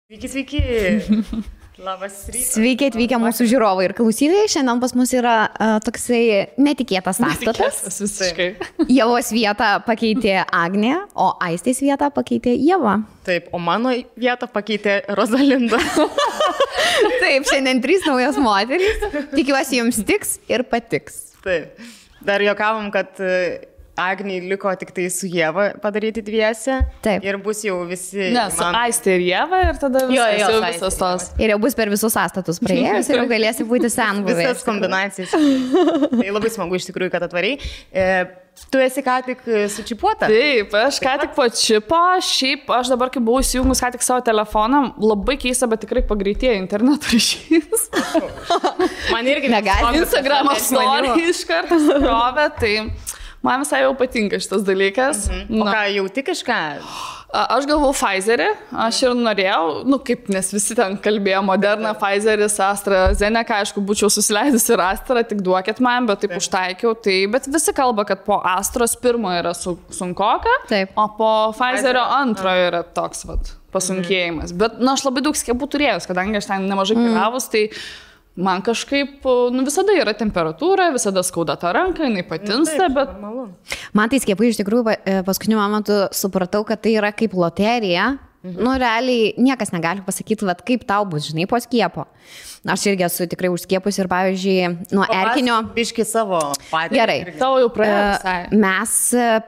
Sveiki, sveiki. Labas rytas. Sveiki atvykę mūsų žiūrovai ir klausytojai. Šiandien pas mus yra toksai netikėtas sąstatas. Visiškai. Ievos vietą pakeitė Agnė, o Aistės vietą pakeitė Ieva. Taip, o mano vietą pakeitė Rosalinda. Taip, šiandien 3 naujos moterys. Tikiuosi jums tiks ir patiks. Taip. Dar juokavom, kad Agnei liko tik tai su Ieva padaryti dviese. Taip. Ir bus jau visi... Ne, su Aistė ir Ieva ir tada visas tos. Ir jau bus per visus sąstatus praėjus ir jau galėsi būti senbuvė. Visas kombinacijas. Tai labai smagu iš tikrųjų, kad atvariai. Tu esi ką tik sučipuota? Taip, aš ką tik po čipo, šiaip aš dabar, kai buvau įsijungus ką tik savo telefoną, labai keista, bet tikrai pagreitėjo interneto ryšys. Man irgi negali. Instagramo story iš karto skrovė, tai man visai jau patinka šitas dalykas. O ką, jauti kažką? Aš galvau Pfizerį, aš ir norėjau, kaip, nes visi ten kalbėjo Moderna, Pfizeris, AstraZeneca, aišku, būčiau susileidusi ir Astra, tik duokit man, bet taip užtaikiau, bet visi kalba, kad po Astros pirmo yra sunkoka, o po Pfizerio antro yra toks pasunkėjimas. Bet, aš labai daug skiepų turėjus, kadangi aš ten nemažai keliavus, tai man kažkaip, visada yra temperatūra, visada skauda tą ranką, jinai patinsta, bet... Man tai skiepai iš tikrųjų paskutiniu momentu supratau, kad tai yra kaip loterija. Realiai niekas negali pasakyti, kaip tau bus, žinai, po skiepo. Aš irgi esu tikrai užskiepus ir, pavyzdžiui, nuo erkinio... Biški savo patį. Gerai. Tavo jau praėjo visai. Mes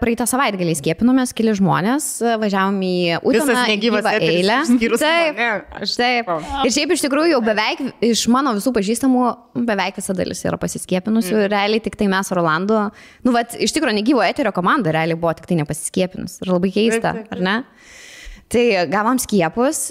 praeitą savaitgalį skiepinomės, keli žmonės, važiavom į Uteną gyvą eilę. Taip. Ir šiaip iš tikrųjų jau beveik iš mano visų pažįstamų beveik visa dalis yra pasiskepinusių. Realiai tik tai mes Rolandu, iš tikrųjų negyvo eterio komanda realiai buvo tik tai nepasiskepinus. Ir labai keista, ar ne? Tai gavom skiepus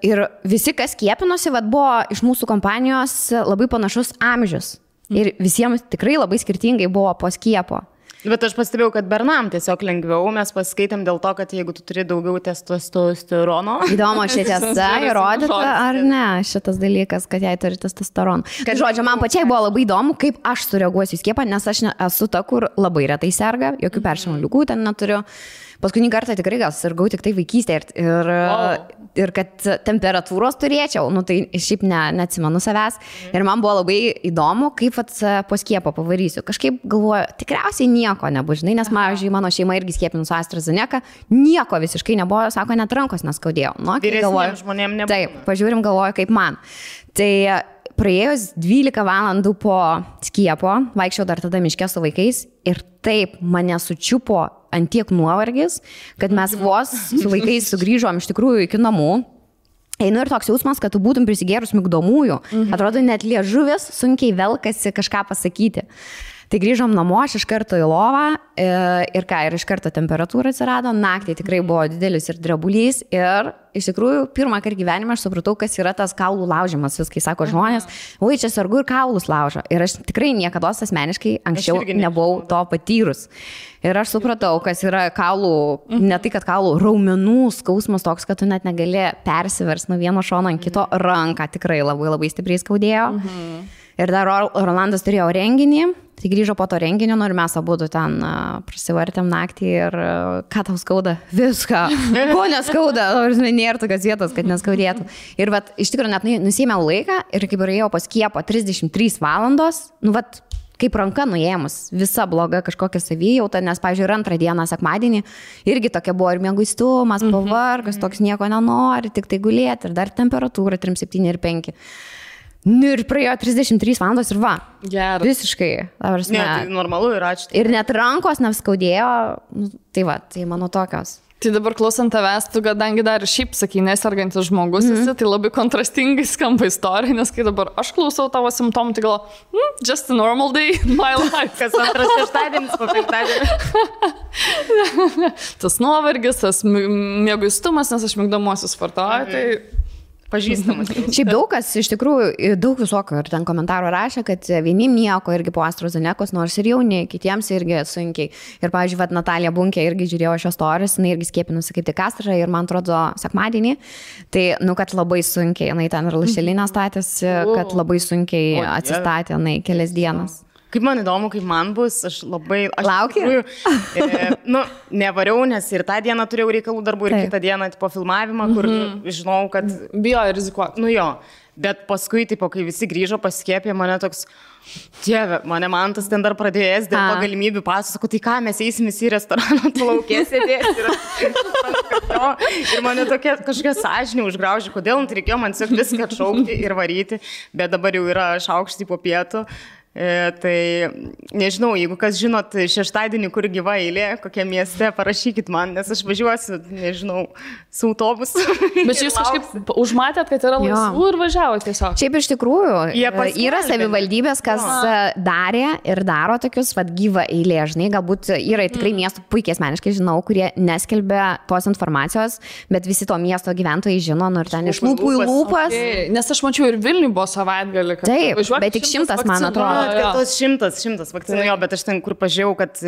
ir visi, kas skiepinosi, buvo iš mūsų kompanijos labai panašus amžius. Ir visiems tikrai labai skirtingai buvo po skiepo. Bet aš pastebėjau, kad bernam tiesiog lengviau, mes paskaitėm dėl to, kad jeigu tu turi daugiau testosterono. Įdomu, ši tiesa įrodyta ar ne šitas dalykas, kad jai turi testosteroną. Kad žodžiu, man pačiai buvo labai įdomu, kaip aš sureaguosiu į skiepą, nes aš esu ta, kur labai retai serga, jokių peršalimo ligų ten neturiu. Paskutinį kartą tikrai gal sirgau tik tai vaikystėje ir kad temperatūros turėčiau, tai šiaip neatsimenu savęs. Ir man buvo labai įdomu, kaip po skiepo pavarysiu. Kažkaip galvoju, tikriausiai nieko nebus, žinai, nes, pavyzdžiui, mano šeima irgi skiepinus AstraZeneca, nieko visiškai nebuvo, sako, net rankos neskaudėjo. Vyresniems žmonėms nebuvo. Taip, pažiūrim, galvoju, kaip man. Tai praėjus 12 valandų po skiepo, vaikščiau dar tada miške su vaikais ir taip mane sučiupo ant tiek nuovargis, kad mes vos su vaikais sugrįžom iš tikrųjų iki namų. Einu ir toks jausmas, kad tu būtum prisigėrus migdomųjų. Atrodo, net liežuvis sunkiai velkasi kažką pasakyti. Tai grįžom namo, aš iš karto į lovą ir iš karto temperatūra atsirado, naktį tikrai buvo didelis ir drebulys ir iš tikrųjų pirmą kartą gyvenime aš supratau, kas yra tas kaulų laužimas, viskai sako žmonės, oi čia sargu ir kaulus laužo ir aš tikrai niekada asmeniškai anksčiau nebuvau to patyrus. Ir aš supratau, kas yra kaulų, ne tai, kad kaulų raumenų skausmas toks, kad tu net negali persivers nuo vieno šono ant kito, ranką tikrai labai labai stipriai skaudėjo. Ir dar Rolandas turėjo renginį, tai grįžo po to renginio, ir mes abudu ten prasivartėm naktį ir ką tau skauda? Viską. Ko neskauda? Nėra tokios vietos, kad neskaudėtų. Ir iš tikrųjų net nusėmiau laiką ir kaip ėjau po skiepo 33 valandos, kaip ranka nuėmus, visa bloga kažkokia savijauta, nes, pavyzdžiui, antrą dieną, sekmadienį, irgi tokia buvo ir mieguistumas, pavargas, toks nieko nenori, tik tai gulėti ir dar temperatūra 37 ir 5. Ir praėjo 33 valandos ir Geras. Visiškai. Ne, tai normalu ir ačiū. Ir net rankos neskaudėjo, tai mano tokios. Tai dabar klausant tavęs, tu kadangi dar šiaip sakai, nesergantis žmogus esi, tai labai kontrastingai skamba istorija, nes kai dabar aš klausau tavo simptomų, tai galvoju, just a normal day in my life. Kas antras šeštadienis po penktadienį. Tas nuovargis, tas mieguistumas, nes aš migdomuosius vartoju, tai... Pažįstamas. Šiaip daug kas, iš tikrųjų, daug visokio ir ten komentarų rašė, kad vienim nieko irgi po AstraZenecos, nors ir jauni, kitiems irgi sunkiai. Ir, pavyzdžiui, Natalija Bunkė irgi žiūrėjo šios stories, jinai irgi skiepinusi kaip tik Astrą ir, man atrodo, sekmadienį. Tai, kad labai sunkiai, jinai ten ir lašelinę statėsi, kad labai sunkiai atsistatė, kelias dienas. Kaip man įdomu, kaip man bus, aš Lauki? Nevariau, nes ir tą dieną turėjau reikalų darbų, ir kitą dieną po filmavimą, kur žinau, kad... Bijo rizikuoti. Nu jo, bet paskui, kai visi grįžo pasiskiepė, mane toks... Dieve, mane Mantas ten dar pradėjęs dėl to galimybių pasų, sako, tai ką, mes eisim į restoraną, tu laukė sėdėsi. Ir mane tokia kažkokia sąžinė užgraužė, kodėl reikėjo man tiesiog viską atšaukti ir varyti, bet dabar jau yra šaukštai po pietų. Tai nežinau, jeigu kas žinot šeštadienį, kur gyva eilė, kokie mieste, parašykit man, nes aš važiuosiu, nežinau, su autobusu. Bet jūs kažkaip užmatėt, kad yra laisvų ir važiavote tiesiog. Šiaip iš tikrųjų yra savivaldybės, kas darė ir daro tokius gyvą eilė, žinai, galbūt yra tikrai miestų, puikiai asmeniškai žinau, kurie neskelbia tos informacijos, bet visi to miesto gyventojai žino, ir ten iš lūpų į lūpas. Nes aš mačiau ir Vilniui buvo savaitgalį. Taip, bet tik 100, man atrodo. Tos 100 vakcinų, jo, bet aš ten, kur pažiūrėjau, kad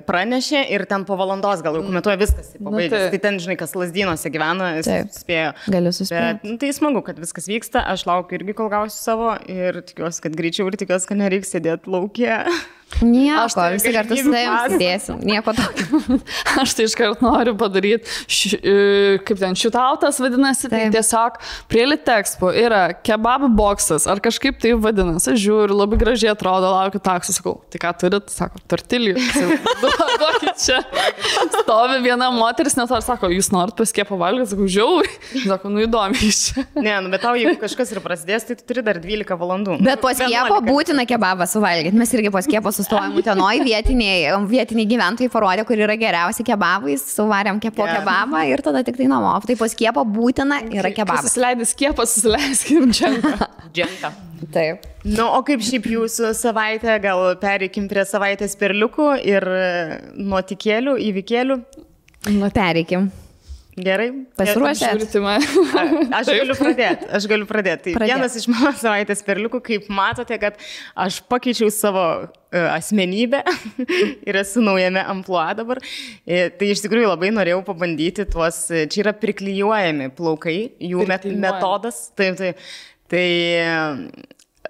pranešė ir ten po valandos gal jau komentuoja viskas, pabaigęs. Tai ten, žinai, kas Lazdynuose gyvena, spėjo. Galiu suspėti. Tai smagu, kad viskas vyksta, aš laukiu irgi, kol gausiu savo ir tikiuosi, kad greičiau ir tikiuosi, kad nereiks sėdėti laukia. Nieko, visi kartu su tavim sėdėsim, nieko tokio. Aš tai iškart noriu padaryti, kaip ten šitautas vadinasi, tai tiesiog prie Litexpo yra kebabų boksas, ar kažkaip tai vadinasi, aš žiūriu, labai gražiai atrodo, laukiu taksų, sakau, tai ką turit, sako, tortilijų, duokit čia. Stovi viena moteris, net ar sako, jūs norit paskiepą valgyti, sakau, žiauri, sako, įdomi iš čia. Ne, bet tau, jeigu kažkas ir prasidės, tai tu turi dar 12 valandų. Bet po skiepo būtina kebabą suvalgyti, mes irgi po skiepo sustojom Utenoj, vietiniai gyventojai parodė, kur yra geriausi kebabai, suvarėm po kebabą ir tada tik tai namo. Tai po skiepo būtina yra kebabas. Susileidai skiepą, susileiskim džentą. Taip. Nu, o kaip šiaip jūsų savaitė, gal pereikim prie savaitės perliukų ir nuotikėlių, įvykėlių? Pereikim. Gerai. Pasiruošę? Aš galiu pradėti. Tai vienas iš mano savaitės perliukų, kaip matote, kad aš pakeičiau savo asmenybę ir esu naujame amplua dabar. Tai iš tikrųjų labai norėjau pabandyti tuos, čia yra priklijuojami plaukai, jų metodas. Tai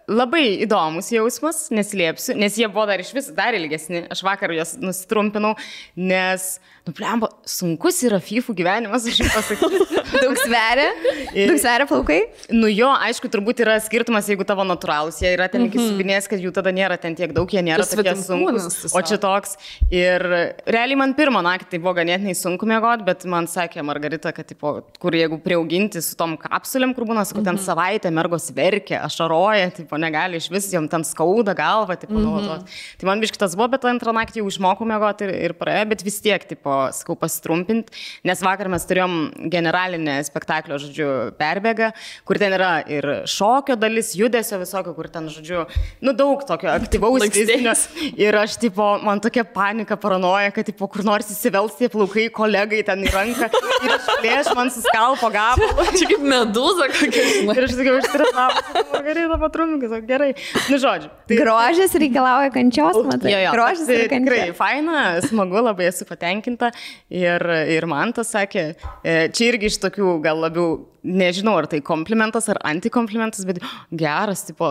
labai įdomus jausmas, neslėpsiu, nes jie buvo dar iš vis dar ilgesni. Aš vakar juos nusitrumpinau, nes, blemba, sunkus yra fifų gyvenimas, aš jums pasakysiu. Daug sveria plaukai? Nu jo, aišku, turbūt yra skirtumas, jeigu tavo natūralus, jie yra ten iki subinės, kad jų tada nėra ten tiek daug, jie nėra tokie sunkus, o čia toks. Ir realiai man pirmą naktį tai buvo ganėtinai sunku miegoti, bet man sakė Margarita, kad, tipo, kur jeigu priauginti su tom kapsulėm, kur būna, sakau, ten savaitę mergos verkia, ašaroja, tipo, negali iš vis, jom ten skauda galva, tipo, nuolatos. Tai man biškitas buvo, bet antrą naktį jau išmokau miegoti ir praėjo, bet vis tiek, tipo, sakau, pasitrumpinti, nes vakar mes turėjom generalinę spektaklio, žodžiu, perbėgą, kur ten yra ir šokio dalis, judesio visokio, kur ten, žodžiu, daug tokio aktyvaus fizinio. Ir aš, tipo, man tokia panika, paranoja, kad, tipo, kur nors įsivels tie plaukai kolegai ten į ranką ir išplėš man suskalpo gabalą. Čia kaip medūza kokia. Ir aš sakiau, išstresavau, Margarita patrumpinkai, gerai. Nu, žodžiu. Tai... Grožis reikalauja kančios, matai. Grožis tai tikrai faina, smagu, labai esu patenkinta. Ir man tas sakė, čia irgi iš tokių gal labiau, nežinau, ar tai komplimentas ar antikomplimentas, bet geras, tipo,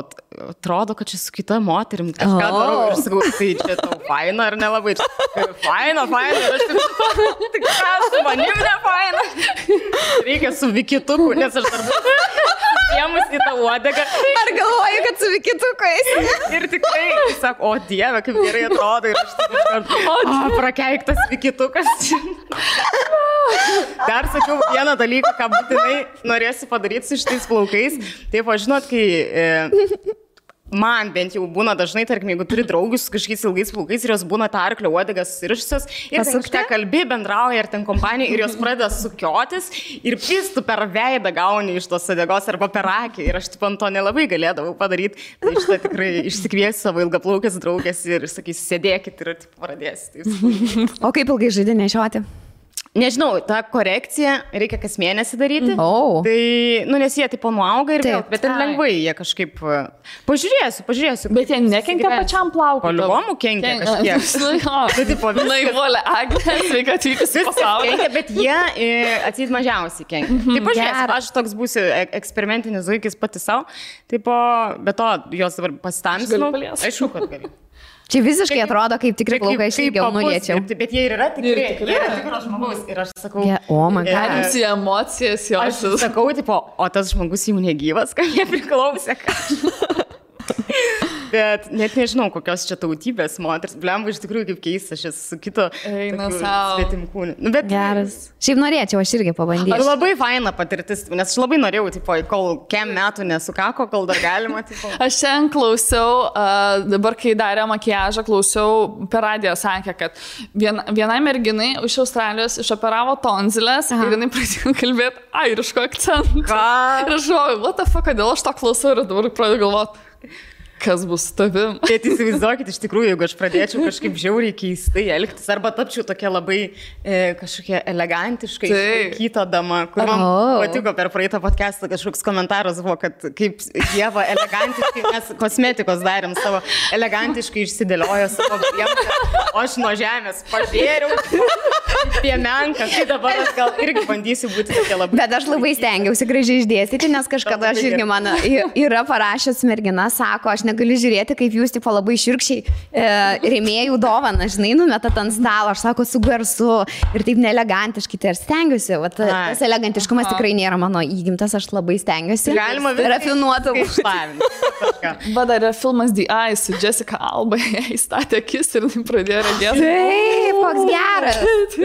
atrodo, kad čia su kita moterim kažką darau ir sakau, tai čia tau faina ar nelabai? Faina, ir aš tik ką, su manim ne faina. Reikia su vikituku, nes aš dar jiemus į tą uodegą. Ar galvoju, kad su vikitukais? Ir tikrai, sako, o Dieve, kaip gerai atrodo. Ir aš tik prakeiktas vikitukas. Dar sakiau vieną dalyką, ką būtinai norėsiu padaryti su šitais plaukais. Taip, o žinot, kai man bent jau būna dažnai, tarkim, jeigu turi draugus su kažkokiais ilgais plaukais ir jos būna tą arklio uodegas susirišusios ir ten kažką kalbi, bendrauja ir ten kompanija ir jos pradeda sukiotis ir pistų per veidą gauni iš tos uodegos arba per akį ir aš taip ant to nelabai galėdavau padaryti. Tai šitą tikrai išsikviesiu savo ilgaplaukės draugės ir sakysiu, sėdėkit ir pradėsiu. O kaip ilgai žaidži nešioti? Nežinau, tą korekciją reikia kas mėnesį daryti. Tai, nes jie tipo nuauga ir vėl, bet ten lengvai jie kažkaip... Pažiūrėsiu. Bet jie nekenkia pačiam plaukui. Palibomų kenkia kažkiek. Tai tipo, naivolė, Agnė, sveika atvykus į pasaulį. Kenkia, bet jie atseit mažiausiai kenkia. Tai pažiūrėsiu, aš toks būsiu eksperimentinis zuikis pati savo. Tipo, be to, jos dabar pasitamsinu. Aišku, kad galiu. Čia visiškai atrodo, kaip tikrai plaukai, aš ilgiau nuliečiau. Bet jie ir yra tikras žmogus. Ir aš sakau, Galimsi emocijas jos. Aš sakau, tipo, o tas žmogus jau negyvas, kad jie priklausė. Bet net nežinau, kokios čia tautybės moters. Blemba, iš tikrųjų, kaip keista, aš esu su kito svetimkūniu. Bet geras. Šiaip norėčiau, aš irgi pabandyti. Labai faina patirtis, nes aš labai norėjau, tipo, kol kem metų nesukako, kol dar galima. Tipo. Aš šiandien klausiau, dabar kai darė makiažą, klausiau, per radiją sakė, kad vienai merginai iš Australijos išoperavo tonzilės ir jinai pradėjo kalbėti airiško akcentu. Ką? Ir aš galvoju, what the fuck, kodėl aš to klausau ir dabar pradėjau galvoti. Kas bus su tavim? Bet įsivaizduokit, iš tikrųjų, jeigu aš pradėčiau kažkaip žiauriai keistai elgtis, arba tapčiau tokia labai kažkokia elegantiškai kita dama, kur man patiko per praeitą podcastą kažkoks komentaras buvo, kad kaip Ieva elegantiškai, mes kosmetikos darėm savo, elegantiškai išsidėliojo savo priemonę, o aš nuo žemės pažėriau piemenką, tai dabar aš gal irgi bandysiu būti tokia labai. Bet aš labai stengiausi gražiai išdėstyti, nes kažkada aš irgi man yra parašęs mergina, sako, aš negaliu žiūrėti, kaip jūs tipo labai širkščiai rėmėjų dovaną, žinai, numetat ant stalo, aš sako, su garsu ir taip neelegantiškai, tai ir stengiuosi, tas elegantiškumas tikrai nėra mano įgimtas, aš labai stengiuosi. Galima rafinuotą išlavinti. Bet dar yra filmas The Eye su Jessica Alba, jai statė akis ir pradėjo regėti. Taip,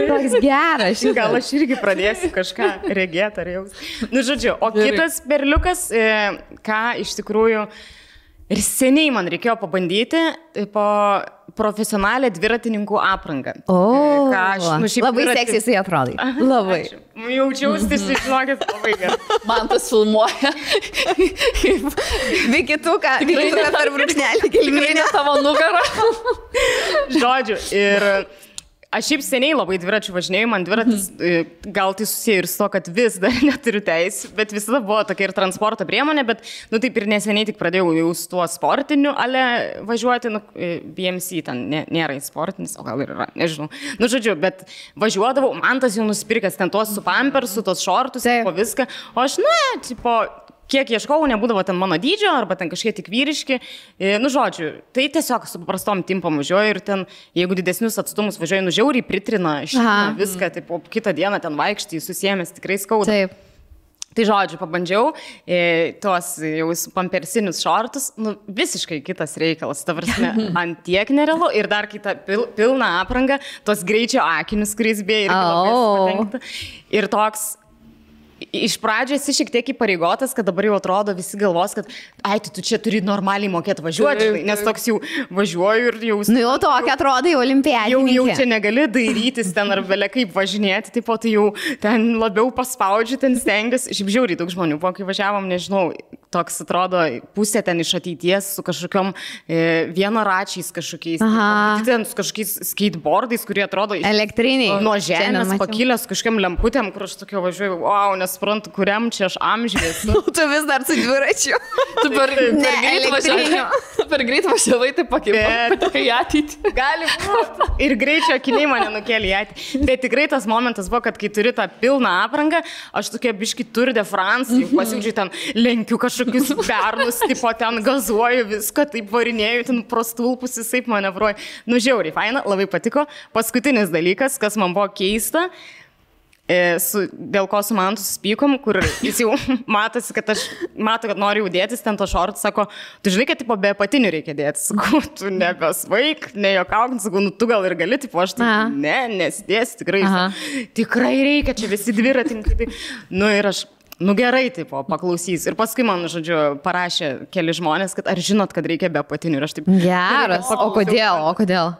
koks geras. Gal aš irgi pradėsiu kažką regėti ar jaus. Nu, žodžiu, o kitas berliukas, ką iš tikrųjų ir seniai man reikėjo pabandyti po profesionalią dviratininkų aprangą. Labai seksy atrodai. Labai. Jaučiausi, žinokit, labai gerai. Man tas filmuoja. Vikituką per brūkšnelį kilminę tavo nugarą. Žodžiu, ir... Aš šiaip seniai labai dviračių važinėjau, man dviratis gal tai susiję ir su to, kad vis dar neturiu teisų, bet visada buvo tokia ir transporto priemonė, bet, taip ir neseniai tik pradėjau jau su tuo sportiniu ale važiuoti, BMC ten nėra sportinis, o gal ir yra, nežinau. Žodžiu, bet važiuodavau, man tas jau nusipirkęs ten tuos su pampersu, tos šortus, po viską, o aš, kiek ieškau, nebūdavo ten mano dydžio, arba ten kažkiek tik vyriški. Žodžiu, tai tiesiog su paprastom timpom važiuoju ir ten, jeigu didesnius atstumus važiuoju, žiauriai pritrina viską, tai po kitą dieną ten vaikštai, susiemęs tikrai skauda. Taip. Tai žodžiu, pabandžiau tuos jau pampersinius šortus, visiškai kitas reikalas, ta prasme, ant tiek nerealu ir dar kitą pilną aprangą, tos greičio akinius, kuris beje irgi labai patenkta. Ir toks... Iš pradžio esi šiek tiek įpareigotas, kad dabar jau atrodo visi galvos, kad tu čia turi normaliai mokėti važiuoti, nes toks jau važiuoju ir jau... Jau tokia atrodo jau olimpiadininkė. Jau čia negali dairytis ten ar belia kaip važinėti, taip pat jau ten labiau paspaudžiu, ten stengiuosi. Šiaip žiauriai daug žmonių, po kai važiavom, nežinau, toks atrodo pusė ten iš ateities su kažkokiom vienaračiais kažkokiais, ten su kažkokiais skateboardais, kurie atrodo... Elektriniai. Nuo žemės pakilęs kažkokiam lemputėm, kur aš tokio važiuoju, wow, nesuprantu, kuriam čia aš amžiais. Tu vis dar su dviračiu. Tu per greit važiavai, tai pakai į ateitį. Gali būti. Ir greičio akiniai mane nukėlė į ateitį. Bet tikrai tas momentas buvo, kad kai turi tą pilną aprangą, aš tokia biški Tour de France, jau pasiūdžiu ten, lenkiu kažkokius bernus, tipo ten gazuoju viską, taip varinėju, ten prostulpus visai manevruoju. Žiauriai, faina, labai patiko. Paskutinis dalykas, kas man buvo keista, dėl ko su man susipykom, kur jis jau matosi, kad mato, kad nori jau dėtis ten to šortų, sako, tu žinai, kad tipo be apatinių reikia dėtis, sakau, tu nebesvaik, nejokauk, sakau, tu gal ir gali, tipo aš tai nesidėsiu, tikrai, tikrai reikia, čia visi dviratininkai, ir aš, gerai, tipo, paklausys. Ir paskui man, žodžiu, parašė keli žmonės, kad ar žinot, kad reikia be apatinių, ir aš taip... Geras, o kodėl?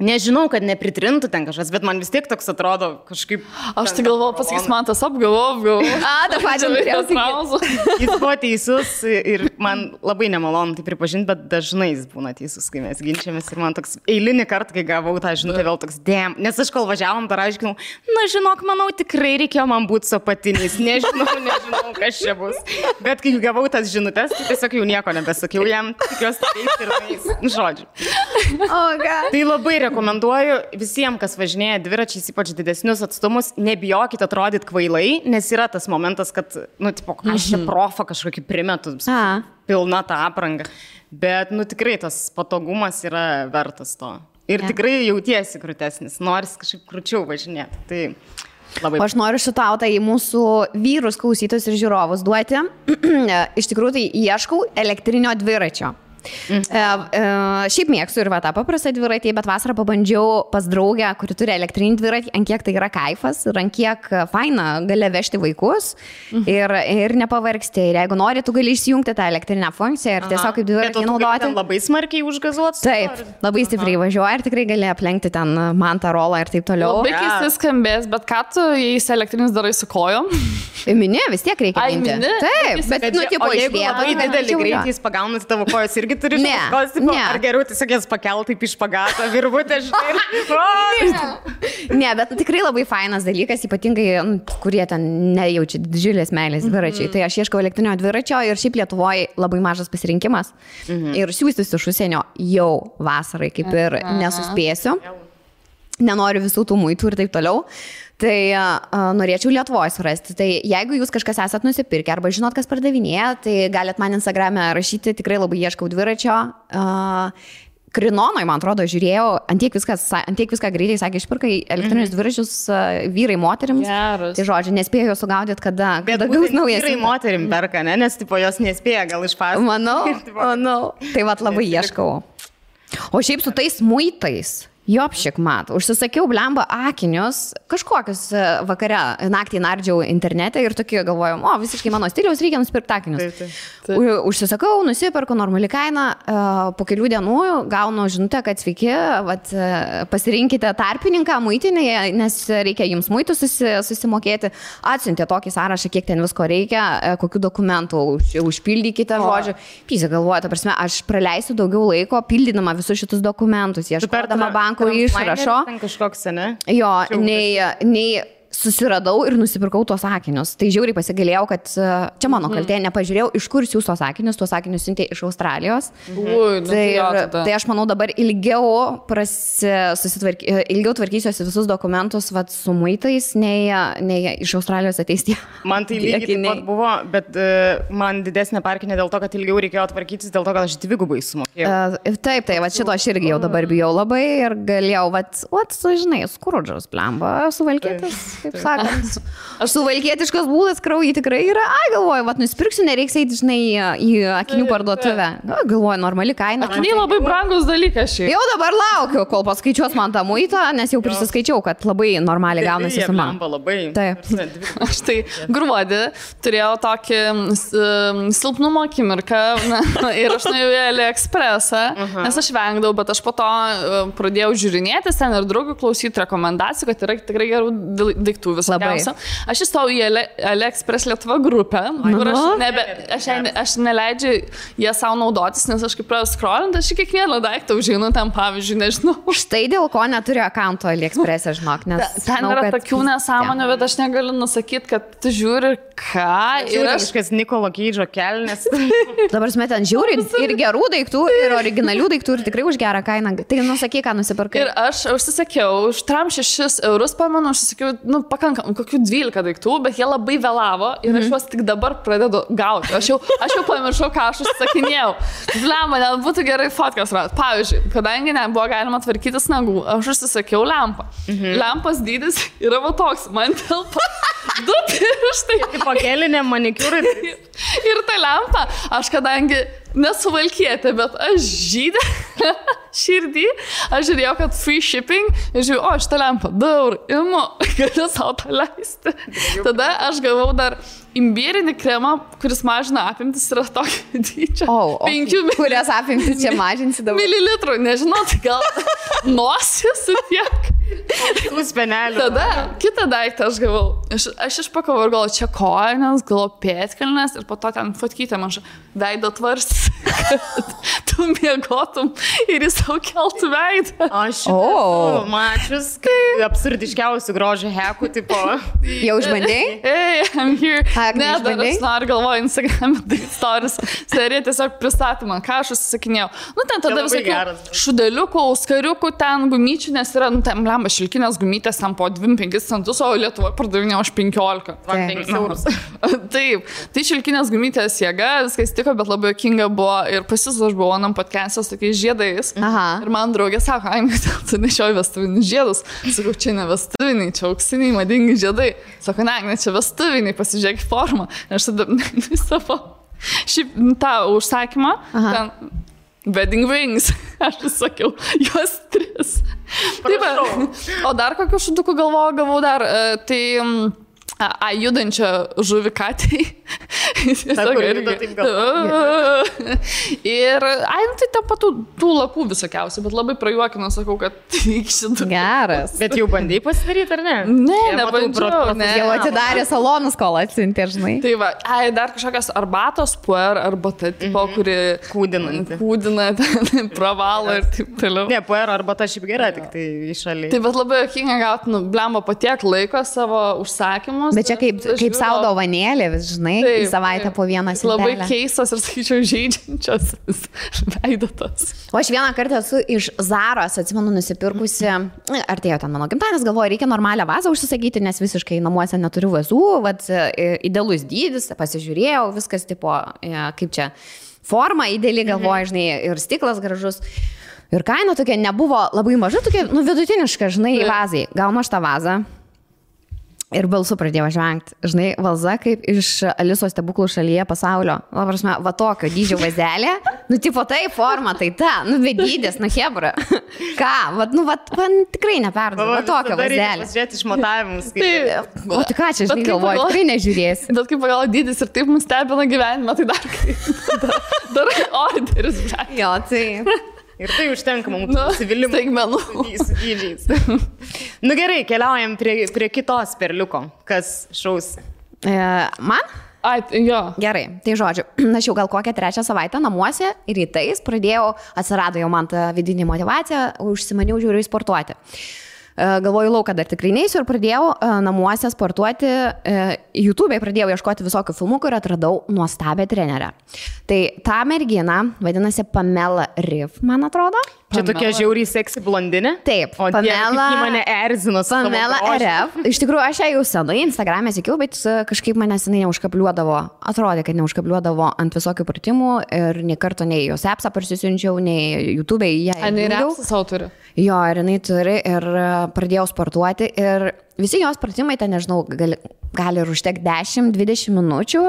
Nežinau, kad nepritrintų ten kažkas, bet man vis tiek toks atrodo kažkaip... Aš tai galvoju, pasakys man tas apgalvojau. Ta pačia norėjau. Jis buvo teisus ir man labai nemalonu tai pripažinti, bet dažnai jis būna teisus, kai mes ginčiamės ir man toks eilinį kartą, kai gavau tą žinutę, vėl toks dėm. Nes aš kol važiavom, dar aiškinau, na žinok, manau, tikrai reikėjo man būti su apatiniais, nežinau, kas čia bus. Bet kai gavau tas žinutės, tai tiesiog jau nieko nebesakiau jam, tikiuosi taip ir tais, žodžiu. Tai labai rekomenduoju visiems, kas važinėja dviračiais, ypač didesnius atstumus, nebijokite atrodyti kvailai, nes yra tas momentas, kad, tipo, aš čia profą kažkokį primetu, pilna tą aprangą. Bet, tikrai tas patogumas yra vertas to. Ir tikrai jautiesi krūtesnis, noris kažkaip krūčiau važinėti. Tai labai... Aš noriu šitautą į mūsų vyrus, klausytojus ir žiūrovus duoti. Iš tikrųjų, tai ieškau elektrinio dviračio. Šiaip mėgstu ir tą paprastą dviratį, bet vasarą pabandžiau pas draugę, kuri turi elektrinį dviratį, ant kiek tai yra kaifas ir ant kiek faina gali vežti vaikus ir nepavargsti. Ir jeigu nori, tu gali išjungti tą elektrinę funkciją ir tiesiog kaip dviratį naudoti. Labai smarkiai užgazuotas? Taip, labai stipriai važiuoja ir tikrai gali aplenkti ten mantą rolą ir taip toliau. Labai keistai skambės, bet ką tu, jei elektrinis darai su kojom? Mini, vis tiek reikia minti. Taip, bet tipo išvieto. Labai didelį greitį jis pagauna, tavo kojos irgi turi šaukos, ar geriau tiesiog jas pakelt taip iš pagato, virvutę, žinai. Ne, bet tikrai labai fainas dalykas, ypatingai, kurie ten nejaučia didžiulės meilės dviračiai. Tai aš ieškau elektrinio dviračio ir šiaip Lietuvoje labai mažas pasirinkimas. Ir siūstis iš užsienio jau vasarai kaip ir nesuspėsiu. Nenoriu visų tų muitų ir taip toliau. Tai norėčiau Lietuvoje surasti. Tai jeigu jūs kažkas esat nusipirkę arba žinot, kas pardavinėja, tai galit man Instagram'e rašyti, tikrai labai ieškau dviračio. Krinonoj, man atrodo, žiūrėjau, ant tiek viską greitai sakė, išpirkai elektrinius dviračius vyrai moterims. Geras. Tai žodžiu, nespėjau sugaudyti, kada gaus naujas. Vyrai moterim perka, ne? Nes tipo jos nespėja gal išpasakoti. Manau. Tai vat labai ieškau. O šiaip su tais muitais. Jopšik mat, užsisakiau blemba akinius, kažkokius vakare, naktį nardžiau internete ir tokie galvojau, visiškai mano stiliaus, reikia nusipirkti akinius. Užsisakau, nusipirku normali kaina, po kelių dienų gaunu žinutę, kad sveiki, pasirinkite tarpininką muitinėje, nes reikia jums muitų susimokėti. Atsiuntė tokį sąrašą, kiek ten visko reikia, kokių dokumentų užpildykite, žodžiu. Pysi galvoju, ta prasme, aš praleisiu daugiau laiko pildydama visus šitus dokumentus, ieškodama bankų išrašo. Kažkoks, ne? Jo, nei susiradau ir nusipirkau tuos akinius. Tai žiauriai pasigalėjau, kad čia mano kaltė, nepažiūrėjau, iš kur siūs tuos akinius siuntė iš Australijos. Tai aš manau dabar ilgiau tvarkysiuosi visus dokumentus su muitais, nei iš Australijos ateis tie. Man tai lygiai taip pat buvo, bet man didesnė parkinė dėl to, kad ilgiau reikėjo tvarkytis, dėl to, kad aš dvigubai sumokėjau. Taip, šito aš irgi jau dabar bijau labai ir galėjau, žinai, skrudžas, blemba, suvalkėtis. Kaip sakant, aš suvalkietiškas būdas kraujį tikrai yra, galvoju, nusipirksiu, nereiks eiti, žinai, į akinių parduotuvę. Galvoju, normali kaina. Akiniai labai brangus dalykas šiaip. Jau dabar laukiu, kol paskaičiuos man tą muitą, nes jau prisiskaičiau, kad labai normaliai gaunasi suma. Taip. Aš tai gruodį turėjau tokį silpnumo akimirką ir aš nuėjau į AliExpressą, nes aš vengdavau, bet aš po to pradėjau žiūrinėti ten ir draugų klausyti rekomendacijų, kad yra tikrai gerų daiktų visokiausių. Aš įstojau į AliExpress Lietuva grupę, kur aš neleidžiu jie savo naudotis, nes aš kaip pradėjau scrollinti, aš kiekvieną daiktą užeinu ten, pavyzdžiui, nežinau. Štai dėl ko neturiu akaunto AliExpress'e, žinok, nes ten yra tokių nesąmonių, bet aš negaliu nusakyti, kad tu žiūri ką. Ir aš kažkas Nikolo Keidžo kelnes. Dabar ten žiūri ir gerų daiktų, ir originalių daiktų, ir tikrai už gerą kainą. Tai nusakyk, ką nusipirkai. Ir aš užsisakiau, už 6 eurus, pamenu, užsisakiau, pakankam, kokių 12 daiktų, bet jie labai vėlavo ir aš juos tik dabar pradedu gauti. Aš jau pamiršau, ką aš užsisakinėjau. Lemba, net būtų gerai fotkas rasti. Pavyzdžiui, kadangi nebuvo galima tvarkytis nagų, aš užsisakiau lempą. Lempos dydis yra va toks, man telpa 2 pirštai. Pakelinė manikiūrai. Ir ta lempa, aš kadangi nesuvalkietė, bet aš žydė širdį, aš žiūrėjau, kad free shipping, ir žiūrėjau, šitą lempą, 2 eurų, imu, galiu savo tą leisti. Tada aš gavau dar imbierinį kremą, kuris mažina apimtis, yra tokio dydžio. 5 kurias apimtis čia mažinsi dabar? Mililitrų, nežinau, tai nosis ir tiek. Tada kitą daiktą aš gavau. Aš išpakavau ir galvoju, čia kojas, galvoju pėtkelnes ir po to ten fotkytę man veido tvars, kad tu miegotum ir jis savo keltų veidą. Aš mačius, absurdiškiausių grožio hekų, tipo. Jau išbandėjai? Hey, I'm here. Ne, dar aš noriu galvoju Instagram stories. Serija tiesiog pristatė man, ką aš užsisakinėjau. Nu, ten tada visokių šudeliukų, skariukų, ten gumyčių, nes yra, nu, ten blemba šilkinės gumytės, ten po 2-5 centus, o Lietuvoje pardavinėjo už 15. 5 eurus. Taip, tai šilkinės gumytės jėga, viskas tiko, bet labai jokinga buvo ir pasis aš buvau anam podcast'e su tokiais žiedais. Ir man draugė sako, ai, tu nešioji vestuvinius žiedus. Sakau, čia ne vestuviniai, čia auksiniai, madingi žiedai. Sako, ne, čia vestuviniai, pasižiūrėk formą. Aš tada savo šiaip tą užsakymą, ten wedding rings, aš sakiau, juos 3. Taip, o dar kokių šudukų gavau dar, tai judančią žuvį katei. Ir, tai ten patų tų lakų visokiausių, bet labai prajuokinu, sakau, kad šitą. Geras. Bet jau bandai pasidaryti, ar ne? Ne, nebandžiau. Jau atidarė salonus, kol atsiuntė, žinai. Tai va, dar kažkokios arbatos, puer, arbata, tipo, kuri kūdina, pravalo ir taip toliau. Ne, puer arbata šiaip gera, tik tai išaliai. Tai bet labai jokinga gauti, blemba, po tiek laiko savo užsakymus. Bet čia kaip sau dovanėlė, vis žinai, į savaitę po vieną sintelę. Labai keistas ir, sakyčiau, žaidžiančios veidotos. O aš vieną kartą esu iš Zaros, atsimenu, nusipirkusi, artėjo ten mano gimtadienis, galvoju, reikia normalią vazą užsisakyti, nes visiškai namuose neturiu vazų, vat, idealus dydis, pasižiūrėjau, viskas tipo, kaip čia, forma ideali, galvoju, žinai, ir stiklas gražus. Ir kaina tokia nebuvo labai maža, tokia, nu, vidutiniška, žinai, vazai. Gaunu aš tą vazą. Ir balsu pradėjau žvengti. Žinai, valza kaip iš Alisos stebuklų šalyje pasaulio. Va tokio dydžio vazelė. Nu, tipo tai forma, tai ta. Nu, vedydės, nu, hebra. Ką? Man tikrai neperduodu. Va tokio vazelė. Pasižiūrėti išmatavimus. O tai ką čia, žinai, galvoju, tikrai nežiūrėsi. Bet kaip pagal dydis ir taip mus stebina gyvenime, tai dar orderis. Jo, tai... Ir tai užtenka mums nusivylimų. Staigmenų. Su dydžiais. Nu gerai, keliaujam prie kitos perliuko. Kas šaus? Man? Jo. Gerai, tai žodžiu, aš jau gal kokią 3 savaitę namuose ir rytais atsirado jau man ta vidinė motyvacija, užsimaniau žiūriu sportuoti. Galvoju, lauką dar tikrai neisiu ir pradėjau namuose sportuoti, YouTube'e pradėjau ieškoti visokių filmukų ir atradau nuostabią trenerę. Tai ta mergina vadinasi Pamela Reif, man atrodo. Čia tokia žiauriai seksi blondinė? Taip, o Pamela mane erzino su Pamela Reif. Iš tikrųjų, aš ją jau senai Instagram'e sekiau, bet kažkaip manęs jinai neužkabliuodavo. Atrodė, kad neužkabliuodavo ant visokių pratimų ir nei karto nei jos appsą parsisiunčiau, nei YouTube'e ją. Ar jinai appsą savo turi? Jo, ir jinai turi ir pradėjau sportuoti ir visi jos pratimai, ten nežinau, gali ir užtekti 10-20 minučių,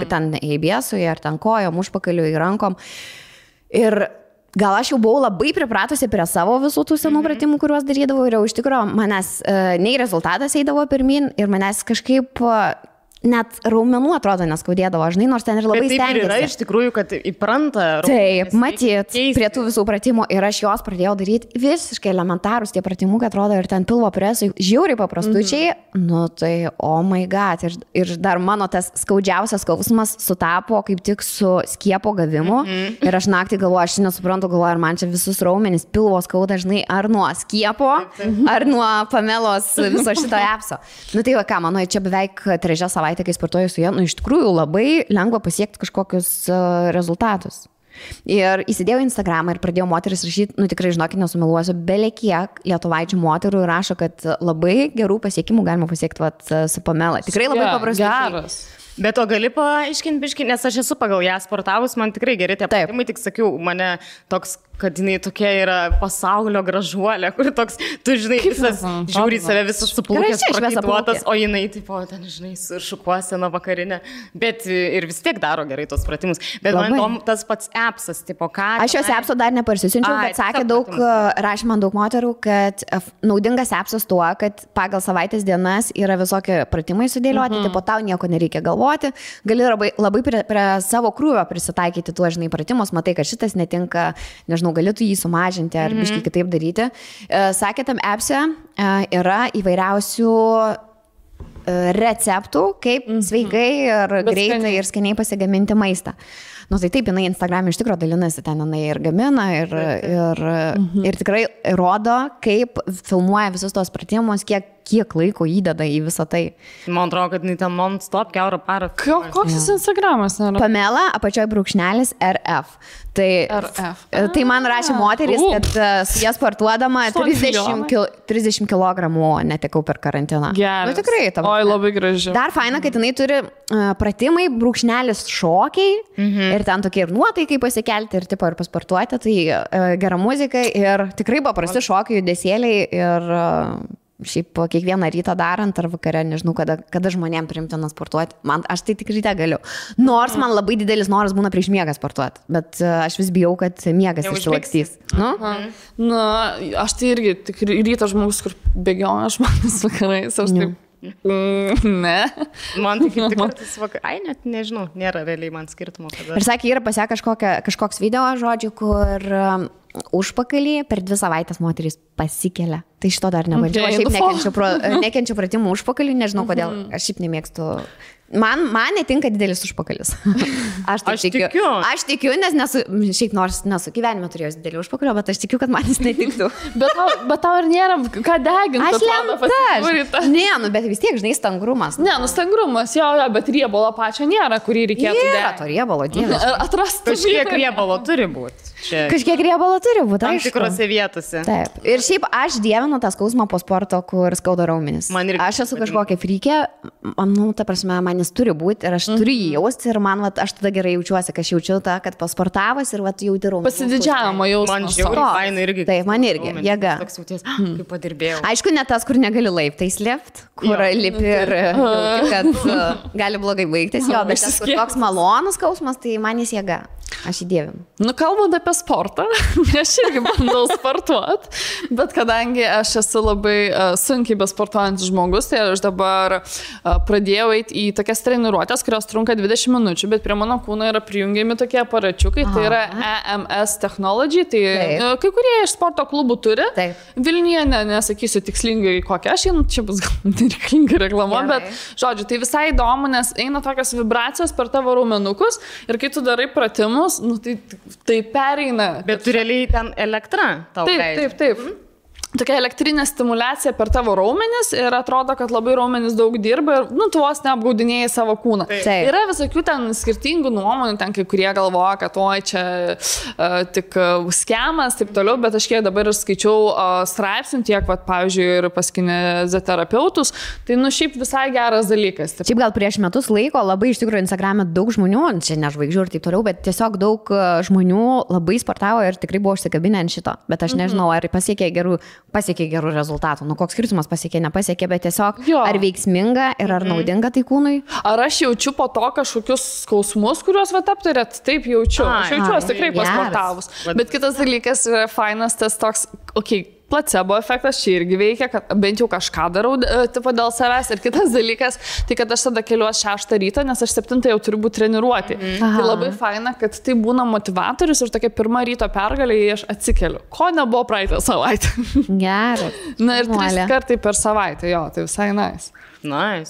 ten ABS-ui ar ten kojom, užpakaliui, rankom. Ir gal aš jau buvau labai pripratusi prie savo visų tų senų pratimų, kuriuos darydavau ir jau iš tikrųjų manęs nei rezultatas eidavo pirmin ir manęs kažkaip net raumenų atrodo neskaudėdavo, žinai, nors ten ir labai stengiasi. Taip yra iš tikrųjų, kad įpranta raumenis. Taip, matyt, prie tų visų pratimų ir aš jos pradėjau daryti visiškai elementarus tie pratimukai, atrodo, ir ten pilvo presai žiauriai paprastučiai, nu tai, oh my god, ir dar mano tas skaudžiausias skausmas sutapo kaip tik su skiepo gavimu ir aš naktį galvoju, aš nesuprantu, galvoju, ar man čia visus raumenis pilvo skauda, žinai, ar nuo skiepo, ar nuo Pamelos viso šito appso. Nu tai va ką, mano, čia beveik 3 savaitę, kai sportuoju su ja, nu iš tikrųjų labai lengva pasiekti kažkokius rezultatus. Ir įsidėjau Instagramą ir pradėjau moteris rašyti, nu tikrai žinokit, nesumeluosiu, belekiek lietuvaičių moterų rašo, kad labai gerų pasiekimų galima pasiekti su Pamela. Tikrai labai paprastai. Bet o gali paaiškinti biškį, nes aš esu pagal ją sportavus, man tikrai geri tie pratimai, tik sakiau, mane toks, kad jinai tokia yra pasaulio gražuolė, kur toks, tu žinai, visas žiūri save, visas suplūkęs, prakaituotas, o jinai, tipo, ten, žinai, su šukuosena vakarinė, bet ir vis tiek daro gerai tos pratimus. Bet man įdomu tas pats appsas, tipo, ką... Aš jos appso dar neparsisiunčiau, bet sakė rašė man daug moterų, kad naudingas appsas tuo, kad pagal savaitės dienas yra visokie pratimai sudėlioti, tipo, tau nieko nereikia galvoti, gali labai prie savo krūvio prisitaikyti tuos, žinai, pratimus, matai, kad šitas netinka, nežinau, nežinau, galėtų jį sumažinti ar biškai kitaip daryti. Sakė, tam appse yra įvairiausių receptų, kaip sveikai ir greitai ir skaniai pasigaminti maistą. Nu, tai taip, jinai Instagram'e iš tikrųjų dalinasi, ten jinai ir gamina, ir tikrai rodo, kaip filmuoja visus tos pratimus, kiek laiko įdeda į visą tai. Man atrodo, kad jinai ten non-stop kiaurą parą. Koks jis Instagramas? Pamela, apačioje brūkšnelis RF. Tai man rašė moteris, kad su jas sportuodama 30 kg netekau per karantiną. Geras. Nu, tikrai. Oi, labai graži. Dar faina, kad jinai turi pratimai, brūkšnelis šokiai ir ten tokie ir nuotaikai pasikelti ir tipo ir pasportuoti. Tai gera muzika ir tikrai paprasti šokiai, judesėliai ir šiaip kiekvieną rytą darant ar vakare, nežinau, kada žmonėm priimtina sportuoti. Aš tai tik ryte galiu. Nors man labai didelis noras būna prieš miegą sportuoti, bet aš vis bijau, kad miegas išsilakstys. Na, aš tai irgi tik ryto žmogus, kur bėgioja žmonės vakarais, aš taip. Ne. Man tik kartais net nežinau, nėra realiai man skirtumo. Ir sakė, yra pasia kažkoks video, žodžiu, kur užpakalį per 2 savaitės moterys pasikelia. Tai šito dar nebandžiau. Aš šiaip nekenčiu pratimų užpakalį, nežinau kodėl. Aš šiaip nemėgstu. Man netinka didelis užpakalis. Aš tikiu. Aš tikiu, nes šiaip nors nesu gyvenime turėjus didelį užpakalį, bet aš tikiu, kad man jis netiktų. Bet tau ir nėra ką deginti. Aš lenta. Ne, bet vis tiek, žinai, stangrumas. Ne, stangrumas, jo, bet riebalo pačio nėra, kurį reikėtų deginti. Nėra to riebalo, dievas. Atrasti. Kažkiek riebalo turi būti. Kažkiek riebalo turi būti, tam tikrose vietose. Taip. Ir šiaip aš dievinu tą skausmą po sporto, kur skauda raumenis. Aš esu kažkokia frykė, ta prasme, man jis turi būti ir aš turiu jį jausti ir man, aš tada gerai jaučiuosi, kad aš jaučiu tą, kad pasportavus ir jauti raumenis. Pasididžiavimo jausmas. Man žiauriai faina irgi. Taip, man irgi, jėga. Toks jauties, kaip padirbėjau. Aišku, ne tas, kur negali laiptais lipt, kur lipi ir kad gali blogai baigtis, jo, bet tas, kur toks malonus skausmas, tai man jis jėga. Aš įdėvim. Nu, kalbant apie sportą, aš irgi bandau sportuoti, bet kadangi aš esu labai sunkiai besportuojantis žmogus, tai aš dabar pradėjau eiti į tokias treniruotės, kurios trunka 20 minučių, bet prie mano kūno yra prijungiami tokie aparačiukai, tai yra EMS Technology, tai kai kurie iš sporto klubų turi. Vilniuje, nesakysiu tikslingai kokią, aš čia bus gal nereikalinga reklama, bet žodžiu, tai visai įdomu, nes eina tokios vibracijos per tavo raumenukus ir kai tu darai pratimus, nu, tai pereina. Bet tu realiai ten elektra tau leidžia. Taip. Tokia elektrinė stimulacija per tavo raumenis ir atrodo, kad labai raumenis daug dirba ir, tu vos neapgaudinėjai savo kūną. Yra visokių ten skirtingų nuomonių, ten kai kurie galvoja, kad oi, čia tik skemas, taip toliau, bet aš kiek dabar ir skaičiau straipsnių tiek, pavyzdžiui, ir pas kineziterapeutus, tai, šiaip visai geras dalykas. Taip. Šiaip gal prieš metus laiko labai iš tikrųjų Instagram'e daug žmonių, čia ne žvaigždžių ir taip toliau, bet tiesiog daug žmonių labai sportavo ir tikrai buvo užsikabinę ant šito, bet aš nežinau, ar pasiekė gerų rezultatų. Koks skirtumas pasiekė, nepasiekė, bet tiesiog ar veiksminga ir ar naudinga tai kūnui? Ar aš jaučiu po to kažkokius skausmus, kuriuos aptarėt? Taip jaučiu. Aš jaučiuosi tikrai pasportavus. Bet kitas dalykas yra fainas tas toks, placebo efektas čia irgi veikia, kad bent jau kažką darau tipo dėl savęs. Ir kitas dalykas, tai kad aš tada keliuos 6 ryto, nes aš 7 jau turiu būti treniruoti. Tai labai faina, kad tai būna motivatorius ir tokia pirma ryto pergalė, aš atsikeliu. Ko nebuvo praeitą savaitę? Geras. Na ir 3 kartai per savaitę, tai visai nice.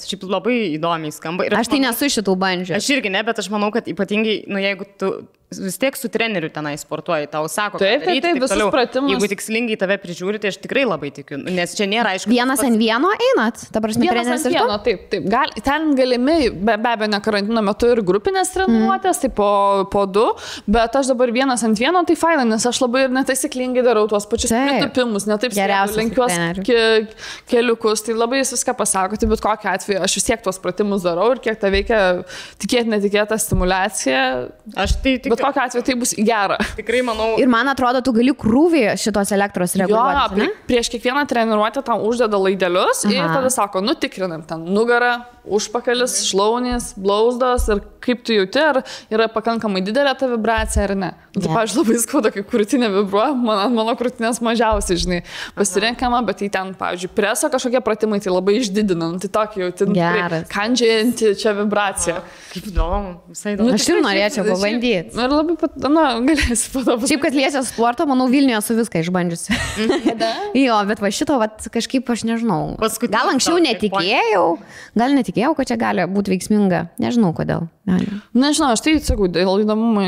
Šiaip labai įdomiai skamba. Aš tai nesu šitų bandžių. Aš irgi ne, bet aš manau, kad ypatingai, jeigu tu vis tiek su treneriu tenai sportuoji, tau sako, taip, visus pratimus. Jeigu tikslingai tave prižiūri, tai aš tikrai labai tikiu, nes čia nėra aišku. Vienas ant vieno einat, ta prasme, treneris ir tu? Taip. Ten galimi, be abejo, ne karantino metu ir grupinės treniruotės, tai po 2, bet aš dabar vienas ant vieno, tai faina, nes aš labai ir netaisyklingai darau tuos pačius pritupimus, ne taip lenkiuos keliukus, tai labai jis viską pasako, tai bet kokiu atveju aš vis tiek tuos pratimus darau ir kiek tai veikia netikėta stimulacija. Bet kokiu atveju tai bus gera. Tikrai manau. Ir man atrodo, tu gali krūvį šitos elektros reguliuoti. Prieš kiekvieną treniruotę tam uždeda laidelius ir tada sako, tikrinam ten nugarą, užpakalis, šlaunys, blauzdos ir kaip tu jauti, ar yra pakankamai didelė ta vibracija ar ne. Tai, pavyzdžiui, labai skauda, kai krūtinė vibruoja, mano krūtinės mažiausiai, žinai, pasirenkama, bet tai ten, pavyzdžiui, preso kažkokie pratimai, tai labai išdidina, tai tokį jauti, kandžianti čia vibracija. Kaip įdomu, visai įdomu. Aš ir norėčiau pabandyti. Ir labai, galėsi padomų. Šiaip, kad liečia sportą, manau, Vilniuje su viską išbandžiusi. Jo, bet va šito, va, kažkaip aš nežinau. Gal anksčiau netikėjau, kad čia gali būti veiksminga. Nežinau, kodėl. Nežinau, aš tai, sakau, dėl įdomumo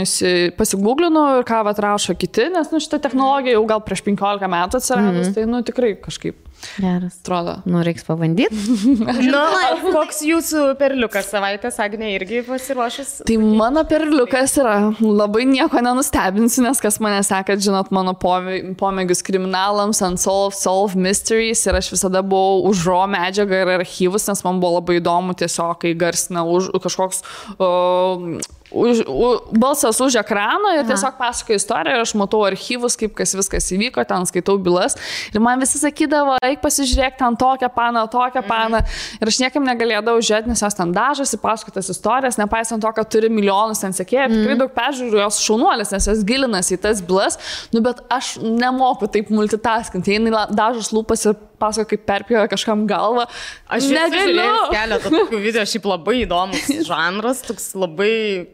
pasigūglinu ir ką atrašo kiti, nes šitą technologiją jau gal prieš 15 metų atsiradus, tai tikrai kažkaip. Geras. Atrodo. Reiks pabandyti. Koks jūsų perliukas savaitės, Agnė, irgi pasiruošęs? Tai mano perliukas yra, labai nieko nenustebinsiu, nes kas mane sekat, žinot, mano pomėgius kriminalams, Unsolved Mysteries ir aš visada buvau už raw medžiagą ir archyvus, nes man buvo labai įdomu tiesiog, kai garsina kažkoks balsas už ekraną ir tiesiog pasakoja istoriją ir aš matau archyvus, kaip viskas įvyko, ten skaitau bylas ir man visi sakydavo, eik pasižiūrėk ten tokią paną ir aš niekam negalėdavau žiūrėti, nes jos ten dažosi, pasakotas istorijas, nepaisant to, kad turi milijonus ten sekėjų, tikrai daug peržiūrų, jos šaunuolės, nes jos gilinasi į tas bylas, bet aš nemoku taip multitaskinti, jinai dažos lūpas ir pasako, kaip perpjoja kažkam galvą. Aš negaliu. Keletą tokių video, šiaip labai įdomus žanras, toks labai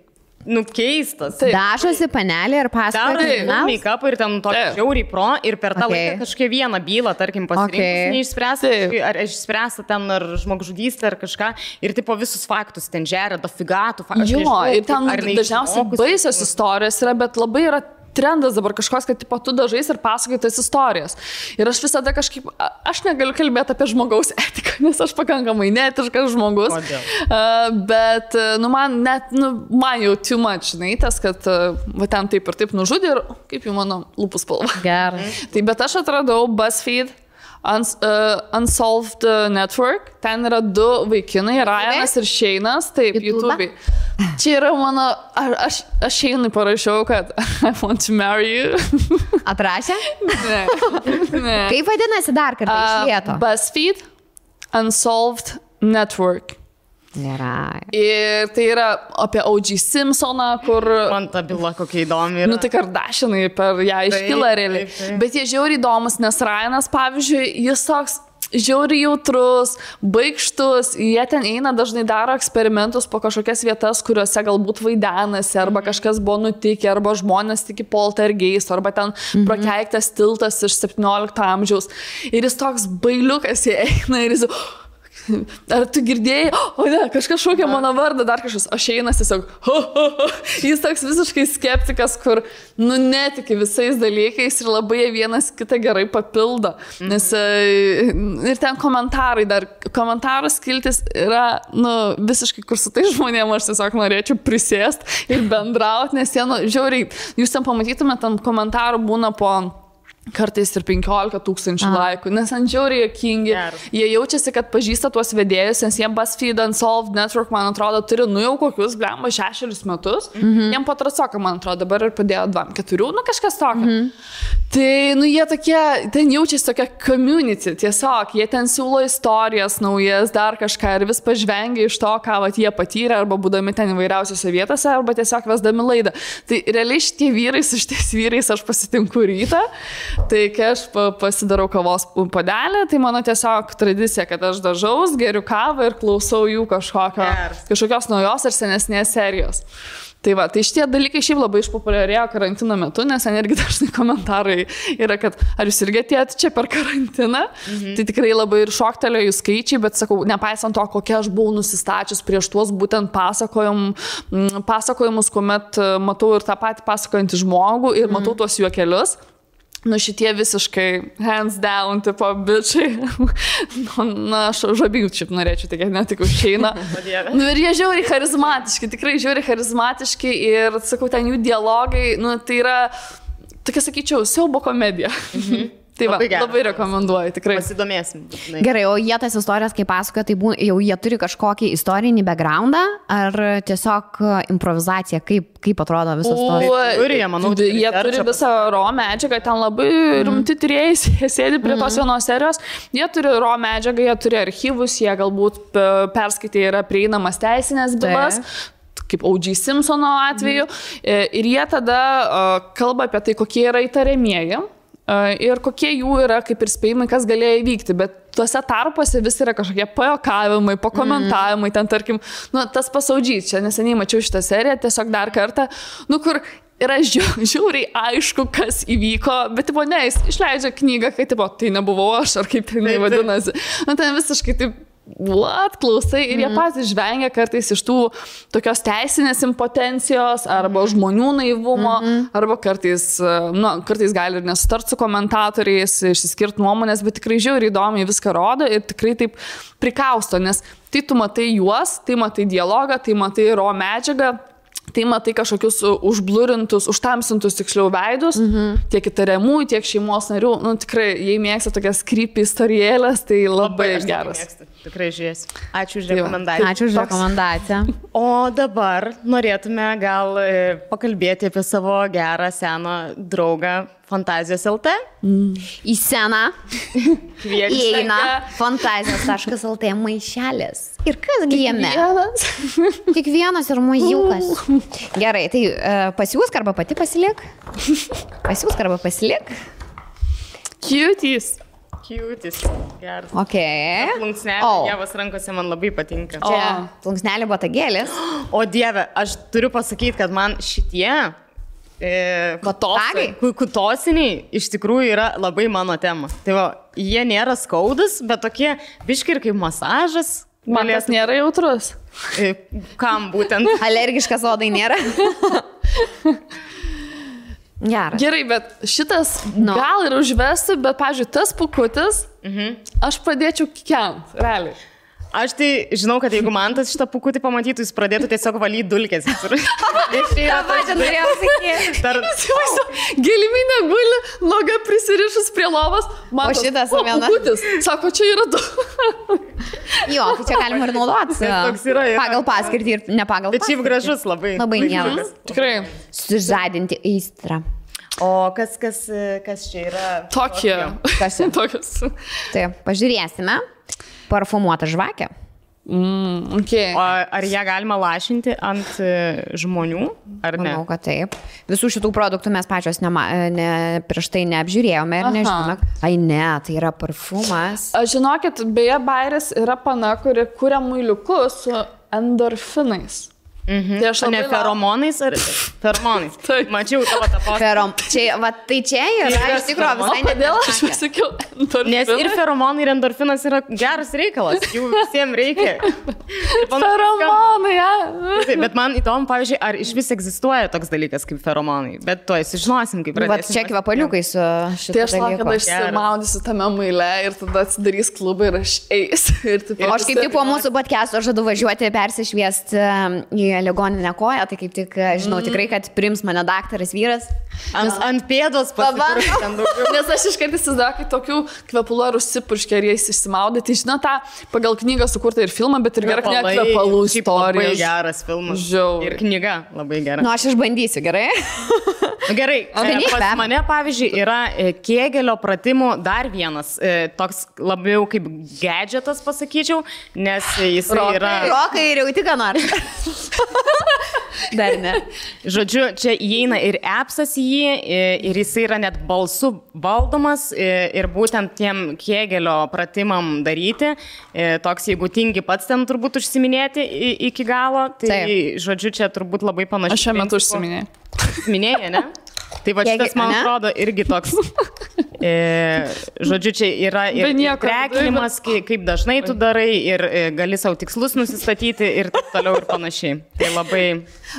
keistas. Dažosi panelė ir pasakoja. Make-up ir ten tokį žiauriai pro ir per tą laiką kažkokią vieną bylą, tarkim, pasirinkus neišspręsta, ar išspręsta ten ar žmogžudystė ar kažką ir tipo visus faktus ten žeria, dafigatų faktų. Jo, ir ten dažniausiai baisios istorijos yra, bet labai yra trendas dabar kažkoks, kad tipo, tu dažais ir pasakoji tas istorijas. Ir aš visada kažkaip, aš negaliu kalbėti apie žmogaus etiką, nes aš pakankamai neetiškas žmogus. Bet, man jau too much, žinai, tas, kad va ten taip ir taip nužudė ir kaip jau mano lūpų spalva. Gerai. Tai bet aš atradau BuzzFeed Unsolved Network. Ten yra 2 vaikinai, Ryanas ir Shane'as, taip, YouTube'ai. Čia yra mano, aš Shane'ui parašiau, kad I want to marry you. Atrašė? Ne. Kaip vadinasi dar kartą iš lėto? BuzzFeed Unsolved Network. Nėra. Ir tai yra apie O.J. Simpsoną, kur... Man ta byla kokia įdomi yra. Tai Kardashianai per ją iškyla realiai. Bet jie žiauriai įdomus, nes Ryanas, pavyzdžiui, jis toks žiauriai jautrus, baikštus, jie ten eina, dažnai daro eksperimentus po kažkokias vietas, kuriuose galbūt vaidenasi, arba kažkas buvo nutikę, arba žmonės tiki poltergeist, arba ten prakeiktas tiltas iš 17 amžiaus. Ir jis toks bailiukas, jie eina ir jis... Ar tu girdėjai, o ne, kažkas šaukia mano vardą, dar kažkas, o Shane'as tiesiog, jis toks visiškai skeptikas, kur, netiki visais dalykais ir labai vienas kitą gerai papildo. Nes ir ten komentarų skiltis yra, visiškai, kur su tai žmonėm aš tiesiog norėčiau prisėst ir bendrauti, nes jie, žiauriai, jūs ten pamatytumėte, ten komentarų būna po... kartais ir 15 000 laikų, nes ant žiauriai juokingi. Jie jaučiasi, kad pažįsta tuos vedėjus, nes jie BuzzFeed Unsolved Network, man atrodo, turi, jau kokius, 6 metus. Jiem patrasoka, man atrodo, dabar ir padėjo 2-4, kažkas tokio. Tai, jie tokie, ten jaučiasi tokia community, tiesiog, jie ten siūlo istorijas naujas, dar kažką ir vis pažvengia iš to, ką jie patyrė, arba būdami ten įvairiausiose vietose, arba tiesiog vesdami laidą. Tai realiai šitie vyrai, su šitais vyrais aš pasitinku rytą. Tai kai aš pasidarau kavos puodelį, tai mano tiesiog tradicija, kad aš dažaus, geriu kavą ir klausau jų kažkokios naujos ar senesnės serijos. Tai va, tai šitie dalykai šiaip labai išpopuliarėjo karantino metu, nes ten irgi dažnai komentarai yra, kad ar jūs irgi atėjot čia per karantiną, tai tikrai labai ir šoktelėjo jų skaičiai, bet sakau, nepaisant to, kokia aš buvau nusistačius prieš tuos būtent pasakojimus, kuomet matau ir tą patį pasakojantį žmogų ir matau tuos juokelius. Šitie visiškai hands down, tipo, bičiai. Aš žabių šiaip norėčiau, tik ne tik užeina. Ir jie žiauriai charizmatiški, tikrai žiauriai charizmatiški ir, sakau, ten jų dialogai, tai yra, tokia, sakyčiau, siaubo komedija. Tai va, labai rekomenduoju, tikrai. Pasidomėsim. Gerai, o jie tas istorijas, kaip pasakoja, tai jau jie turi kažkokį istorinį backgroundą ar tiesiog improvizacija, kaip atrodo visas istorijas? Jie turi visą raw medžiagą, ten labai rimti tyrėjai sėdi prie tos vienos serijos, jie turi raw medžiagą, jie turi archyvus, jie galbūt perskaitė yra prieinamas teisinės bylas. Kaip O.J. Simpsono atveju. Ir jie tada kalba apie tai, kokie yra įtariamieji ir kokie jų yra kaip ir spėjimai, kas galėjo įvykti. Bet tuose tarpuose vis yra kažkokie pajuokavimai, pakomentavimai, ten tarkim, tas pasaudžys, čia neseniai mačiau šitą seriją, tiesiog dar kartą, kur yra žiauriai aišku, kas įvyko, bet jis išleidžia knygą, kai tai nebuvau aš, ar kaip jinai vadinasi. Ten visiškai taip klausai ir jie patys žvengia kartais iš tų tokios teisinės impotencijos arba žmonių naivumo, arba kartais gali ir nesutart su komentatoriais, išsiskirti nuomonės, bet tikrai žiauriai įdomiai viską rodo ir tikrai taip prikausto, nes tai tu matai juos, tai matai dialogą, tai matai raw medžiagą, tai matai kažkokius užblurintus, užtamsintus tiksliau veidus, tiek įtariamųjų, tiek šeimos narių. Tikrai, jei mėgsta tokias creepy istorijėlės, tai labai geras. Tikrai žiūrėsiu. Ačiū už rekomendaciją. Ačiū už rekomendaciją. O dabar norėtume gal pakalbėti apie savo gerą seną draugą Fantazijos LT. Į sceną įeina Fantazijos.lt maišelis. Ir kas jame? Tik vienas ir mažiukas. Gerai, tai pasiūsk arba pati pasilik. Pasiūsk arba pasilik. Cuties. Geras. Ok. Plunksnelė, Dievas rankose man labai patinka. Čia plunksnelė botagėlis. O Dieve, aš turiu pasakyti, kad man šitie kutosiniai iš tikrųjų yra labai mano tema. Tai va, jie nėra skaudus, bet tokie biški ir kaip masažas. Man tas nėra jautrus. Kam būtent? Alergiškas odai nėra. Gerai. Gerai, bet šitas gal ir užvesti, bet, pavyzdžiui, tas pukutis, aš pradėčiau kikent, realiai. Aš tai žinau, kad jeigu man tas šitą pukutį pamatytų, jis pradėtų tiesiog valyti dulkės. Giliminė guli, noga prisirišus prie lovos, o šitas pukutis. Sako, čia yra du. Jo, tai čia galima ir naudoti. Pagal paskirtį ir ne pagal paskirtį. Bet šiaip gražus labai. Labai geras. Tikrai. Sužadinti aistrą. O kas čia yra? Tokie. Kas čia? Tokios. Taip, pažiūrėsime. Parfumuota žvakė. Okay. O ar ją galima lašinti ant žmonių, ar ne? Manau, kad taip. Visų šitų produktų mes pačios prieš tai neapžiūrėjome ir nežinome. Ai ne, tai yra parfumas. Žinokit, beje, Bairis yra pana, kuri kuria muiliukus su endorfinais. Tai aš ne feromonais ar feromonais? Mačiau tavo tą postą. Tai čia yra iš tikrųjų visai nedėl, aš pasakiau endorfinas. Nes ir feromonai, ir endorfinas yra geras reikalas, jų visiems reikia. Feromonai, ja. Bet man įdomu, pavyzdžiui, ar iš vis egzistuoja toks dalykas kaip feromonai, bet to sužinosim, kaip pradėsim. Bet čia kvepaliukai su šitą dalyką. Tai aš laukiu, kada išsimaudysiu tame maile ir tada atsidarys klubą ir aš eisiu. Aš kaip tik po mūsų podcast'o žadu važiuoti persišviesti į ligoninę koją, tai kaip tik žinau tikrai, kad priims mane daktaras vyras. Ant pėdos pasipurškia ten daugiau. Nes aš iškart įsivaizduoju, kai tokių kvepalų ar užsipurškia ir jais išsimaudė. Tai žinau tą pagal knygą sukurtą ir filmą, bet ir gerai kvepalų istorija. Labai geras filmas. Ir knyga labai gera. Nu, aš išbandysiu, gerai? Gerai, pas mane, pavyzdžiui, yra Kėgelio pratimų dar vienas, toks labiau kaip gadgetas, pasakyčiau, nes jis yra... Rokai ir jau tik ką nors. Dar ne. Žodžiu, čia įeina ir appsas į jį, ir jis yra net balsu valdomas, ir būtent tiem Kėgelio pratimam daryti, toks, jeigu tingi pats ten turbūt užsiminėti iki galo, tai žodžiu, čia turbūt labai panašiai. Aš šiuo metu užsiminėjau. Minėjai, ne? Tai va šitas, man atrodo, irgi toks, žodžiu, čia yra ir trekinimas, kaip dažnai tu darai, ir gali savo tikslus nusistatyti ir taip toliau ir panašiai. Tai labai...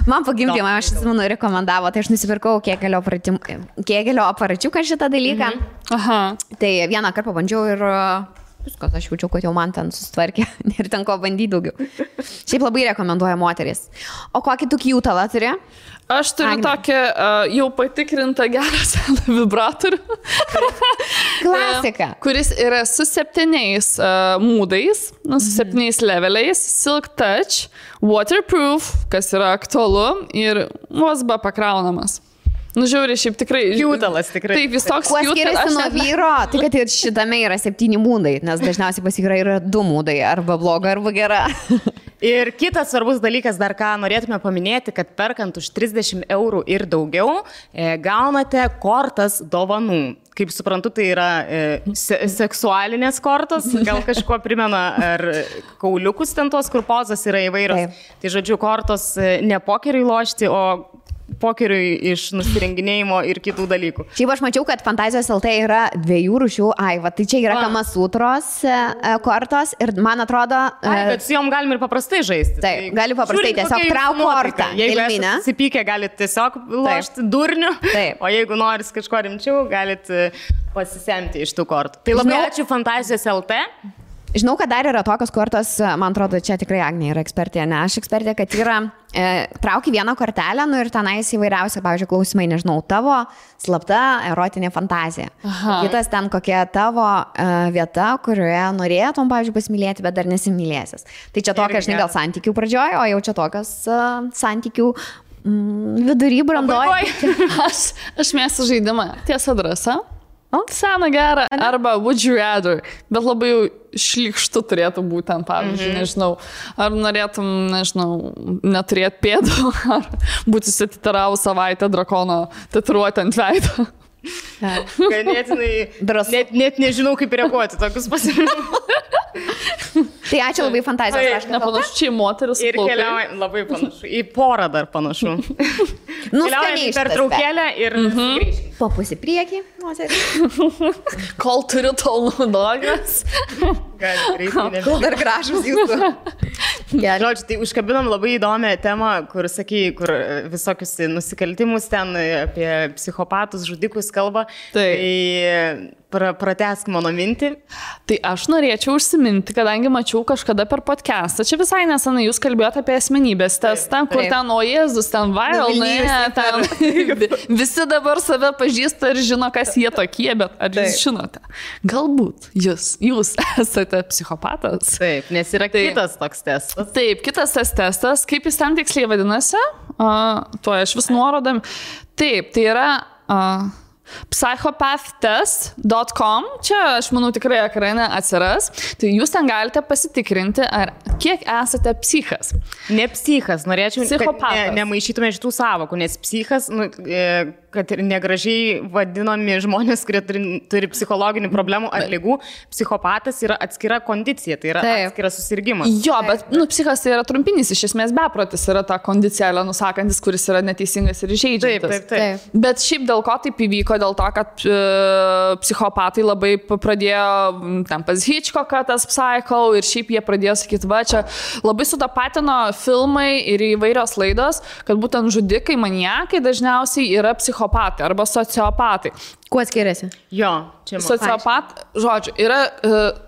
Man pagimdymą, aš atsimenu, rekomendavo, tai aš nusipirkau Kėgelio aparačiuką šitą dalyką. Aha. Tai vieną kartą pabandžiau ir viskas, aš jaučiu, kad jau man ten susitvarkė ir ten ko bandyti daugiau. Šiaip labai rekomenduoju moteris. O kokį tu kiutalą turi? Aš turiu tokį jau patikrintą gerą seną vibratorių. Klasika. Kuris yra su 7 mūdais, su 7 leveliais, Silk Touch, waterproof, kas yra aktualu, ir USB pakraunamas. Nu, žiūrė, šiaip tikrai. Kiutalas tikrai. Taip, jis toks kiutalas. Kuo skiriasi nuo vyro, tai kad ir šitame yra 7 mūdai, nes dažniausiai pas vyrai yra 2 mūdai, arba bloga, arba gera. Ir kitas svarbus dalykas, dar ką norėtume paminėti, kad perkant už 30 eurų ir daugiau, gaunate kortas dovanų. Kaip suprantu, tai yra seksualinės kortos, gal kažkuo primena, ar kauliukus ten tos, kur pozas yra įvairios. Taip. Tai žodžiu, kortos ne pokeriui lošti, o pokeriui iš nusirenginėjimo ir kitų dalykų. Šiaip aš mačiau, kad Fantazijos LT yra 2 rūšių. Va, tai čia yra Kamasutros kortos ir man atrodo... Bet su jom galim ir paprastai žaisti. Taip, gali paprastai tiesiog trauk kortą. Jeigu esate susipykę, galite tiesiog lošti durniu, o jeigu noris kažko rimčiau, galite pasisemti iš tų kortų. Tai labai ačiū Fantazijos LT. Žinau, kad dar yra tokios kortos, man atrodo, čia tikrai Agnė yra ekspertė, ne aš ekspertė, kad yra trauki vieną kortelę, nu ir tenais įvairiausia, pavyzdžiui, klausimai, nežinau, tavo slapta erotinė fantazija. Aha. Kitas ten kokia tavo vieta, kurioje norėtum, pavyzdžiui, pasimylėti, bet dar nesimylėsis. Tai čia tokia, žinai, gal santykių pradžioj, o jau čia tokios santykių vidury brandoj. Aš mėgstu žaidimą. Tiesa drąsa. Seną gerą, arba would you rather, bet labai jau šlykštu turėtų būti ten, pavyzdžiui, nežinau, ar norėtum, nežinau, neturėti pėdų, ar būti susititarau savaitę drakono tatuiruotę ant veido. Ganėtinai, net nežinau, kaip reaguoti tokius pasirinkimus. Tai ačiū labai Fantazijos. Nepanašu, čia į moteris. Ir keliauja, labai panašu, į porą dar panašu. Keliaujame per traukėlę ir grįžkime. Po pusį priekį, moteris. Kol turiu, tol naudogas. Kol dar gražus jūsų. Žodžiu, tai užkabinom labai įdomią temą, kur, sakai, kur visokius nusikaltimus ten apie psichopatus, žudikus kalba. Tai pratęsk mano mintį. Tai aš norėčiau užsiminti, kadangi mačiau kažkada per podcastą. Čia visai nesenai jūs kalbėjote apie asmenybės testą, kur ten, o Jėzus, ten viral, visi dabar save pažįsta ir žino, kas jie tokie, bet ar jūs žinote? Galbūt jūs esate psichopatas. Taip, nes yra kitas toks testas. Taip, kitas tas testas. Kaip jis ten tiksliai vadinasi? Tuo aš vis nuorodam. Taip, tai yra... psychopath.test.com. Čia, aš manau, tikrai ekrane atsiras. Tai jūs ten galite pasitikrinti, ar kiek esate psichas. Ne psichas, norėčiau, kad nemaišytume šitų savokų, nes psichas, kad ir negražiai vadinami žmonės, kurie turi psichologinių problemų ar ligų, psichopatas yra atskira kondicija, tai yra atskiras susirgymas. Jo, bet psichas tai yra trumpinis, iš esmės beprotis yra ta kondicija, nusakantis, kuris yra neteisingas ir žeidžiantis. Taip. Bet šiaip dėl ko taip įvyko, dėl to, kad psichopatai labai pradėjo, ten pas Hitchcocką tas Psycho, ir šiaip jie pradėjo sakyti, va, čia labai sutapatino filmai ir įvairios laidos, kad būtent žudikai, maniakai dažniausiai yra psichopatai arba sociopatai. Kuo skiriasi? Jo, čia žodžiu, yra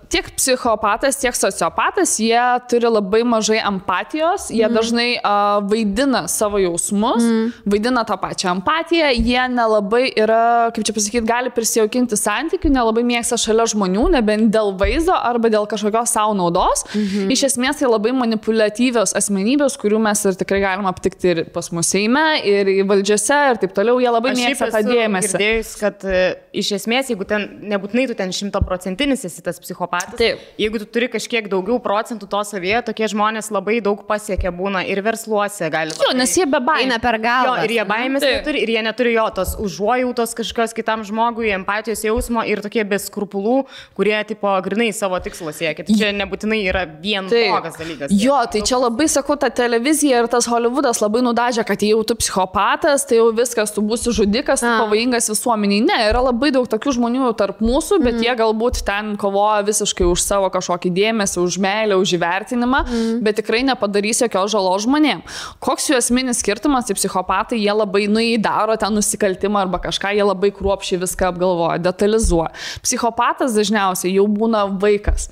tiek psichopatas, tiek sociopatas, jie turi labai mažai empatijos, jie dažnai vaidina savo jausmus, vaidina tą pačią empatiją, jie nelabai yra, kaip čia pasakyti, gali prisijaukinti santykių, nelabai mėgsta šalia žmonių, nebent dėl vaizdo arba dėl kažkokios savo naudos. Iš esmės tai labai manipuliatyvios asmenybės, kurių mes ir tikrai galim aptikti ir pas mus Seime, ir valdžiose, ir taip toliau, jie labai mėgsta tą dėmesį. Girdėjus, kad iš esmės, jeigu ten, nebūtinai tu ten 100% esi tas psichopatas, jeigu tu turi kažkiek daugiau procentų to savyje, tokie žmonės labai daug pasiekia būna ir versluose gali. Jo, nes jie be baimės. Per galvą. Ir jie baimės neturi, ir jie neturi jo tos užuojautos kažkokios kitam žmogui, empatijos jausmo ir tokie be skrupulų, kurie tipo grinai savo tikslo siekia. Tai čia nebūtinai yra vien blogas dalykas. Jo, tai čia labai sakau, ta televizija ir tas Hollywoodas labai nudažė, kad jau tu psichopatas, tai jau viskas, tu būsi žudikas, tu pavojingas visuomeniai. Ne, yra labai daug tokių žmonių tarp mūsų, bet jie galbūt ten kovoja visiškai beprotiškai už savo kažkokį dėmesį, už meilę, už įvertinimą, bet tikrai nepadarys jokios žalos žmonėm. Koks jų esminis skirtumas, tai psichopatai, jie labai daro ten nusikaltimą arba kažką, jie labai kruopščiai viską apgalvoja, detalizuoja. Psichopatas dažniausiai jau būna vaikas.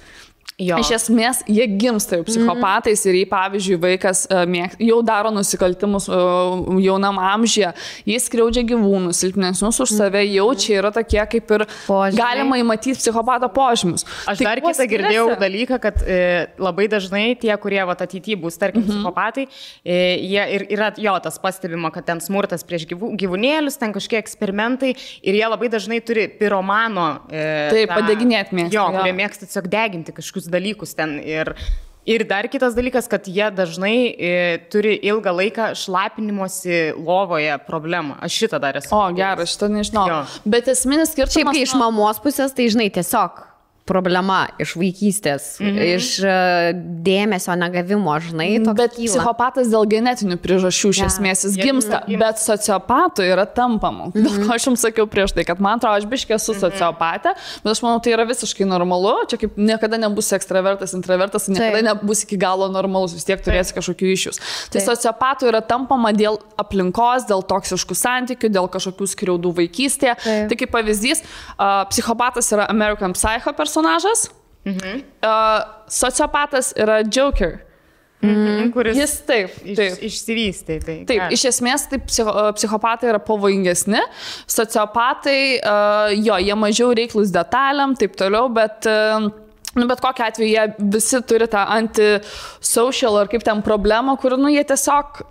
Jo. Iš esmės, jie gimsta jau psichopatais ir jei, pavyzdžiui, vaikas jau daro nusikaltimus jaunam amžiuje, jis skriaudžia gyvūnus, silpnesnius už save, jau čia yra tokie kaip ir galima įmatyti psichopato požymius. Aš dar kitą girdėjau dalyką, kad labai dažnai tie, kurie ateityje bus, tarkim, psichopatai, jie ir yra tas pastebima, kad ten smurtas prieš gyvūnėlius, ten kažkiek eksperimentai ir jie labai dažnai turi piromano. Taip, padeginėti mėgsta. Jo, kurie mėgsta tiesiog deginti kažkokius dalykus ten ir dar kitas dalykas, kad jie dažnai turi ilgą laiką šlapinimosi lovoje problemą. Aš šitą dar esu. O, geras, šitą nežinau. Jo. Bet esminis skirtumas... Šiaip, kai iš mamos pusės, tai žinai, tiesiog problema iš vaikystės, iš dėmesio negavimo, žinai, toks bet kyla. Psichopatas dėl genetinių priežasčių iš esmės jis gimsta, bet sociopatu yra tampama. Dėl ko aš jums sakiau prieš tai, kad man atrodo, aš biškė esu sociopatė, bet aš manau, tai yra visiškai normalu, čia kaip niekada nebus ekstravertas, intravertas, niekada nebus iki galo normalus, vis tiek turėsi kažkokių iššūkių. Tai sociopatu yra tampama dėl aplinkos, dėl toksiškų santykių, dėl kažkokių skriaudų vaikystėje. Tai kaip pavyzdys, psichopatas yra American Psycho personažas, sociopatas yra Joker. Kuris jis taip. Išsivystė. Taip, iš esmės tai psichopatai yra pavojingesni, sociopatai, jie mažiau reiklus detalėm, taip toliau, bet kokiu atveju jie visi turi tą antisocial ar kaip ten problemą, kur, jie tiesiog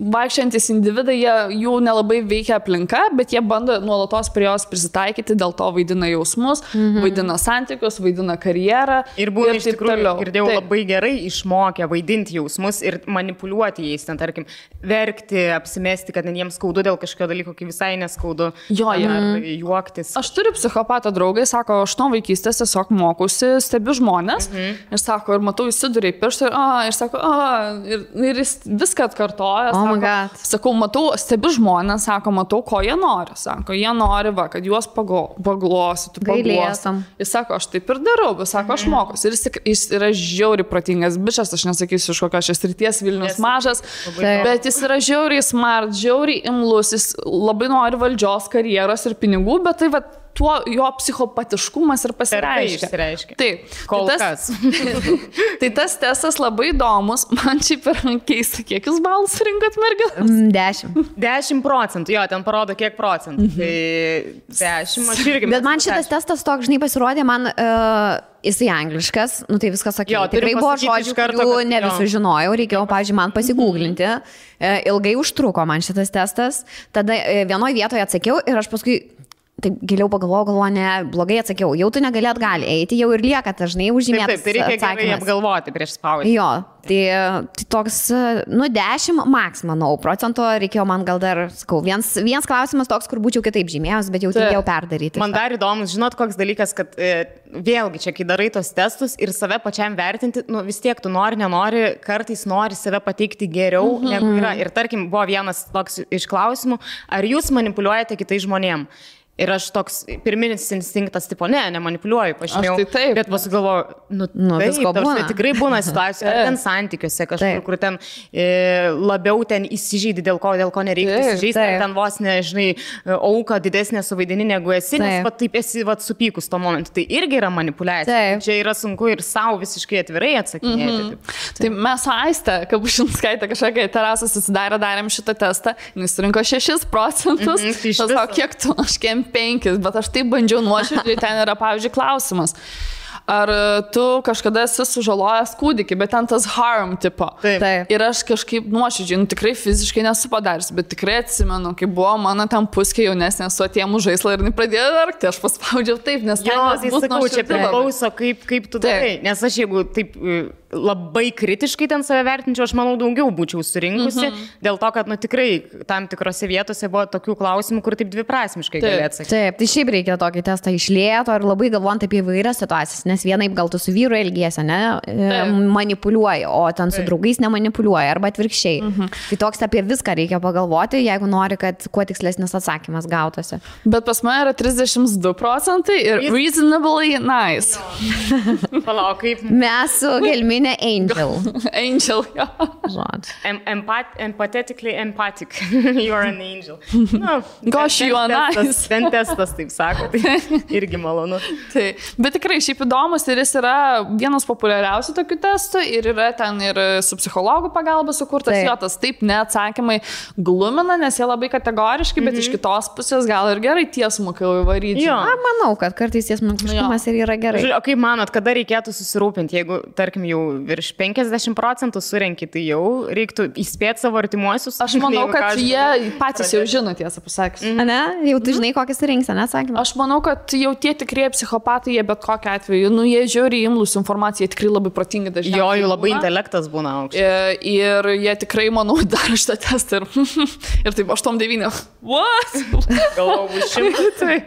vaikščiantis individai, jų nelabai veikia aplinka, bet jie bando nuolatos prie jos prisitaikyti, dėl to vaidina jausmus, vaidina santykius, vaidina karjerą. Ir būna iš tikrųjų, girdėjau, labai gerai išmokę vaidinti jausmus ir manipuliuoti jais, ten, tarkim, verkti, apsimesti, kad jiems skaudu dėl kažkokio dalyko, kai visai neskaudu. Ar juoktis. Aš turiu psichopato draugai, sako, aš nuo vaikystės tiesiog mokusi, stebiu žmonės ir sako, ir matau, įsiduriai pirštą ir sako, ir jis viską atkartoja. Sakau, matau, stebiu žmonės, sako, matau, ko jie nori. Sako, jie nori, kad juos paglostytų, paglostytų. Jis sako, aš taip ir darau, bet sako, aš mokusi. Ir jis yra žiauriai protingas bičas, aš nesakysiu iš kokios šios srities, Vilnius mažas, bet jis yra žiauriai smart, žiauriai imlus, jis labai nori valdžios, karjeros ir pinigų, bet tai tuo jo psichopatiškumas ir pasireiškia. Taip. Kol kas. Tai tas testas labai įdomus. Man šiaip yra keista, kiek jūs balus rinkot merginas? 10%. Jo, ten parodo kiek procentų. Tai 10, aš irgi. Bet man šitas testas toks, žinai, pasirodė, man jisai angliškas, tai viskas sakė. Tikrai buvo žodžių, kurių ne visų žinojau, reikėjo, pavyzdžiui, man pasigūglinti. Ilgai užtruko man šitas testas. Tada vienoje vietoje atsakiau ir aš paskui taip giliau pagalvojau, ne, blogai atsakiau, jau tu negali atgal eiti, jau ir lieka dažnai užžymėtas atsakymas. Taip, tai reikia gerai apgalvoti prieš spaudį. Jo, tai toks, 10 maks, manau, procento reikėjo man gal dar, sakau, vienas klausimas toks, kur būčiau kitaip žymėjęs, bet jau turėjau perdaryti. Man dar įdomus, žinot, koks dalykas, kad vėlgi čia, kai darai tos testus ir save pačiam vertinti, vis tiek tu nenori, kartais nori save pateikti geriau, negu yra. Ir tarkim, buvo vienas toks iš klausimų, ar jūs manipuliuojate kitais žmonėms? Ir aš toks pirminis instinktas, tipo, nemanipuliuoju, pažymėjau. Taip. Bet pasigalvoju, taip, tikrai būna situacijų, ar ten santykiuose kažkur, kur ten labiau ten įsižeidi, dėl ko nereikia įsižeisti, ar ten vos nežinai, auka didesnė suvaidini negu esi, nes taip esi supykus tuo momentu. Tai irgi yra manipuliacija. Čia yra sunku ir savo visiškai atvirai atsakinėti. Tai mes su Aiste, Kapušinskaitė, kažkokia terasą susidarė, darėm šitą testą, jis rinko 6%. Aš sako, kiek tu, aš 5, bet aš taip bandžiau nuoširdžiai, ten yra, pavyzdžiui, klausimas. Ar tu kažkada esi sužalojęs kūdikį, bet ten tas harm tipo. Taip. Ir aš kažkaip nuoširdžiai, tikrai fiziškai nesu padaręs, bet tikrai atsimenu, kai buvo mano ten puskė jaunesnė su atėmų žaislą ir pradėjo verkti, aš paspaudžiau taip, nes tai sakau, čia priklauso, kaip tu darai. Nes aš jeigu taip labai kritiškai ten save vertinčiau, aš manau daugiau būčiau surinkusi, dėl to, kad tikrai tam tikrose vietose buvo tokių klausimų, kur taip dviprasmiškai gali atsakyti. Taip, tai šiaip reikia tokį testą išlėto ir labai galvojant apie įvairias situacijas, nes vienaip gal tu su vyru elgiesi, ne, manipuliuoji, o ten su draugais nemanipuliuoji arba atvirkščiai. Tai toks apie viską reikia pagalvoti, jeigu nori, kad kuo tikslesnis atsakymas gautųsi. Bet pas mane yra 32% ir reasonably nice. Palauk, kaip... Mes su Gelminė Angel. Angel, jo. Empathetically empathic. You are an angel. No, Gosh, you are nice. Ten testas, taip sako, tai irgi malonu. Tai, bet tikrai šiaip įdomus ir jis yra vienas populiariausių tokių testų ir yra ten ir su psichologų pagalba sukurtas jotas. Taip, neatsakymai glumina, nes jie labai kategoriški, bet iš kitos pusės gal ir gerai tiesmukai įvaryti. Manau, kad kartais tiesmukiškumas ir yra gerai. O kaip manot, kada reikėtų susirūpinti, jeigu, tarkim, jau virš 50% surenki, tai jau reiktų įspėti savo artimuosius? Aš manau, kad jie patys jau žino, tiesą pasakius. Ne? Jau tu žinai, kokį surinksi, neatsakymą? Aš manau, kad jau tie tikrieji psichopatai, jie bet kokiu atveju, jie žiūri imlus informaciją, jie tikrai labai protingi dažniausiai. Jo, jų labai intelektas būna aukštas. Ir jie tikrai, manau, daro šitą testą ir taip 8-9. What? Galvau, bus 100.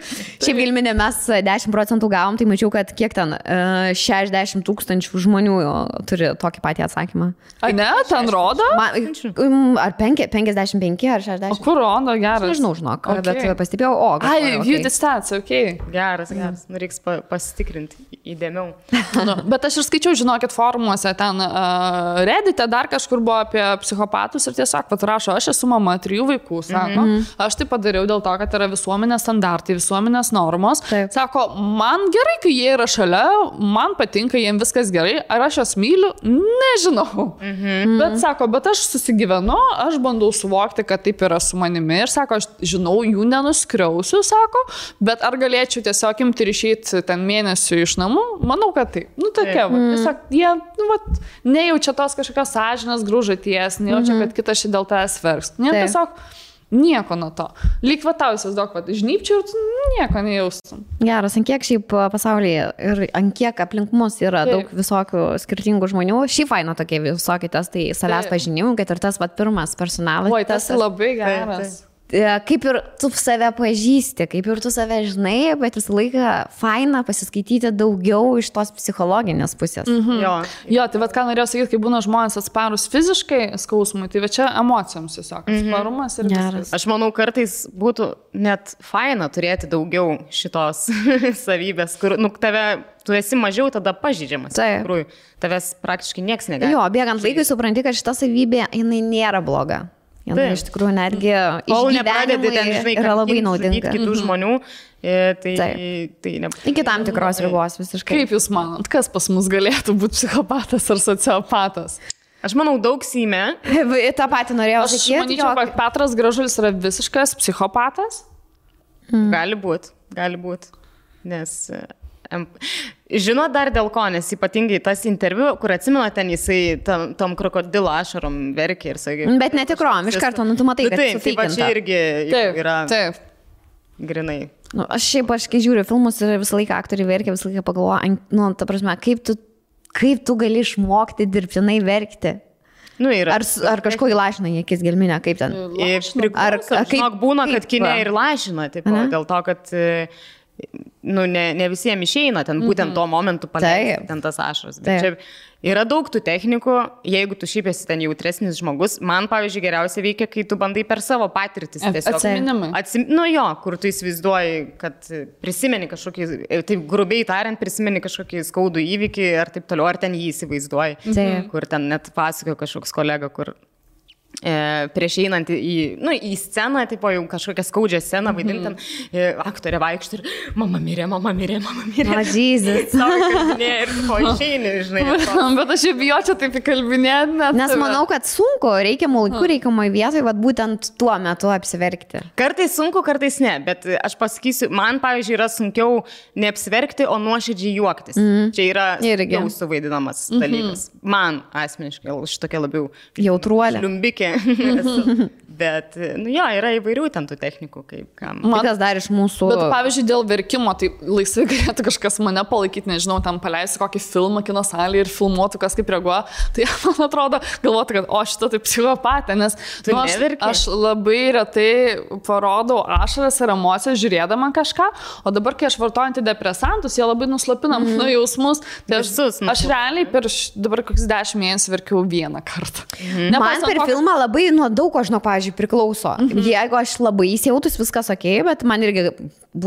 Šiaip Gelminė, mes 10% gavom, tai mačiau, kad kiek ten 60 000 žmonių turi tokį patį atsakymą. A ne, ten rodo? Ar 55 ar 60? O kur rodo, geras? Nežinau, žinok, bet pastebėjau, view the stats, ok. Geras. Reiks pasitikrinti įdėmiau. Bet aš ir skaičiau, žinokit, forumuose, ten Reddite dar kažkur buvo apie psichopatus ir tiesiog rašo, aš esu mama 3 vaikų, sako, aš tai padariau dėl to, kad yra visuomenės standartai, visuomenės normos. Sako, man gerai, kai jie yra šalia, man patinka, jiems viskas gerai, ar aš juos myliu, nežinau. Bet sako, bet aš susigyvenu, aš bandau suvokti, kad taip yra su manimi ir sako, aš žinau, jų nenuskriausiu, sako, bet ar galėčiau tiesiog imti ir išeiti ten mėnesių iš namų? Manau, kad taip. Tokia, tiesiog jie, nejaučia tos kažkokios sąžinės grūžaties, nejaučia, kad kitas šį dėl tavęs verks. Tiesiog nieko nuo to. Lyg vatausias daug, žnypčiau ir tu nieko nejaustum. Geras, ant kiek šiaip pasaulyje ir ant kiek aplink mus yra daug visokių skirtingų žmonių. Šiaip faina tokie visokie testai savęs pažinimų, kad ir tas pirmas personalas. Oi, tas labai geras. Kaip ir tu save pažįsti, kaip ir tu save žinai, bet visą laiką faina pasiskaityti daugiau iš tos psichologinės pusės. Jo, tai ką norėjau sakyti, kai būna žmonės atsparus fiziškai skausmui, tai čia emocijoms tiesiog. Atsparumas ir viskas. Aš manau, kartais būtų net faina turėti daugiau šitos savybės, kur tu esi mažiau tada pažydžiamas. Tikrųjų, tavęs praktiškai nieks negali. Jo, bėgant laikui supranti, kad šita savybė, jinai nėra bloga. Iš tikrųjų, netgi išgyvenimai yra labai naudinga. Kitų žmonių, iki tam tikros ribos visiškai. Kaip jūs manot, kas pas mus galėtų būti psichopatas ar sociopatas? Aš manau, daug Seime. Ta pati norėjau sakyti. Aš manyčiau, kad Petras Gražulis yra visiškas psichopatas. Gali būt. Nes... Žinot dar dėl ko, nes ypatingai tas interviu, kur atsimena ten jisai tom krokodilo ašarom verkė ir sakė. Bet netikrom, iš karto, tu matai, kad sufeikinta. Taip, čia irgi yra grinai. Aš kai žiūriu filmus ir visą laiką aktoriai verkia, visą laiką pagalvoju, ta prasme, kaip tu gali išmokti dirbtinai verkti? Ar kažko įlašina į akis Gelminę, kaip ten? Žinok, būna, kad kine ir lašina, dėl to, kad... ne visiems išeina ten būtent tuo momentu paleisti ten tas ašaras. Bet čia yra daug tų technikų, jeigu tu šiaip esi ten jautresnis žmogus. Man, pavyzdžiui, geriausia veikia, kai tu bandai per savo patirtis. Atsiminimai. Kur tu įsivaizduoji, kad prisimeni kažkokį, taip grubiai tariant, prisimeni kažkokį skaudų įvykį ar taip toliau, ar ten jį įsivaizduoji. Kur ten net pasakojo kažkoks kolega, kur... prieš einant į sceną, tipo jau kažkokią skaudžią sceną vaidintam, aktorė vaikšto ir mama mirė. Jezus. Ir po išeini, žinai. Bet aš jau bijočiau taip įkalbinėti. Nes manau, kad sunku, reikiamų laikų, reikiamai vietoj, būtent tuo metu apsiverkti. Kartais sunku, kartais ne, bet aš pasakysiu, man, pavyzdžiui, yra sunkiau neapsiverkti, o nuoširdžiai juoktis. Čia yra jau suvaidinamas dalykas. Man asmeniškai, šitokia labiau jautruolė. Liumbikė. Bet, jo, yra įvairių ten tų technikų, kaip kam. Kas dar iš mūsų... Bet, pavyzdžiui, dėl verkimo, tai laisvai galėtų kažkas mane palaikyti, nežinau, ten paleisti kokį filmą kino salėje ir filmuotų, kas kaip reaguoja. Tai man atrodo, galvotų, kad šita tai psichopatė, nes aš labai retai parodau ašaras ir emocijas žiūrėdama kažką, o dabar, kai aš vartoju antidepresantus, jie labai nuslopina mano jausmus. Tai aš realiai per dabar kokius 10 mėnesių verkiau vieną kartą. Man per filmą labai nuo daug ko, žinau, pavyzdžiui, priklauso. Jeigu aš labai įsijautus, viskas ok, bet man irgi,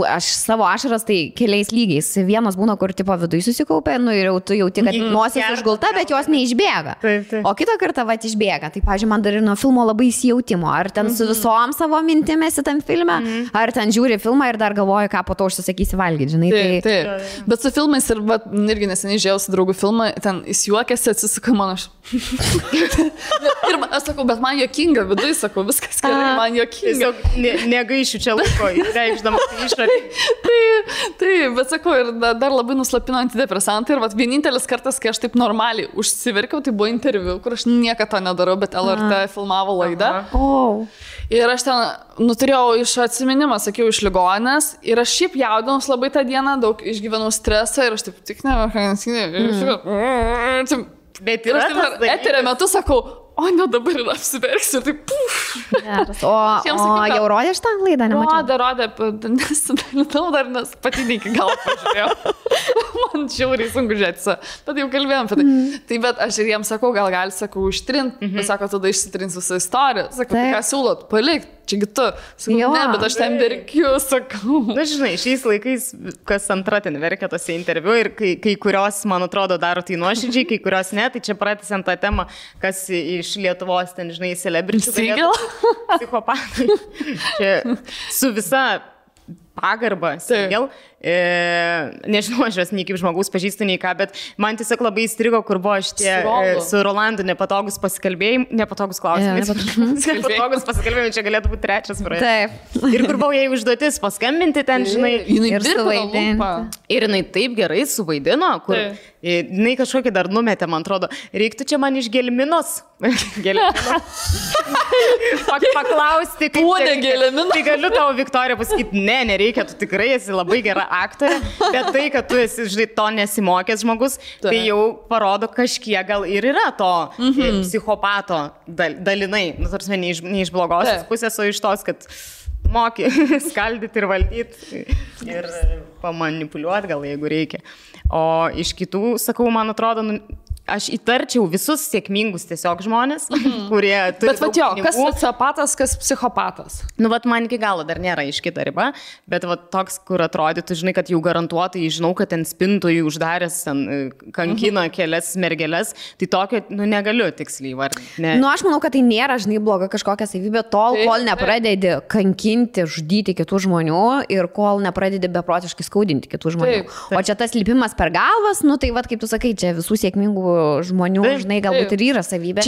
aš savo ašaras tai keliais lygiais. Vienas būna, kur tipo viduje susikaupė, ir jau tu jauti, kad nosis užgulta, bet jos neišbėga. O kitą kartą išbėga. Tai, pavyzdžiui, man dar ir nuo filmo labai įsijautimo. Ar ten su visom savo mintimėsi tam filme, ar ten žiūri filmą ir dar galvoji, ką po to užsisakysi valgyti, žinai. Taip. Bet su filmais ir irgi neseniai žiūrėjau su draugų filmą, ten jis juokėsi, atsisuka mano aš. Ir aš sakau, bet man juokinga, viduje sakau, viskas gerai, man juokinga. Negaišiu čia laiko, reikšdama išorį. Taip, bet sakau, ir dar labai nuslapino antidepresantai. Ir vienintelis kartas, kai aš taip normaliai užsiverkiau, tai buvo interviu, kur aš niekada to nedarau, bet LRT filmavo laidą. Ir aš ten turėjau iš atsiminimą, sakiau, iš ligoninės. Ir aš šiaip jaudinus labai tą dieną, daug išgyvenau stresą ir aš taip tik Bet ir aš taip eterio metu sakau, ne dabar ir apsiverksiu, tai O jau rodė šitą laidą, nemačiau? Rodė, nesidalinau dar, nes pati iki gal pažiūrėjau. Man žiauriai sunku žiūrėti, bet jau kalbėjom apie tai. Tai bet aš ir jiems sakau, gal sakau, ištrinti. Sako, tada išsitrins visą istoriją. Sakau, tai ką siūlot, palikti. Čiagi tu. Sakau, ne, bet aš ten verkiu, sakau. Na, žinai, šiais laikais kas antra ten verkia tose interviu ir kai kurios, man atrodo, daro tai nuoširdžiai, kai kurios ne, tai čia pratęsiant tą temą, kas iš Lietuvos ten, žinai, celebričių. Psichopatai. Čia su visa pagarba, Sigel. Nežinau, aš jos nei kaip žmogus pažįstu, nei ką, bet man tiesiog labai įstrigo, kur buvo šitie su Rolandu nepatogus pasikalbėjimai, nepatogus klausimai. Nepatogus pasikalbėjimai, čia galėtų būti trečias projektas. Taip. Ir kur buvo jai užduotis paskambinti ten, žinai, ir suvaidinti. Ir jinai taip gerai suvaidino, kur jinai kažkokį dar numetė, man atrodo, reiktų čia man iš gelminos. Paklausti, kaip gelminos. Tai galiu tau, Viktorija, pasakyti, nereikia, tu tikrai esi labai gera aktorė, bet tai, kad tu esi, žinai, to nesimokęs žmogus, tai jau parodo kažkiek gal ir yra to psichopato dalinai, tarsi ne iš blogosios pusės, o iš tos, kad moki skaldyti ir valdyti ir pamanipuliuoti gal, jeigu reikia. O iš kitų, sakau, man atrodo, aš įtarčiau visus sėkmingus tiesiog žmonės, kurie turi daug pinigų. Kas sociopatas, kas psichopatas? Man iki galo dar nėra iškita riba, bet toks, kur atrodytų, žinai, kad jau garantuotai, žinau, kad ten spintojų uždaręs, kankina kelias mergelės, tai tokio, negaliu tiksliai vardinti. Aš manau, kad tai nėra, žinai, bloga kažkokia savybė tol, kol nepradedi kankinti, žudyti kitų žmonių ir kol nepradedi beprotiškai skaudinti kitų žmonių. O čia tas lipimas per galvas, tai kaip tu sakai, čia visų sėkmingų žmonių, žinai, galbūt ir yra savybė.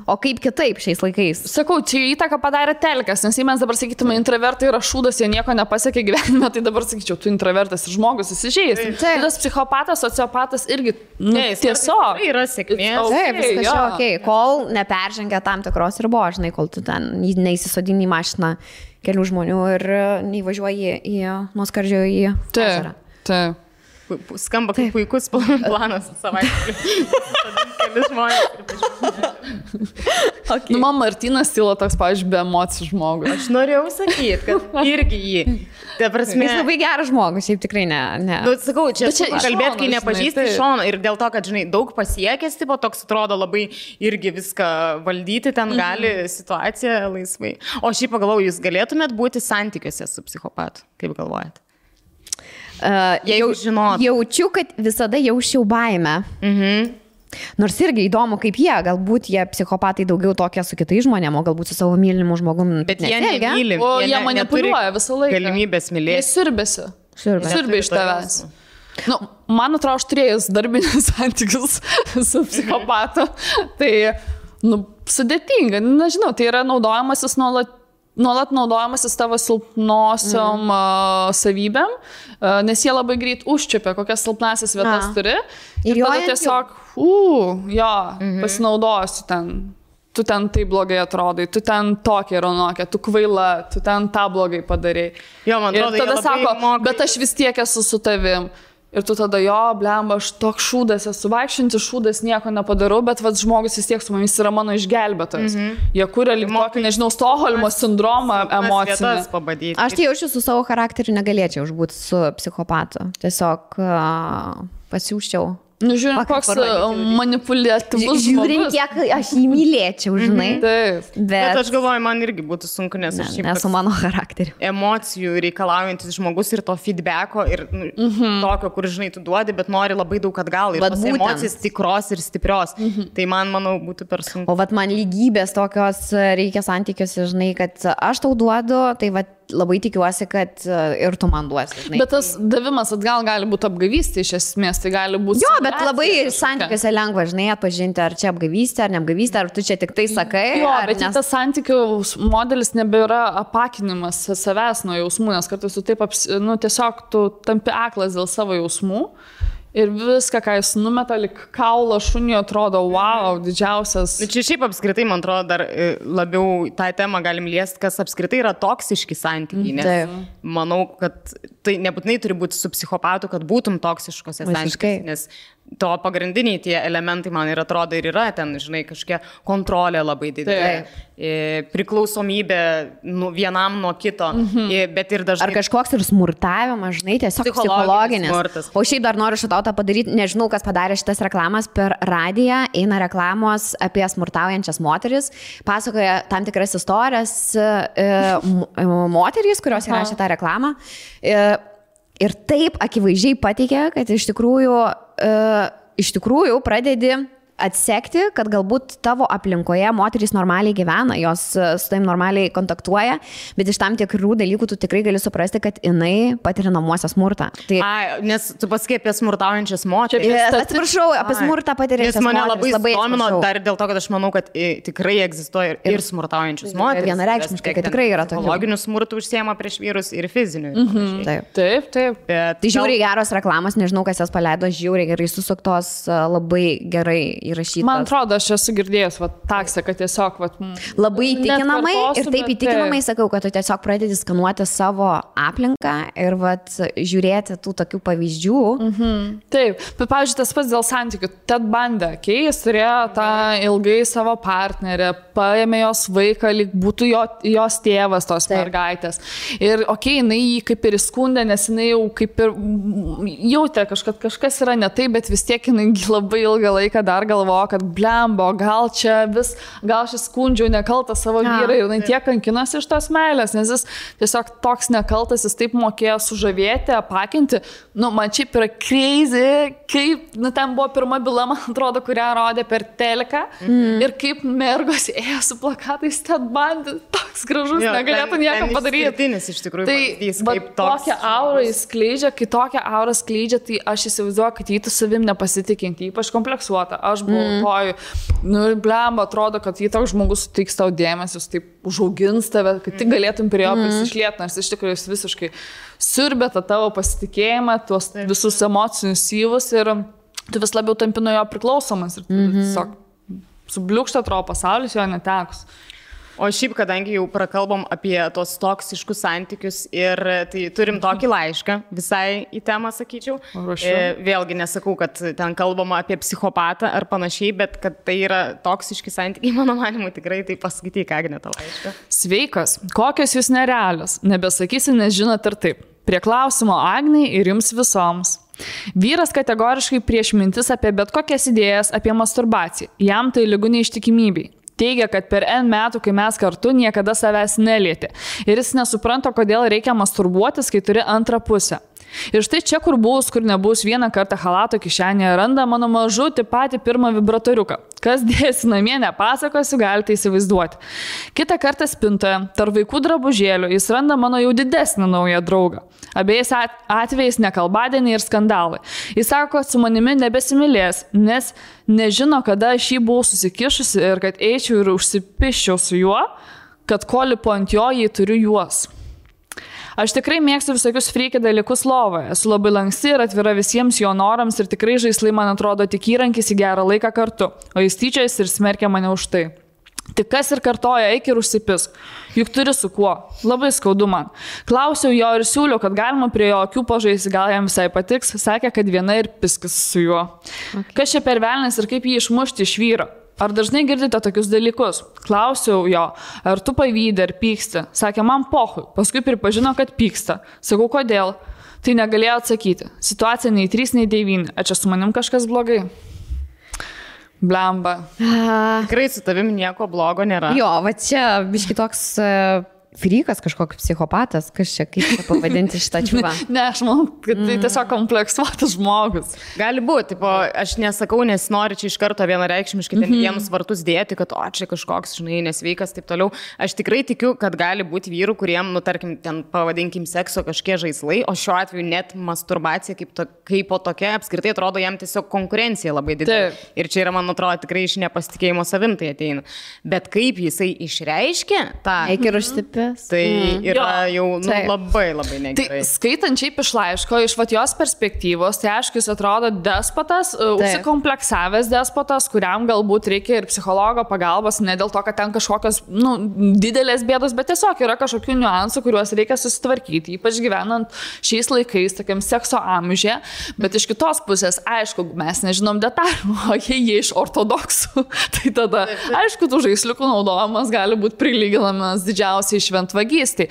O kaip kitaip šiais laikais? Sakau, čia įtaką padarė telkas, nes jei mes dabar sakytume, intravertai yra šūdas, jie nieko nepasiekė gyvenime, tai dabar sakyčiau, tu intravertas ir žmogus įsižeis. Tas psichopatas, sociopatas irgi tiesiog yra sėkmės. Taip, viskas čia ok, kol neperžengia tam tikros ribos, žinai, kol tu ten neįsisodini į mašiną kelių žmonių ir neįvažiuoji nuo skardžio į ežerą. Taip. Skamba kaip puikus planas savaitgalį. Keli žmonės. Man Martynas Tyla toks, pavyzdžiui, be emocijų žmogus. Aš norėjau sakyti, kad irgi jį. Jis labai geras žmogus, šiaip tikrai ne. Sakau, čia kalbėt, kai nepažįsti iš šono ir dėl to, kad, žinai, daug pasiekęs, tipo, toks atrodo labai irgi viską valdyti, ten gali situaciją laisvai. O šiaip pagalvojau, jūs galėtumėt būti santykiuose su psichopatu, kaip galvojate? Jaučiu, kad visada jausčiau baimę. Nors irgi įdomu, kaip galbūt jie psichopatai daugiau tokie su kitais žmonėm, o galbūt su savo mylimu žmogum. Bet jie nemyli. O jie manipuliuoja visą laiką. Galimybės mylėti. Jie sirbė iš tavęs. Man atrodo, aš turėjus darbinius santykius su psichopatu. Tai, sudėtinga. Nežinau, tai yra naudojamasis nuolat naudojamasis tavo silpnosiom savybėm, nes jie labai greit užčiupia, kokias silpnasias vietas turi. Ir tada tiesiog, pasinaudosiu ten tu ten tai blogai atrodai, tu ten tokia ir anokia, tu kvaila, tu ten tą blogai padarai. Jo, man atrodo, ir tada sako, bet aš vis tiek esu su tavim. Ir tu tada, jo, blemba, aš toks šūdas esu, vaikščiantis šūdas, nieko nepadarau, bet vat, žmogus vis tiek su mumis yra mano išgelbėtojas. Jie kuria lyg tokį, nežinau, Stokholmo sindromą emocinį. Aš tai jaučiu su savo charakteriu, negalėčiau užbūti su psikopatu. Tiesiog pasiūščiau. Nu, žiūrint, koks manipuliatyvus. Žiūrint, kiek aš jį mylėčiau, žinai. Taip. Bet aš galvoju, man irgi būtų sunku, nes aš šiaip esu mano charakteriu. Emocijų reikalaujantis žmogus ir to feedbacko ir tokio, kur, žinai, tu duodi, bet nori labai daug atgal. Ir tos emocijas tikros ir stiprios. Tai man, manau, būtų per sunku. O vat man lygybės tokios reikia santykiuose, žinai, kad aš tau duodu, tai vat labai tikiuosi, kad ir tu man duosi. Žinai. Bet tas davimas atgal gali būti apgavystė iš esmės, tai gali būti... Jo, bet labai santykiuose lengva, žinai, atpažinti, ar čia apgavystė, ar neapgavystė, ar tu čia tik tai sakai. Jo, bet tas santykių modelis nebėra apakinimas savęs nuo jausmų, nes kartais tu taip, tiesiog tu tampi aklas dėl savo jausmų. Ir viską, ką jis numeta, lik kaulo šunio, atrodo, wow, didžiausias. Čia šiaip apskritai, man atrodo, dar labiau tą temą galim liesti, kas apskritai yra toksiški santykiai. Nes manau, kad tai nebūtinai turi būti su psichopatu, kad būtum toksiškose santykiuose. Nes to pagrindiniai tie elementai, man ir atrodo, ir yra ten, žinai, kažkokia kontrolė labai didelė, priklausomybė vienam nuo kito, bet ir dažnai... Ar kažkoks ir smurtavimas, žinai, tiesiog psichologinis. Smurtas. O šiaip dar noriu šitą padaryti, nežinau, kas padarė šitas reklamas per radiją, eina reklamos apie smurtaujančias moteris, pasakoja tam tikras istorijas moterys, kurios įrašė tą reklamą. Ir taip akivaizdžiai pateikia, kad iš tikrųjų pradedi atsekti, kad galbūt tavo aplinkoje moterys normaliai gyvena, jos su taim normaliai kontaktuoja, bet iš tam tikrų dalykų tu tikrai gali suprasti, kad jinai patiria namuose smurtą. Tai... nes tu pasakai apie smurtaujančias moteris. Atsiprašau, apie smurtą patiriančias moteris. Mane labai domino dar dėl to, kad aš manau, kad tikrai egzistuoja ir smurtaujančius moteris. Vienareikšmiškai, kad tikrai yra tokių. Psichologinių smurtų užsiema prieš vyrus ir fizinių. Taip. Tai žiauriai geros reklamos, nežinau, kas jas paleido, žiauriai gerai susuktos, labai gerai įrašytas. Man atrodo, aš esu girdėjęs taksą, kad tiesiog labai įtikinamai ir taip įtikinamai sakau, kad tu tiesiog pradedi skanuoti savo aplinką ir žiūrėti tų tokių pavyzdžių. Taip, bet pavyzdžiui, tas pats dėl santykių. Ted Bundy, jis turėjo tą ilgai savo partnerę, paėmė jos vaiką, lyg būtų jos tėvas tos mergaitės. Ir jinai jį kaip ir įskundė, nes jinai jau kaip ir jautė, kad kažkas yra ne taip, bet vis tiek jinai labai ilgą laiką dar galvoja, kad blembo, gal šis skundžiau nekaltą savo vyrą ir jinai tiek kankinosi iš tos meilės, nes jis tiesiog toks nekaltas, jis taip mokėjo sužavėti, apakinti. Man šiaip yra crazy, kaip, ten buvo pirma byla, man atrodo, kurią rodė per teleką ir kaip mergos ėjo su plakatais Ted Bundy, toks gražus, negalėtų nieko padaryti. Iš tikrųjų, tai tokią aurą jis skleidžia, kai tokią aurą skleidžia, tai aš įsivaizduoju, kad jį tu savim nepasitikinti, ypač kompleksuota. Aš buvau blemba, atrodo, kad jį toks žmogus suteiks tau dėmesį, jis taip užaugins tave, kad tik galėtum prie jo prisišlieti, nors iš tikrųjų jis visiškai siurbė tą tavo pasitikėjimą, tuos visus emocinius syvus ir tu vis labiau tampi nuo jo priklausomas ir tiesiog subliūkšta atrodo pasaulis jo netekus. O šiaip, kadangi jau prakalbom apie tos toksiškus santykius ir tai turim tokį laišką visai į temą, sakyčiau. Vėlgi nesakau, kad ten kalbama apie psichopatą ar panašiai, bet kad tai yra toksiški santykiai, mano manimu, tikrai tai paskaityk, Agne, tą laišką. Sveikas, kokios jūs nerealios, nebesakysi, nes žinot ir taip. Prie klausimo Agnei ir jums visoms. Vyras kategoriškai prieš mintis apie bet kokias idėjas apie masturbaciją. Jam tai lygu neištikimybei. Teigia, kad per N metų, kai mes kartu, niekada savęs nelietė. Ir jis nesupranta, kodėl reikia masturbuotis, kai turi antrą pusę. Ir štai čia, kur bus, kur nebus, vieną kartą chalato kišenėje randa mano mažutį patį pirmą vibratoriuką. Kas dėsi namie, nepasakosiu, galite įsivaizduoti. Kitą kartą spintoje, tarp vaikų drabužėlių, jis randa mano jau didesnį naują draugą. Abiejais atvejais nekalbadieniai ir skandalai. Jis sako, kad su manimi nebesimylės, nes nežino, kada aš jį buvau susikišusi ir kad eičiau ir užsipiščiau su juo, kad ko lipu ant jo, jei turiu juos. Aš tikrai mėgstu visokius freaky dalykus lovoje. Esu labai lanksti ir atvira visiems jo norams ir tikrai žaislai man atrodo tik įrankis į gerą laiką kartu, o jis tyčiasi ir smerkia mane už tai. Tik kas ir kartoja, eik ir užsipisk. Juk turi su kuo. Labai skaudu man. Klausiau jo ir siūliau, kad galima prie jo akių pažaisti, gal jam visai patiks. Sakė, kad viena ir piskis su juo. Okay. Kas čia per velnis ir kaip jį išmušti iš vyro? Ar dažnai girdite tokius dalykus? Klausiau jo, ar tu pavydė ar pyksti? Sakė, man pohui. Paskui pripažino, kad pyksta. Sakau, kodėl? Tai negalėjo atsakyti. Situacija nei 3, nei 9. Ar čia su manim kažkas blogai? Blemba. Tikrai su tavim nieko blogo nėra. Jo, va čia biški toks frikas, kažkoks psichopatas, kas čia, kaip čia pavadinti šitą čiūvą. Ne, aš manau, kad tai tiesiog kompleksuotas žmogus. Gali būti, aš nesakau, nes noriu čia iš karto vienareikšmiškai ten vienus vartus dėti, kad čia kažkoks, žinai, nesveikas, taip toliau. Aš tikrai tikiu, kad gali būti vyrų, kuriem, tarkim, ten pavadinkim sekso kažkie žaislai, o šiuo atveju net masturbacija kaip po tokia apskritai atrodo jam tiesiog konkurencija labai didelė. Ir čia yra, man atrodo, tikrai iš nepasitikėjimo savim tai ateina. Bet kaip jisai išreiškia tą... Eik ir užsipė. Tai yra jau labai negerai. Tai skaitant šiaip iš laiško, iš jos perspektyvos, tai aišku, jis atrodo despotas, užsikompleksavęs despotas, kuriam galbūt reikia ir psichologo pagalbos, ne dėl to, kad ten kažkokios didelės bėdos, bet tiesiog yra kažkokių niuansų, kuriuos reikia susitvarkyti, ypač gyvenant šiais laikais, tokiam sekso amžiuje. Bet iš kitos pusės, aišku, mes nežinom detalių, o jie iš ortodoksų, tai tada, aišku, tų žaisliukų naudojimas gali būti prilyginamas didžiausiai šventvagystė.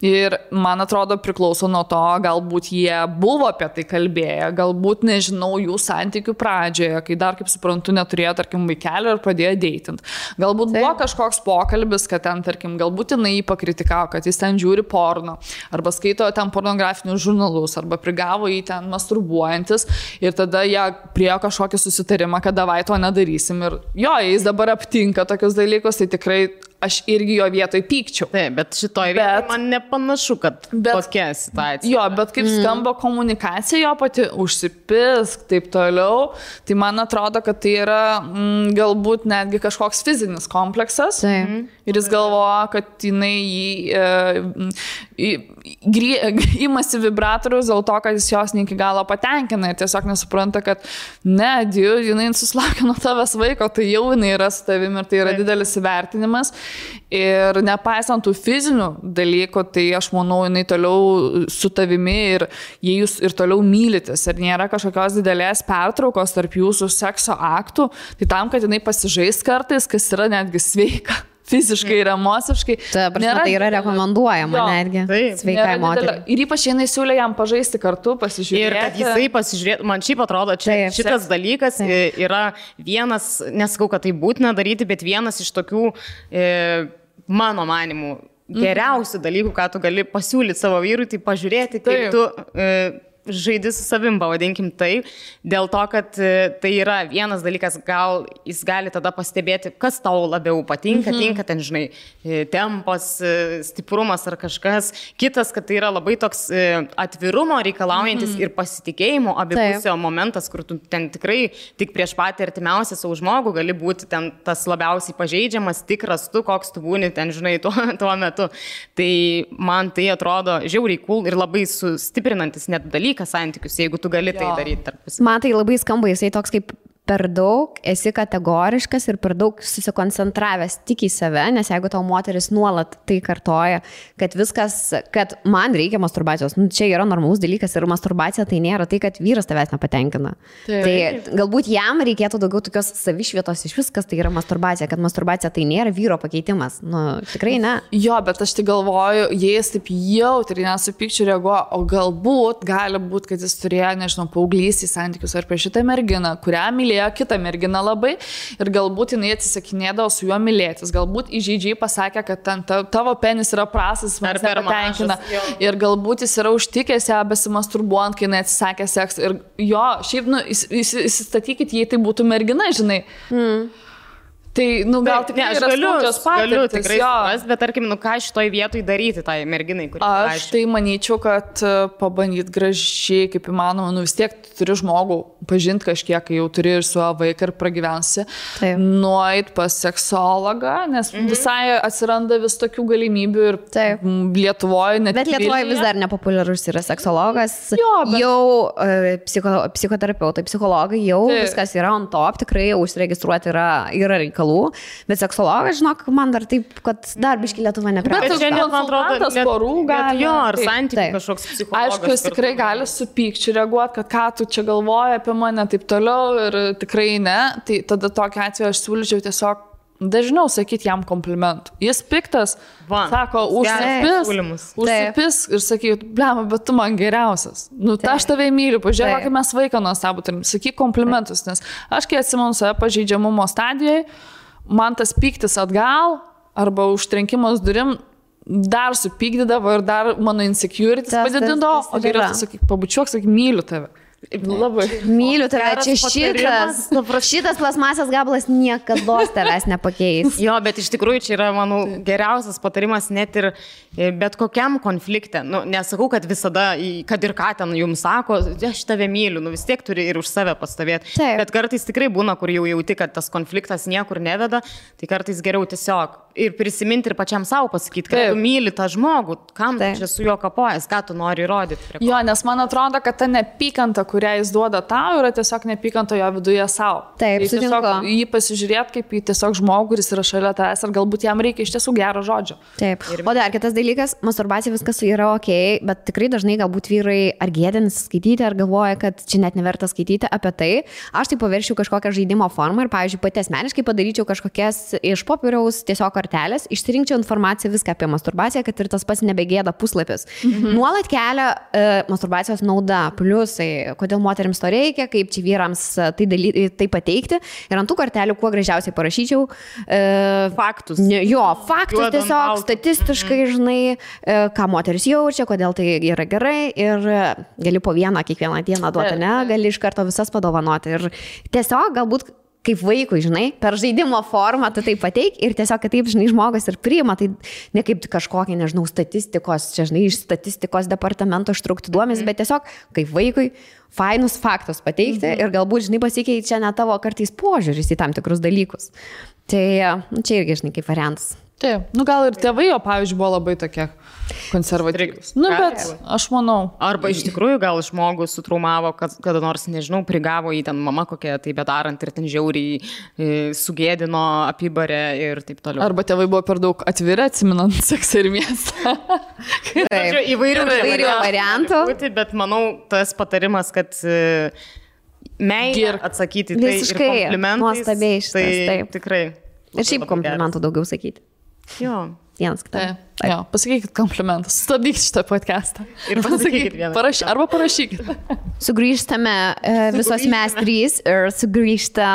Ir man atrodo priklauso nuo to, galbūt jie buvo apie tai kalbėję, galbūt nežinau jų santykių pradžioje, kai dar, kaip suprantu, neturėjo, tarkim, vaikelio ir pradėjo deitinti. Galbūt buvo kažkoks pokalbis, kad ten, tarkim, galbūt jinai jį pakritikavo, kad jis ten žiūri porno, arba skaito ten pornografinius žurnalus, arba prigavo jį ten masturbuojantis ir tada jie priėjo kažkokį susitarimą, kad davai to nedarysim. Ir jo, jis dabar aptinka tokius dalykus, tai tikrai aš irgi jo vietoj pykčiau. Taip, bet šitoj vietoj man nepanašu, kad tokia situacija. Jo, bet kaip skamba komunikacija jo pati, užsipisk, taip toliau, tai man atrodo, kad tai yra galbūt netgi kažkoks fizinis kompleksas. Ir jis galvoja, kad jinai imasi vibratorius dėl to, kad jis jos ne iki galo patenkina ir tiesiog nesupranta, kad jinai susilaukia nuo tavęs vaiko, tai jau jinai yra su tavimi ir tai yra didelis įvertinimas. Ir nepaisant tų fizinių dalykų, tai aš manau, jinai toliau su tavimi ir jei jūs ir toliau mylitės ir nėra kažkokios didelės pertraukos tarp jūsų sekso aktų, tai tam, kad jinai pasižais kartais, kas yra netgi sveika. Fiziškai ir emociškai. Tai yra rekomenduojama netgi sveikai moteriai. Ir ypač jinai siūlė jam pažaisti kartu, pasižiūrėti. Ir kad jisai pasižiūrėtų, man šiaip atrodo, šitas dalykas yra vienas, nesakau, kad tai būtina daryti, bet vienas iš tokių, mano manimų, geriausių dalykų, ką tu gali pasiūlyti savo vyrui, tai pažiūrėti, kaip tu... žaidži su savim, pavadinkim tai, dėl to, kad tai yra vienas dalykas, gal jis gali tada pastebėti, kas tau labiau patinka, tinka ten, žinai, tempas, stiprumas ar kažkas. Kitas, kad tai yra labai toks atvirumo reikalaujantis ir pasitikėjimo abipusio momentas, kur tu ten tikrai tik prieš patį artimiausią savo žmogų gali būti ten tas labiausiai pažeidžiamas, tikras tu, koks tu būni ten, žinai, tuo metu. Tai man tai atrodo žiauriai cool ir labai sustiprinantis net dalykas santykius, jeigu tu gali tai daryti tarpusavy. Man tai labai skamba, jisai toks kaip per daug esi kategoriškas ir per daug susikoncentravęs tik į save, nes jeigu tau moteris nuolat tai kartoja, kad viskas, kad man reikia masturbacijos, čia yra normalus dalykas ir masturbacija tai nėra tai, kad vyras tavęs nepatenkina. Tai galbūt jam reikėtų daugiau tokios savišvietos iš viskas, tai yra masturbacija, kad masturbacija tai nėra vyro pakeitimas. Tikrai ne. Jo, bet aš tai galvoju, jis taip jautriai nesupykčiu reaguoja, o galbūt, gali būti, kad jis turėjo, nežinau, paauglystės santykius ar prieš šitą merginą, kurią mylėjo kitą merginą labai ir galbūt jinai atsisakinėdavo su juo mylėtis. Galbūt įžeidžiai pasakė, kad tavo penis yra prastas, man nepatenkina. Ir galbūt jis yra užtikęs ją besimasturbuojant, kai jinai atsisakė seksą. Ir jo, šiaip, įsistatykit, jei tai būtų mergina, žinai. Tai, gal tikrai yra skaudžios patirtis. Galiu tikrai suprast, bet tarkim, ką šitoj vietoj daryti tai merginai, kuri aš tai manyčiau, kad pabandyt gražiai, kaip įmanoma, vis tiek turi žmogų pažinti kažkiek, kai jau turi ir su vaiką ir pragyvensi, nueit pas seksologą, nes visai atsiranda vis tokių galimybių ir Lietuvoje net. Bet Lietuvoje vis dar nepopuliarus yra seksologas, jau psichoterapeutai, psichologai, jau viskas yra on top, tikrai užsiregistruoti yra reikalų. reikalų, bet seksologas, žinok, man dar taip, kad dar biški Lietuva neprieina. Bet čia net, man atrodo, tas porų gali. Jo, ar santykių kažkoks psichologas. Aišku, jis tikrai gali su pykčiu reaguoti, kad ką tu čia galvoji apie mane, taip toliau ir tikrai ne. Tai tada tokiu atveju aš siūlyčiau tiesiog dažniau sakyti jam komplimentų. Jis piktas, sako, užsipis ir sakyt, blema, bet tu man geriausias. Nu, aš tave myliu, pažiūrėk, kaip mes vaiką nuostabų turim. Sakyk komplimentus, nes aš kai atsimenu save pažeidžiamumo stadijoje, man tas pyktis atgal arba užtrenkimas durim dar supykdydavo ir dar mano insecurities padidindavo, o geriau tu sakyk, pabučiuok, sakyk, myliu tave. Labai. Myliu tave, čia šitas plasmasės gabalas niekada tavęs nepakeis. Jo, bet iš tikrųjų čia yra, manau, geriausias patarimas net ir bet kokiam konflikte. Nu, nesakau, kad visada, kad ir ką ten jums sako, aš tave myliu, nu vis tiek turi ir už save pastovėti. Bet kartais tikrai būna, kur jau jauti, kad tas konfliktas niekur neveda, tai kartais geriau tiesiog ir prisiminti ir pačiam savo pasakyti, kad tu myli tą žmogų, kam tu čia su juo kapojas, ką tu nori įrodyti. Jo, nes man atrodo, kad ta nepykanta, kurią jis duoda tau, yra tiesiog nepykanta jo viduje savo. Taip, tiesiog jį pasižiūrėti kaip į tiesiog žmogų, kuris yra šalia tavęs, ar galbūt jam reikia iš tiesų gero žodžio. Taip. O dar kitas dalykas, masturbacija viskas yra ok, bet tikrai dažnai galbūt vyrai ar gėdinasi skaityti, ar galvoja, kad čia net neverta skaityti apie tai. Aš tai paveršiu kažkokią žaidimo formą ir, pavyzdžiui, pati asmeniškai padaryčiau kažkokias iš popieriaus tiesiog kortelės, išsirinkčiau informaciją viską apie masturbaciją, kad ir tas pats nebegėda puslapis. Nuolat kelia masturbacijos nauda, pliusai, kodėl moterims to reikia, kaip čia vyrams tai pateikti. Ir ant tų kortelių kuo gražiausiai parašyčiau faktus. Faktus tiesiog statistiškai, žinai, ką moteris jaučia, kodėl tai yra gerai ir gali po vieną kiekvieną dieną duoti, ne, gali iš karto visas padovanoti. Ir tiesiog galbūt kaip vaikui, žinai, per žaidimo formą tu tai pateik ir tiesiog, kad taip, žinai, žmogus ir priima, tai ne kaip kažkokie, nežinau, statistikos, čia, žinai, iš statistikos departamento ištraukti duomenys, bet tiesiog kaip vaikui fainus faktus pateikti ir galbūt, žinai, pasikeičia net tavo kartais požiūris į tam tikrus dalykus. Tai čia irgi, žinai, kaip variantas. Taip, nu gal ir tėvai jo, pavyzdžiui, buvo labai tokie konservatyvūs. Nu, bet aš manau. Arba iš tikrųjų gal žmogus sutraumavo, kada nors, nežinau, prigavo į ten mama kokią tai bedarant ir ten žiauriai sugėdino, apibarė ir taip toliau. Arba tėvai buvo per daug atviri, atsiminant seksą ir miestą. Taip, įvairių variantų. Bet manau, tas patarimas, kad meilė atsakyti tai ir komplimentais. Nuostabiai šitas, taip. Tikrai. Ir šiaip komplimentų daugiau sakyti. Jo. Vienas kitam. Jo, pasakykit komplimentus, stabdykit šitą podcastą. Ir pasakykit vieną. Arba parašykit. Sugrįžtame visos mes trys ir sugrįžta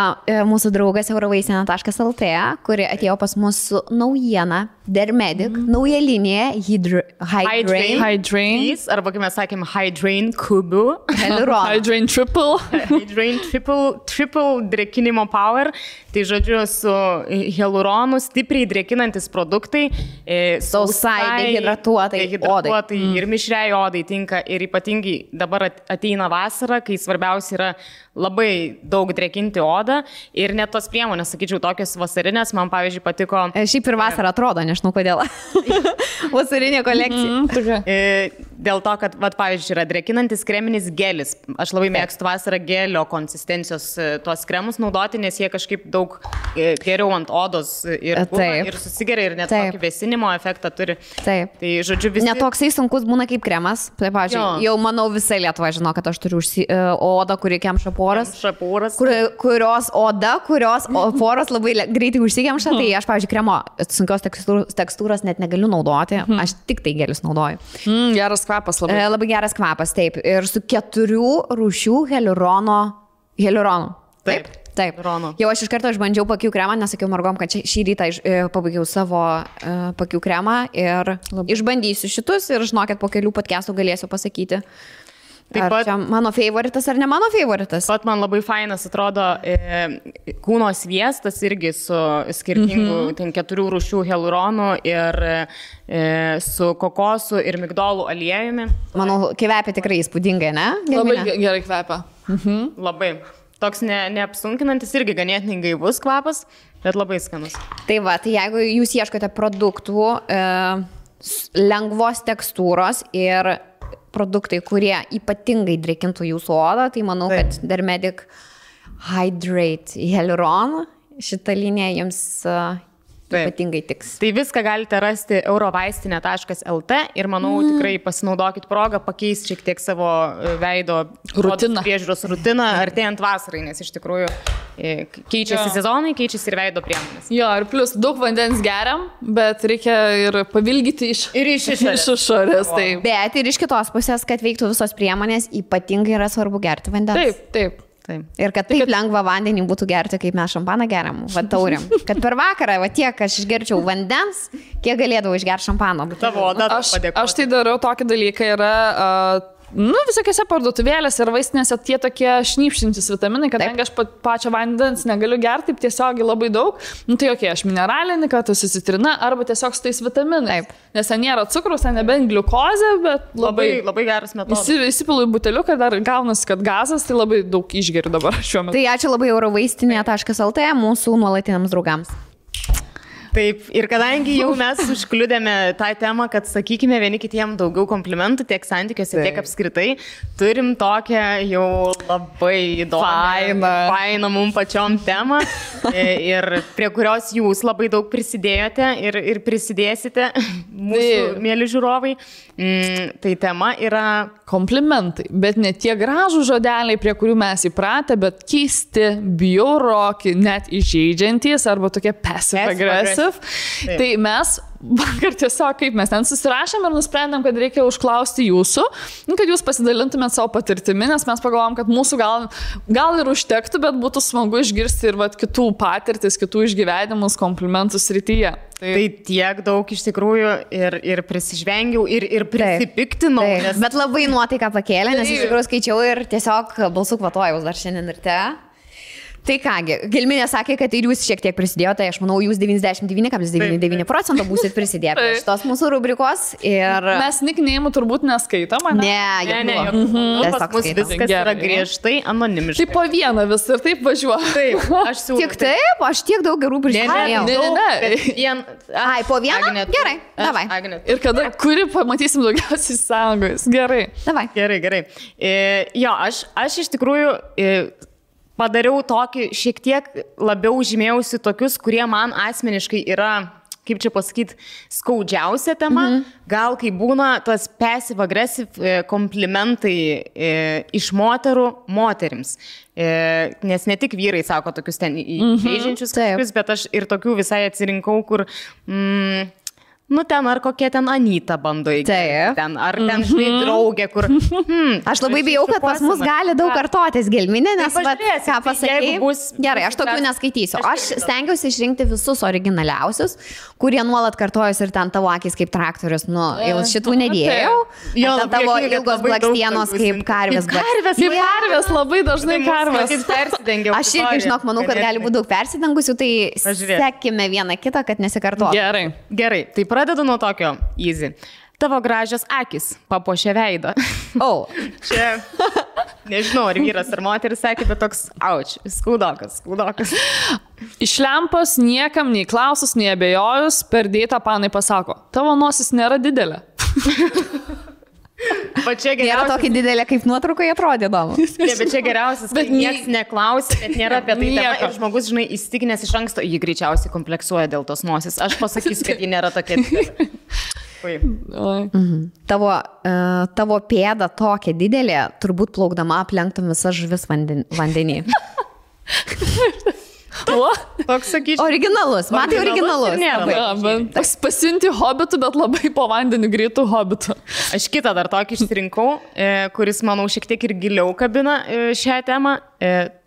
mūsų draugas eurovaisena.lt, kuri atėjo pas mus su naujiena, Dermedic, nauja linija, Hydrain. Arba kaip mes sakėm, Hydrain kubu. Hydrain triple. Hydrain triple drėkinimo power. Tai žodžiu, su hialuronu stipriai drėkinantis produktai. Sausai, dehidratuotai odai. Ir mišriai odai tinka. Ir ypatingai dabar ateina vasara, kai svarbiausia yra labai daug drėkinti odą. Ir net tos priemonės, sakyčiau, tokios vasarinės, man pavyzdžiui patiko. Šiaip ir vasara atrodo, nežinau kodėl. Vasarinė kolekcija. Dėl to, kad, pavyzdžiui, yra drėkinantis kreminis gelis. Aš labai mėgstu vasarą gelio konsistencijos tuos kremus naudoti, nes jie kažkaip daug geriau ant odos ir susigeria ir net tokį vėsinimo efektą turi. Taip. Tai, žodžiu, visi... Netoksai sunkus būna kaip kremas. Tai, pavyzdžiui, jau manau visą Lietuvą žino, kad aš turiu odą, kuri kemša poras. Kurios poros labai greitai užsikemša. Tai aš, pavyzdžiui, kremo sunkios tekstūros net negaliu naudoti. Aš tik tai gelius naudoju. Geras kvapas labai. Labai geras kvapas, taip. Ir su 4 rūšių hialuronu. Taip. Jau aš iš karto išbandžiau pakių kremą, nesakiau mergom, kad šį rytą pabaigiau savo pakių kremą ir išbandysiu šitus ir žinokit, po kelių podcastų galėsiu pasakyti. Taip pat, ar čia mano favoritas ar ne mano favoritas? Pat man labai fainas atrodo kūno sviestas irgi su skirtingų 4 rūšių hialuronų ir su kokosu ir migdolų aliejumi. Manau, kvepia tikrai įspūdingai, ne? Labai gerai kvepia. Labai. Toks neapsunkinantis irgi ganėtinai gaivus kvapas, bet labai skanus. Tai va, tai jeigu jūs ieškote produktų lengvos tekstūros ir produktai, kurie ypatingai drėkintų jūsų odą, tai manau, kad Dermedic Hydrate Hyaluron šitą liniją jums ypatingai tiks. Tai viską galite rasti eurovaistinė.lt ir manau tikrai pasinaudokit progą, pakeisti šiek tiek savo veido priežiūros rutiną artėjant vasarai, nes iš tikrųjų keičiasi sezonai, keičiasi ir veido priemonės. Jo, ir plus daug vandens geriam, bet reikia ir pavilgyti iš išorės. Bet ir iš kitos pusės, kad veiktų visos priemonės, ypatingai yra svarbu gerti vandens. Taip. Ir kad taip lengva vandenį būtų gerti, kaip mes šampaną geriam, tauriam. Kad per vakarą, tiek aš išgerčiau vandens, kiek galėdavau išgerti šampano. Aš tai darau tokį dalyką, yra... visokiose parduotuvėlėse ir vaistinėse tie tokie šnypštintis vitaminai, kadangi aš pačio vandens negaliu gerti taip tiesiogiai labai daug, tai aš mineralinį, kad tas citrina arba tiesiog su tais vitaminais. Nes ten nėra cukrus, ten nebent gliukozė, bet labai geras metodas. Įsipilu į buteliuką, dar gaunasi, kad gazas, tai labai daug išgeriu dabar šiuo metu. Tai ačiū labai eurovaistinė.lt mūsų nuolatiniams draugams. Taip, ir kadangi jau mes užkliudėme tą temą, kad sakykime vieni kitiem daugiau komplimentų tiek santykiuose, tiek apskritai, turim tokią jau labai įdomią, fainą mums pačiom temą ir prie kurios jūs labai daug prisidėjote ir prisidėsite, mūsų mėly žiūrovai. Tai tema yra komplimentai, bet ne tie gražų žodeliai, prie kurių mes įpratę, bet keisti, bjauroki, net įžeidžiantys arba tokie passive-aggressive. Tai mes vakar tiesiog kaip mes ten susirašėm ir nusprendėm, kad reikia užklausti jūsų, kad jūs pasidalintumėt savo patirtimi, nes mes pagalvom, kad mūsų gal ir užtektų, bet būtų smagu išgirsti ir kitų patirtis, kitų išgyvenimus, komplimentų srityje. Tai tiek daug iš tikrųjų ir prisižvengiau ir prisipiktinau. Bet labai nuotaiką pakėlė, nes iš tikrųjų skaičiau ir tiesiog balsų kvatojau dar šiandien ryte. Tai kągi, Gelminė sakė, kad ir jūs šiek tiek prisidėjote, aš manau, jūs 99,99% būsit prisidėję prie šitos mūsų rubrikos. Ir... Mes nikneimų turbūt neskaitom, ne? Ne. Pas mus viskas yra griežtai anonimiškai. Tai po vieną vis ir taip važiuoju. Taip, aš siūlau. Tik taip, aš tiek daug gerų prisidėjau. Ne. Ai, po vieną? Gerai, davai. Ir kada, kuri pamatysim daugiausiai sąjungos. Gerai. Davai. Gerai. Jo, aš iš tikrųjų... Padariau tokį, šiek tiek labiau žymėjausi tokius, kurie man asmeniškai yra, kaip čia pasakyti, skaudžiausia tema. Gal kai būna tas passive-aggressive komplimentai iš moterų moterims. Nes ne tik vyrai sako tokius ten įžeidžiančius kažkokius, bet aš ir tokių visai atsirinkau, kur... ten ar kokie ten Anyta bando įgyti. Ar ten draugė, kur... Aš labai bijau, kad pas mus gali daug kartotis Gelminė, nes ką pasakėjai. Gerai, aš tokių neskaitysiu. Aš stengiausi išrinkti visus originaliausius, kurie nuolat kartojus ir ten tavo akis kaip traktorius. Šitų nedėjau. Tavo ilgos blakstienos kaip karvės. Karvės, labai dažnai karvės. Aš irgi, žinok, manau, kad gali būti daug persidengusių, tai sekime vieną kitą, kad nesikartotų. Gerai, tai pradedu nuo tokio easy. Tavo gražios akis papuošia veidą. Čia, nežinau, ar vyras ar moteris sakė, bet toks, skaudokas. Iš lempos niekam nei klausus, nei abejojus, per dėtą panai pasako, tavo nosis nėra didelė. Nėra tokia didelė, kaip nuotraukoje atrodė, įdomu. Bet čia geriausias, kad niekas neklausia, bet nėra apie tai tema ir žmogus, žinai, įstikinęs iš anksto, jį greičiausiai kompleksuoja dėl tos nosis. Aš pasakysiu, kad ji nėra tokia didelė. Tavo pėda tokia didelė, turbūt plaukdama aplenktum visas žuvis vandenį. Toks sakyčiau. Originalus, matai originalus. Pasiunti hobitų, bet labai po vandeniu greitų hobitų. Aš kitą dar tokį išsirinkau, kuris, manau, šiek tiek ir giliau kabina šią temą.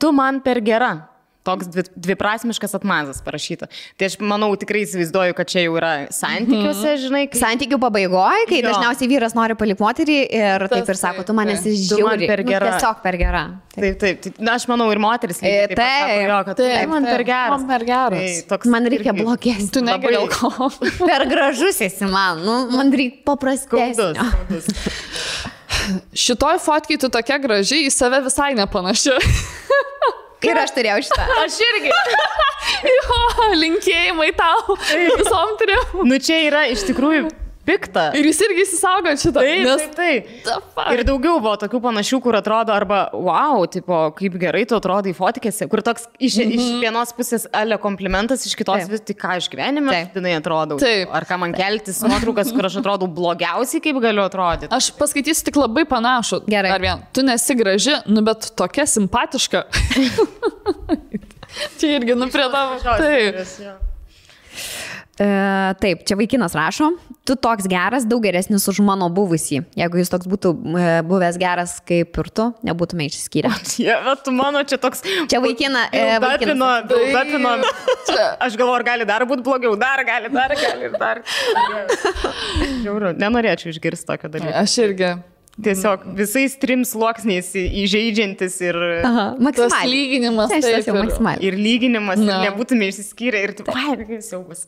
Tu man per gera. Toks dviprasmiškas atmazas parašyta. Tai aš manau, tikrai įsivaizduoju, kad čia jau yra santykiuose, žinai. Santykių pabaigoje, kai dažniausiai vyras nori palikti moterį ir taip ir sako, tu man esi žiauri. Tiesiog per gera. Taip. Aš manau, ir moteris lygiai taip sako, kad man per geras. Man per geras. Man reikia blogesnio. Tu negali alkoholio. Per gražus esi man. Man reikia paprastesnio. Šitoj fotkai tu tokia graži, į save visai nepanaši. Ir aš turėjau šitą. Aš irgi. Jo, linkėjimai tau. Visom turiu. Čia yra iš tikrųjų pikta. Ir jis irgi įsisaugo šitą. Taip. Ir daugiau buvo tokių panašių, kur atrodo arba, wow, tipo, kaip gerai tu atrodai fotkėse, kur toks iš vienos pusės ale komplimentas, iš kitos vis tik ką iš gyvenime, dinai atrodau. Taip. Ar ką man keltis nuotraukas, kur aš atrodau blogiausiai, kaip galiu atrodyti. Aš paskaitysiu tik labai panašų. Gerai. Ar vien, tu nesi graži, nu bet tokia simpatiška. Čia irgi, nu prie tavo. Taip. Taip, čia vaikinas rašo, tu toks geras, daug geresnis už mano buvusį. Jeigu jis toks būtų buvęs geras kaip ir tu, nebūtume išsiskyrę. Bet tu mano čia toks... Čia vaikina... Aš galvoju, ar gali dar būti blogiau, dar gali. Žiauru, nenorėčiau išgirsti tokio dalyko. Aš irgi... Tiesiog visais 3 sluoksniais įžeidžiantis ir... Tas lyginimas. Ir lyginimas, ir nebūtume išsiskyrę, ir taip, siaubas,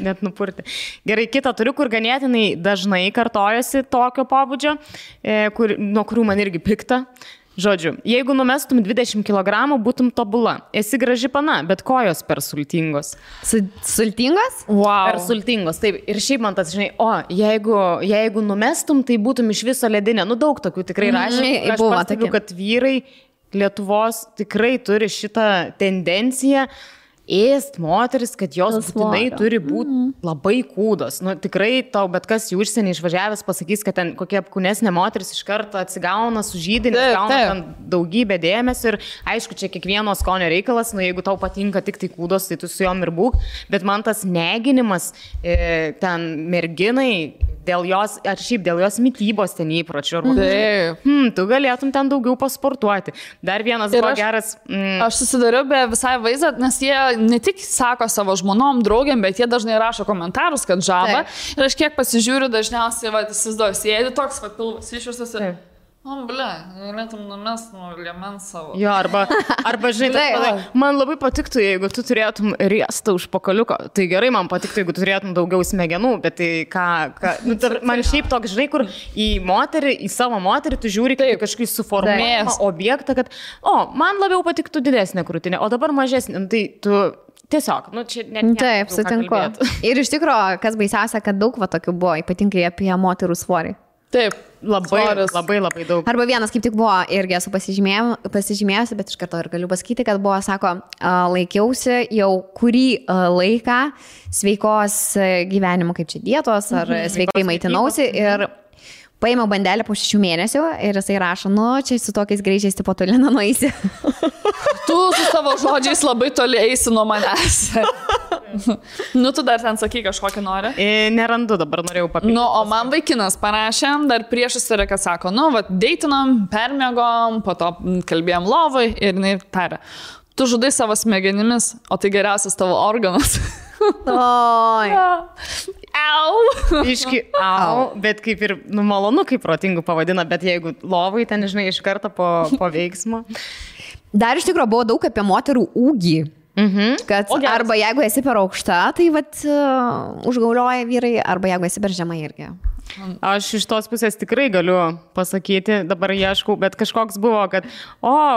net nupurti. Gerai, kitą turiu, kur ganėtinai dažnai kartojasi tokio pobūdžio, nuo kurių man irgi pikta. Žodžiu, jeigu numestum 20 kg, būtum tobula. Esi graži pana, bet kojos per sultingos. Sultingos? Wow. Per sultingos, taip. Ir šiaip man tas, žinai, jeigu numestum, tai būtum iš viso ledinė. Nu, daug tokių tikrai rašė. Aš pastebiu, kad vyrai Lietuvos tikrai turi šitą tendenciją ėst moteris, kad jos būtinai turi būti labai kūdos. Nu, tikrai tau bet kas į užsienį išvažiavęs pasakys, kad ten kokia apkūnesnė moteris iš karto atsigauna, sužydė, gauna ten daugybę dėmesio ir aišku, čia kiekvieno skonio reikalas, nu jeigu tau patinka tik tai kūdos, tai tu su jom ir būk, bet man tas neginimas ten merginai dėl jos, ar šiaip dėl jos mitybos ten įpročių, tu galėtum ten daugiau pasportuoti. Dar vienas buvo geras... Aš susidariau be visai vaizdą, nes jie ne tik sako savo žmonom, draugiam, bet jie dažnai rašo komentarus, kad žaba. Ir aš kiek pasižiūriu, dažniausiai, įsivaizduoju, sėdi toks, pilvas išvirstas ir... galėtum numest nuo liemens savo. Jo, arba žinai, man labai patiktų, jeigu tu turėtum riestą už pakaliuko. Tai gerai, man patiktų, jeigu tu turėtum daugiau smegenų, bet tai man šiaip toks, žinai, kur į savo moterį tu žiūri kaip kažkokį suformuojamą objektą, kad, man labiau patiktų didesnė krūtinė, o dabar mažesnė. Tai tu tiesiog, čia net... Taip, sutinku. Ir iš tikrųjų, kas baisiausia, kad daug tokių buvo, ypatingai apie moterų svorį. Taip, labai daug. Arba vienas kaip tik buvo, irgi esu pasižymėjusi, bet iš karto ir galiu pasakyti, kad buvo, sako, laikiausi jau kurį laiką sveikos gyvenimo, kaip čia dietos, ar sveikai maitinausi ir paėmiau bandelę po 6 mėnesių ir jisai rašo, čia su tokiais greičiais tipo toli nenueisi. Tu su savo žodžiais labai toli eisi nuo manęs. Tu dar ten sakai kažkokį nori? Nerandu, dabar norėjau papildyti. O man vaikinas parašė, dar priešas yra, kad sako, deitinom, permėgom, po to kalbėjom lovai ir jinai tarė, tu žudai savo smegenimis, o tai geriausias tavo organas. Iški, bet kaip ir malonu, kaip protingų pavadina, bet jeigu lovai ten, žinai, iš karto po veiksmo. Dar iš tikrųjų buvo daug apie moterų ūgį. Kad arba jeigu esi per aukšta, tai užgaulioja vyrai, arba jeigu esi per žemai irgi. Aš iš tos pusės tikrai galiu pasakyti, dabar ieškau, bet kažkoks buvo, kad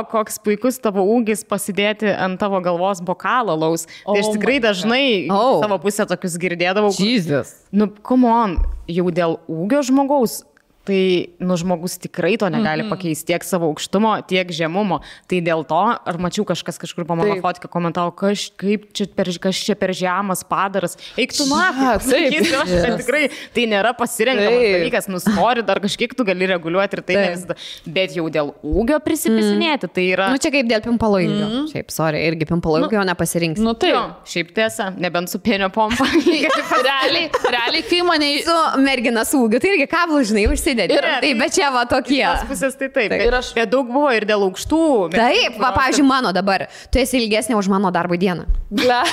koks puikus tavo ūgis pasidėti ant tavo galvos bokalą laus. Tai aš tikrai dažnai savo pusę tokius girdėdavau. Jesus. Come on, jau dėl ūgio žmogaus. Tai, žmogus tikrai to negali pakeisti tiek savo aukštumo, tiek žemumo. Tai dėl to, ar mačiau kažkas kažkur po mano fotkę komentavo, kas čia per žemas padaras. Eik tu tikrai, tai nėra pasirenkamas dalykas, nustori, dar kažkiek tu gali reguliuoti ir tai ne visada. Bet jau dėl ūgio prisipisinėti, tai yra... Čia kaip dėl pimpalo ilgio. Šiaip, irgi pimpalo ilgio nepasirinks. Šiaip tiesa, nebent su pienio pompa. Realiai, kai mane... Su mergina su ūgiu, tai irgi kablų, žinai, užsidėti. Taip, bet čia tokie. Iš pusės tai taip. Bet daug buvo ir dėl aukštų. Taip, pavyzdžiui, mano dabar. Tu esi ilgesnė už mano darbo dieną. Bet,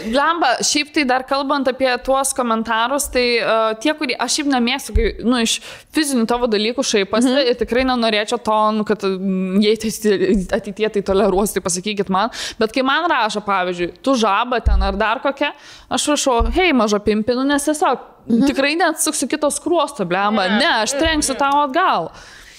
blemba, šiaip tai dar kalbant apie tuos komentarus, tai tie, kurie, aš šiaip nemėgstu, iš fizinių tavo dalykų šaipasi ir tikrai nenorėčiau to, kad jei ateitie tai toleruosi, tai pasakykit man. Bet kai man rašo, pavyzdžiui, tu žaba ten ar dar kokia, aš rašau, hei, maža pimpinu, nes tiesiog tikrai neatsuksiu kitos skruosto, blemba. Ne, aš trenksiu tau atgal.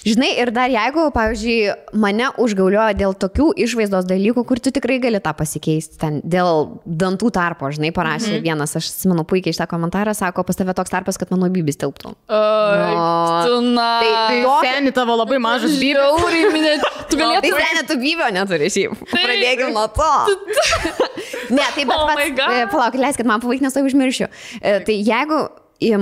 Žinai, ir dar jeigu, pavyzdžiui, mane užgaulioja dėl tokių išvaizdos dalykų, kur tu tikrai gali tą pasikeisti, ten dėl dantų tarpo, žinai, parašė vienas, aš atsimenu puikiai šitą komentarą, sako, pas tave toks tarpas, kad mano bybis tilptų. Tai seni tavo labai mažas bybis. Tu galėtum. Tai seni, tu bybio neturi šiaip. Pradėkime nuo to. Ne, tai bet palauk, leiskit man pavaikti, nes tai užmiršiu. Tai jeigu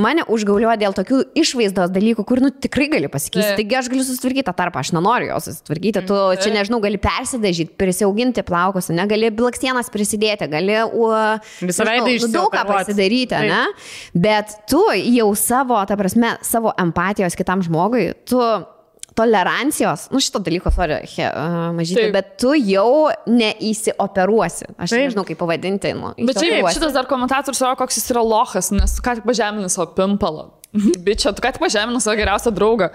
mane užgaulioja dėl tokių išvaizdos dalykų, kur, tikrai gali pasikeisti. Taigi aš galiu susitvarkyti tą tarpą, aš nenoriu jo susitvarkyti. Tu čia, nežinau, gali persidažyti, prisiauginti plaukus, gali blakstienas prisidėti, gali daug ką pasidaryti, ne? Bet tu jau savo, ta prasme, savo empatijos kitam žmogui, tu tolerancijos, šito dalyko, mažytė, bet tu jau neįsioperuosi. Aš nežinau, kaip pavadinti. Bet šitas dar komentatorius savo, koks jis yra lochas, nes ką tik pažemini savo pimpalą. Bičia, tu ką tik pažemini savo geriausią draugą.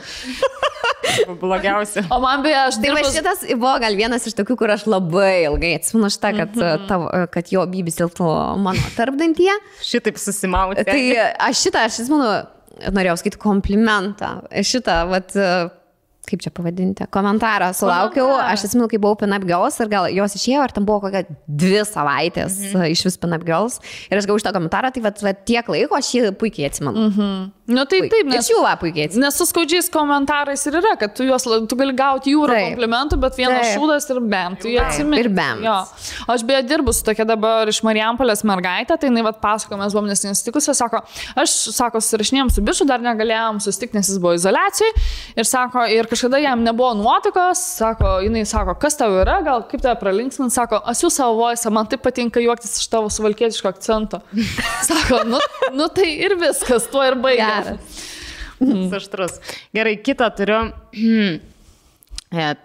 Blogiausia. O man beje, aš dirbu... Tai šitas buvo gal vienas iš tokių, kur aš labai ilgai atsimenu šitą, kad jo bybis tilptų mano tarpdantyje. Šitaip susimauti. Tai aš atsimenu, norėjau skaityti komplimentą. Šitą, kaip čia pavadinti, komentarą sulaukiau, aš atsimenu, kai buvau Pin Up Girls ir gal jos išėjo, ar tam buvo kokia 2 savaitės iš vis Pin Up Girls ir aš gavau šitą komentarą, tai tiek laiko aš jį puikiai atsimenu. Nu taip, nes jų puikiai atsimenu. Nes su skaudžiais komentarais ir yra, kad tu gali gauti jūrą komplimentų, bet vienas šūdas ir bam, tu jį atsimeni. Ir bam. Aš beje dirbu su tokia dabar iš Marijampolės mergaitė, tai jinai pasako, mes buvom nesitikusi, sako, aš, susirašinėjom su biču, dar negalėjom susitikti, nes jis buvo izoliacijai ir sako, ir kažkada jam nebuvo nuotikos, sako, jinai sako, kas tau yra, gal kaip tave pralinksmint, sako, aš jų savo voisą, man taip patinka juoktis iš tavo suvalkietiško akcento. Sako, nu tai ir viskas, tuo ir baigia. Aštrus. Gerai, kitą turiu.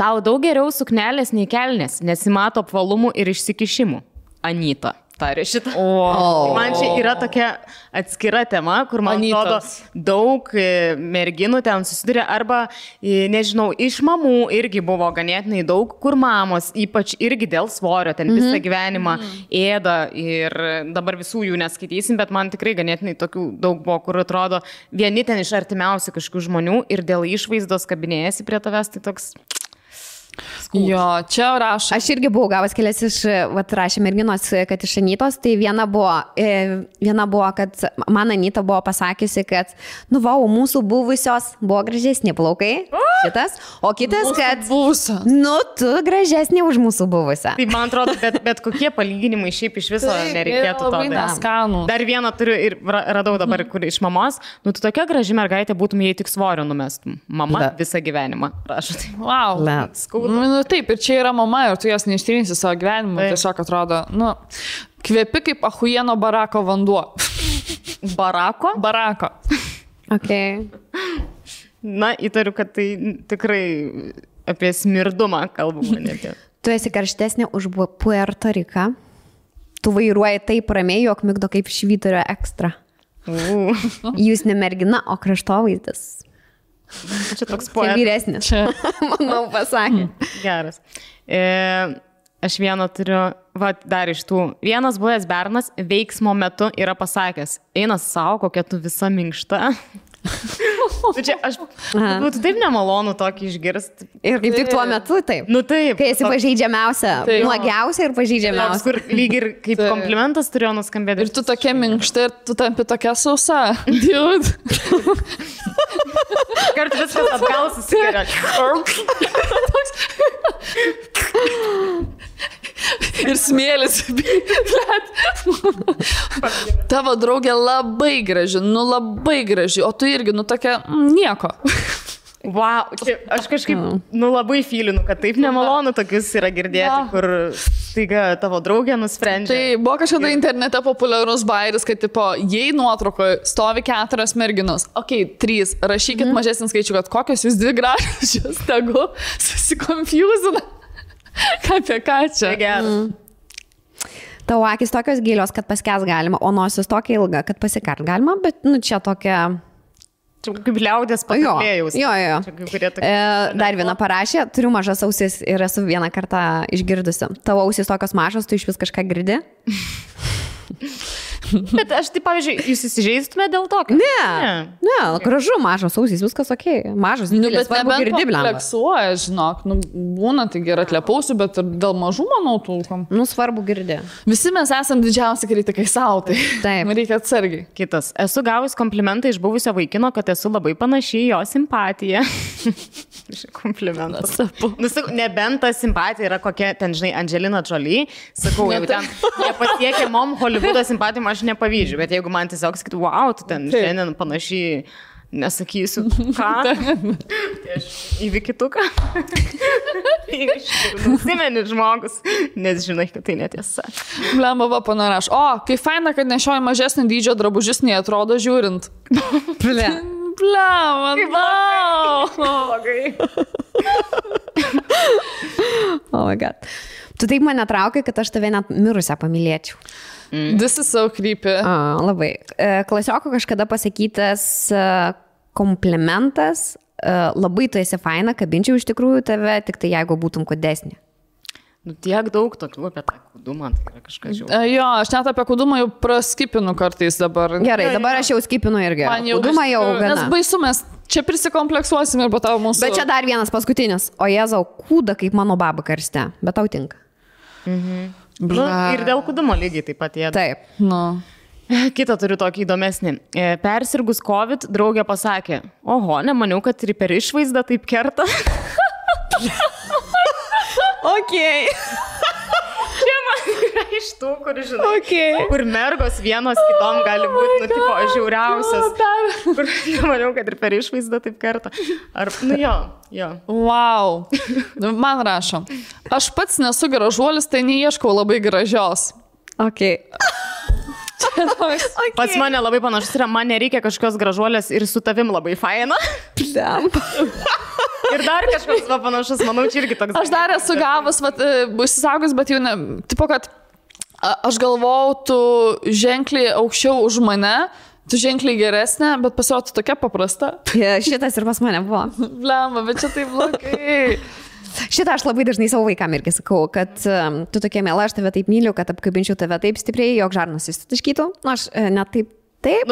Tau daug geriau suknelės nei kelnės, nesimato apvalumų ir išsikišimų. Anyta. Tarė šitą. Man čia yra tokia atskira tema, kur man atrodo daug merginų ten susiduria arba, nežinau, iš mamų irgi buvo ganėtinai daug, kur mamos, ypač irgi dėl svorio, ten visą gyvenimą ėda ir dabar visų jų neskaitysim, bet man tikrai ganėtinai tokių daug buvo, kur atrodo vieni ten iš artimiausių kažkokių žmonių ir dėl išvaizdos kabinėjasi prie tavęs, tai toks... Jo, čia rašo. Aš irgi buvau gavęs kelias iš, rašė merginos, kad iš Anytos, tai viena buvo, kad man Anyta buvo pasakiusi, kad, mūsų buvusios buvo gražesni plaukai, šitas, o kitas, kad, tu gražesnė už mūsų buvusią. Tai man atrodo, bet kokie palyginimai šiaip iš viso nereikėtų to. Dar vieną turiu ir radau dabar, kur iš mamos, tu tokia graži mergaitė būtum, jei tik svorio numestum. Mama visą gyvenimą. Prašau. Wow. Taip, ir čia yra mama ir tu jos neištrinsi savo gyvenimą, tiesiog atrodo, kvepi kaip achujieno barako vanduo. Barako? Barako. Okay. Na, įtariu, kad tai tikrai apie smirdumą kalbama net. Tu esi karštesnė už Puerto Riką. Tu vairuoji taip ramiai, jog migdo kaip švyturio ekstra. Jūs ne mergina, o kraštovaizdis. Čia toks poetas. Čia vyresnis. Manau, pasakė. Geras. Aš vieną turiu, dar iš tų. Vienas buvęs bernas veiksmo metu yra pasakęs, eina savo, kokia tu visa minkšta. Čia aš būtų taip nemalonu tokį išgirsti. Ir kaip tik tuo metu taip. Taip. Kai esi pažeidžiamiausia, nuogiausia ir pažeidžiamiausia. Kur lyg ir kaip komplimentas turėjo nuskambėti. Ir tu tokia minkšta ir tu tampi tokia sausa. Dude. Kartu viskas atgal susigeria. Ir smėlis. Tavo draugė labai graži, labai graži, o tu irgi, tokia nieko. Wow, aš kažkaip, labai fylinu, kad taip nemalonu tokius yra girdėti, kur staiga tavo draugė nusprendžia. Tai buvo kažkada internete populiarus bairis, kad jei nuotraukoje stovi 4 merginos, 3, rašykit mažesnį skaičių, kad kokios jūs 2 gražios, tegu susikonfusina. Apie ką čia? Tavo akis tokios gilios, kad paskęs galima, o nosis tokia ilga, kad pasikart galima, bet čia tokia... Čia kaip liaudės pakalbėjus. Jo. Dar viena parašė, turiu mažas ausis ir esu vieną kartą išgirdusi. Tavo ausis tokios mažos, tu iš vis kažką girdi? Bet aš tai, pavyzdžiui, jūs įsižeistume dėl to? Ne, gražu, mažas ausys, viskas ok. Mažas, didelis, svarbu girdi, blemba. Kompleksuoja, žinok, būna, tai gerai atlepausiu, bet ir dėl mažų, manau, tūkom. Svarbu girdi. Visi mes esam didžiausi kritikai savo, tai taip. Reikia atsargiai. Kitas. Esu gavus komplimentą iš buvusio vaikino, kad esu labai panašiai jo simpatija. Komplimentas. Nebent ta simpatija yra kokia, ten, žinai, Angelina Jolie, sakau, jau ten nepasiekia mom Hollywoodo simpatijom, aš nepavydžiu, bet jeigu man tiesiog sakytų, wow, tu ten šiandien panašiai, nesakysiu, ką, tai aš įvykituką. Nusimeni žmogus, nes žinai, kad tai netiesa. Blemba, va, panaraš. O, kai faina, kad nešioji mažesnį dydžio drabužis, nei atrodo žiūrint. Blemba, blogai. Oh my god. Tu taip mane traukai, kad aš tave net mirusią pamylėčiau. This is so creepy. Labai. Klasioko kažkada pasakytas komplimentas, labai tu esi faina, kabinčiau iš tikrųjų tave, tik tai jeigu būtum kūdesnė. Tiek daug tokių apie tą kūdumą, tai yra kažkas žiūrėjau. Jo, aš net apie kūdumą jau praskipinu kartais dabar. Gerai, dabar aš jau skipinu irgi. Kūdumą jau gana. Nes baisu, mes čia prisikompleksuosim ir po tavo mūsų. Bet čia dar vienas paskutinis. O Jėzau, kūda kaip mano baba karste, bet tau tinka. Ir dėl kūdumo lygiai taip pat jie. Taip. Kitą turiu tokį įdomesnį. Persirgus COVID, draugė pasakė, oho, nemaniau, kad ir per išvaizdą taip kerta. Okay. Čia man yra iš tų, kur, žinai, kur mergos vienos kitom gali būti, tipo, žiauriausias. Kur nemaniau, kad ir per išvaizdą taip kerta. Ar, jo. Wow. Man rašo. Aš pats nesu gražuolis, tai neieškau labai gražios. Okay. Pas mane labai panašus yra, man nereikia kažkokios gražuolės ir su tavim labai faina. Ir dar kažkoks panašus, manau, čia irgi toks. Aš dar esu gavus, užsisaugus, bet jau ne, tipo, kad aš galvau, tu ženkliai aukščiau už mane, tu ženkliai geresnė, bet pasirodo tokia paprasta. Šitas ir pas mane buvo. Blemba, bet čia taip blogai. Šitą aš labai dažnai savo vaikam irgi sakau, kad tu tokia miela, aš tave taip myliu, kad apkabinčiau tave taip stipriai, jog žarnas įsitaškytų. Aš net taip,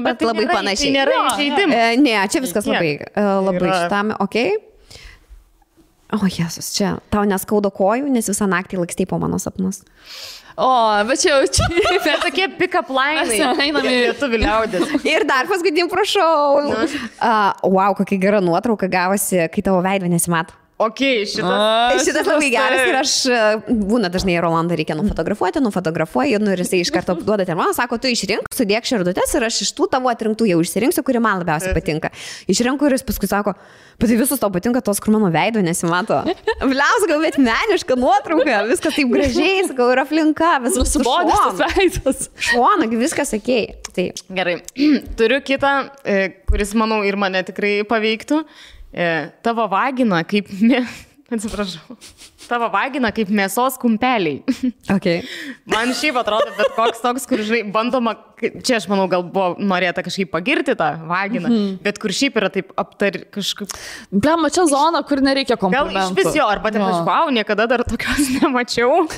bet tai labai panašiai. Tai nėra įžeidimas. Ne, čia viskas labai šitame, okei. O, Jėzus, čia tau neskauda kojų, nes visą naktį lakstei po mano sapnus. O, bet čia jau čia. Bet tokie pick-up lainai. Einame į lietuvių liaudės. Ir dar paskutinį prašau. Wow, kokia gera nuotrauka gavosi, kai tavo veido nesimato. Okay, šitas labai geras ir aš būna dažnai Rolandą reikia nufotografuoju, ir jisai iš karto duoda termoną, sako, tu išrink, sudėk širdutes ir aš iš tų tavo atrinktų jau išsirinksiu, kuri man labiausiai patinka. Išrinku ir jis paskui sako, bet tai visus tau patinka tos, kur mano veido nesimato. Bliaus, gal bet meniška nuotrauka, viskas taip gražiai, sakau, ir aplinka, viskas subodęs tas veidas. Šuona, viskas sakėjai. Tai. Gerai, turiu kitą, kuris, manau, ir mane tikrai paveiktų. Tavo vagina kaip, tavo vagina kaip mėsos kumpeliai. Okay. Man šiaip atrodo, bet koks toks, kur, žinai, bandoma, čia aš manau, gal buvo norėta kažkaip pagirti tą vaginą, bet kur šiaip yra taip kažkaip. Blema, čia zona, kur nereikia komplimentų. Gal iš vis jo, arba taip, wow, niekada dar tokios nemačiau.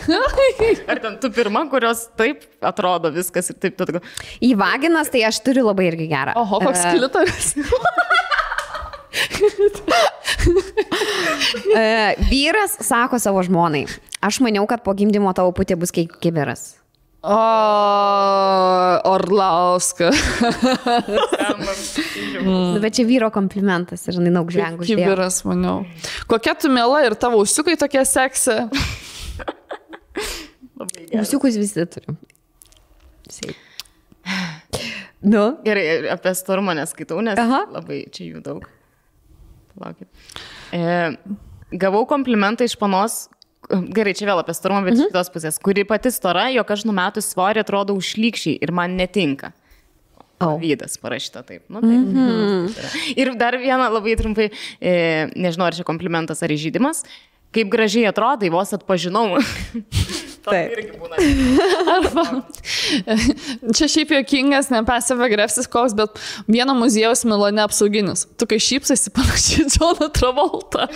Ar ten tu pirma, kurios taip atrodo viskas ir taip. Į vaginas tai aš turiu labai irgi gerą. Oho, koks klitoris. Vyras sako savo žmonai, aš maniau, kad po gimdymo tavo putė bus kaip kibiras. Orlauska. Bet čia vyro komplimentas ir jinai daug žvengų uždėjo. Kibiras, maniau. Kokia tu miela ir tavo usiukai tokie seksi? Usiukus visi turim. Gerai, apie storumą neskaitau, nes labai čia jų daug. Laukit. Gavau komplimentą iš panos, gerai, čia vėl apie storumą, bet iš kitos pusės, kuri pati stora, jog aš numetus svorį atrodo užlykščiai ir man netinka. Vydas parašyta taip. Ir dar vieną labai trumpai, nežinau, ar čia komplimentas ar įžeidimas, kaip gražiai atrodai, vos atpažinau. Arba, čia šiaip juokingas, ne passive aggressive koks, bet vieno muziejaus Milane apsauginis. Tu kai šypsasi panašiai Johną Travoltą.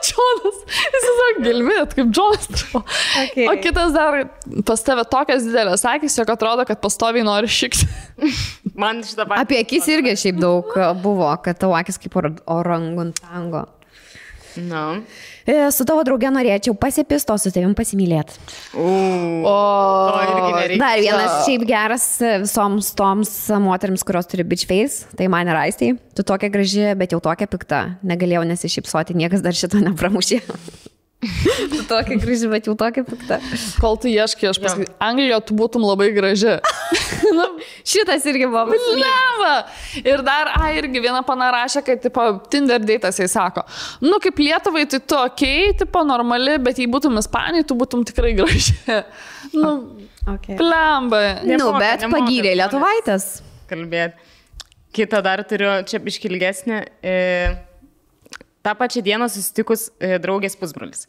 Džonas, jis tiesiog gilmėt, kaip Džonas. Okay. O kitas dar pas tave tokias didelės akis, jog atrodo, kad pastoviai nori šikti. Man šitą patį. Apie akis irgi šiaip daug buvo, kad tavo akis kaip orangutango. No. Su tavo drauge norėčiau pasipisto, su tavim pasimylėti. Dar vienas šiaip geras visoms toms moterims, kurios turi bitch face, tai man yra Aistei. Tu tokia graži, bet jau tokia pikta. Negalėjau nesišypsoti, niekas dar šito nepramušė. Tu tokia graži, bet jau tokia pikta. Kol tu ieškai, aš pasakysiu, Anglijoje tu būtum labai graži. Šitas irgi buvo. Leva! Ir dar, irgi viena pana rašė, kad, tipo, Tinder date'as jai sako, nu, kaip Lietuvai, tai tu okei, tipo, normali, bet jei būtum Ispanijai, tu būtum tikrai graži. Nu, plemba. Nu, bet pagyrė lietuvaitės. Kalbėti. Kitą dar turiu, čia iškilgesnė. Ta pačia diena susitikus draugės pusbrolis.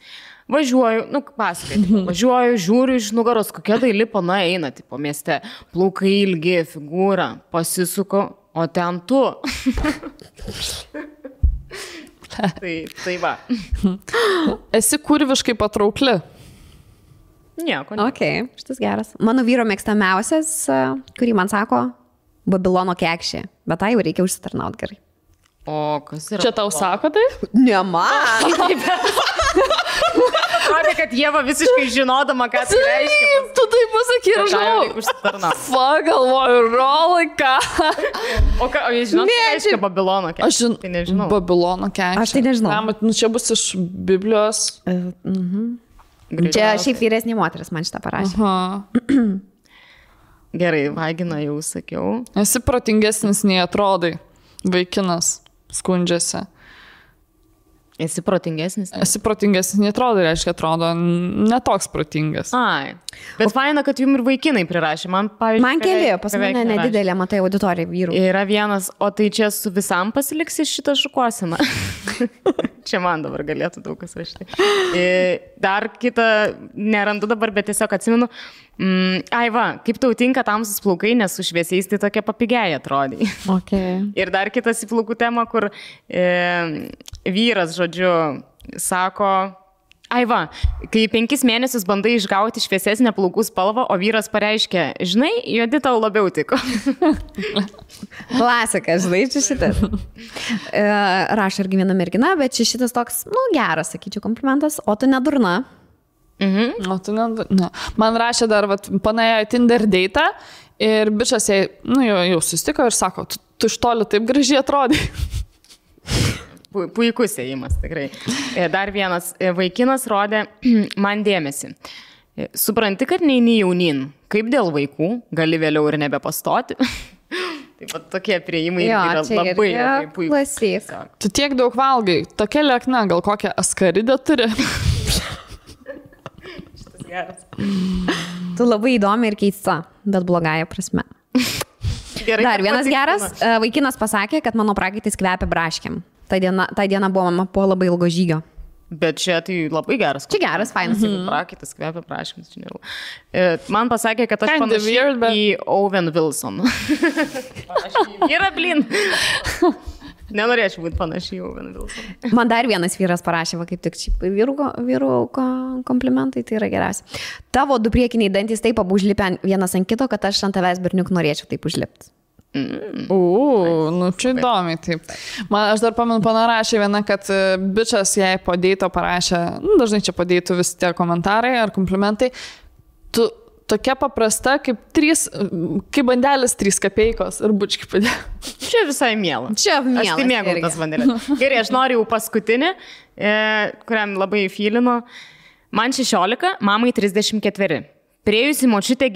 Važiuoju, važiuoju, žiūriu iš nugaros, kokia daili pana eina, tipo mieste, plaukai ilgi, figūra, pasisuko, o ten tu. tai va. Esi kurviškai patraukli. Nieko. Ok, šitas geras. Mano vyro mėgstamiausias, kurį man sako, Babilono kekšė, bet tai jau reikia užsitarnauti gerai. O kas yra? Čia tau sako tai? Ne man. Atrodė, kad Ieva visiškai žinodama, ką tai reiškia. Tu tai pasakai, aš žinau. Galvoju, rolika. O jis žinot, ką reiškia Babilono kekšė? Aš tai nežinau. Babilono kekšė. Aš tai nežinau. Nu, čia bus iš Biblijos. Čia šiaip vyresnė moteris man šitą parašė. Gerai, vagina jau sakiau. Esi protingesnis nei atrodai. Vaikinas skundžiasi. Esi protingesnis? Esi protingesnis, netrodo, reiškia, atrodo netoks protingas. Ai. Bet faina, kad jums ir vaikinai prirašė. Man keli, pas mane nedidelė, matai, auditorija vyrų. Yra vienas, o tai čia su visam pasiliksi šitą šukuosiną. Čia man dabar galėtų daug kas rašyti. Dar kitą nerandu dabar, bet tiesiog atsimenu. Ai va, kaip tau tinka tamsus plaukai, nes su šviesiais tai tokia papigėja atrodai. Okay. Ir dar kitas į plaukų temą, kur vyras, žodžiu, sako, ai va, kai 5 mėnesius bandai išgauti šviesesnę plaukų spalvą, o vyras pareiškia, žinai, juodi tau labiau tiko. Klasika, žinai, čia šitas. Rašo irgi viena mergina, bet čia šitas toks, geras, sakyčiau, komplimentas, o tu nedurna. O tu ne. Man rašė dar, panėjo Tinder date'ą ir bičas jai, jau susitiko ir sako, tu iš toli taip gražiai atrodai. Puikus ėjimas, tikrai. Dar vienas vaikinas rodė man dėmesį. Supranti, kad neini jaunin, kaip dėl vaikų, gali vėliau ir nebepastoti. Taip pat tokie prieimai yra labai puikus. Tu tiek daug valgai, tokia liekna, gal kokią askaridę turi? Tu labai įdomi ir keista, bet blogąja prasme. Gerai, dar vienas geras, vaikinas pasakė, kad mano prakaitis kvepia braškiam. Ta diena buvo mama po labai ilgo žygio. Bet čia tai labai geras. Čia geras, fainas. Prakaitis kvepia braškiams. Man pasakė, kad aš panašiai į Owen Wilson. Yra blin. Nenorėčiau būti panašiai jau Owen Wilson. Man dar vienas vyras parašė, kaip tik vyrų komplimentai, tai yra geriausia. Tavo du priekiniai dantys taip abu užlipę vienas ant kito, kad aš ant tavęs berniuk norėčiau taip užlipti. Čia įdomiai, taip. Aš dar pamenu, panarašė viena, kad bičas jai po deito parašė, dažnai čia po deitų visi tie komentarai ar komplimentai, tu tokia paprasta, kaip bandelis 3 kapeikos ir bučki padėjo. Čia visai miela. Čia miela. Aš tai mėgau tas bandelės. Gerai, aš noriu jau paskutinį, kuriam labai fylino. Man 16, mamai 34. Priėjusi močiutės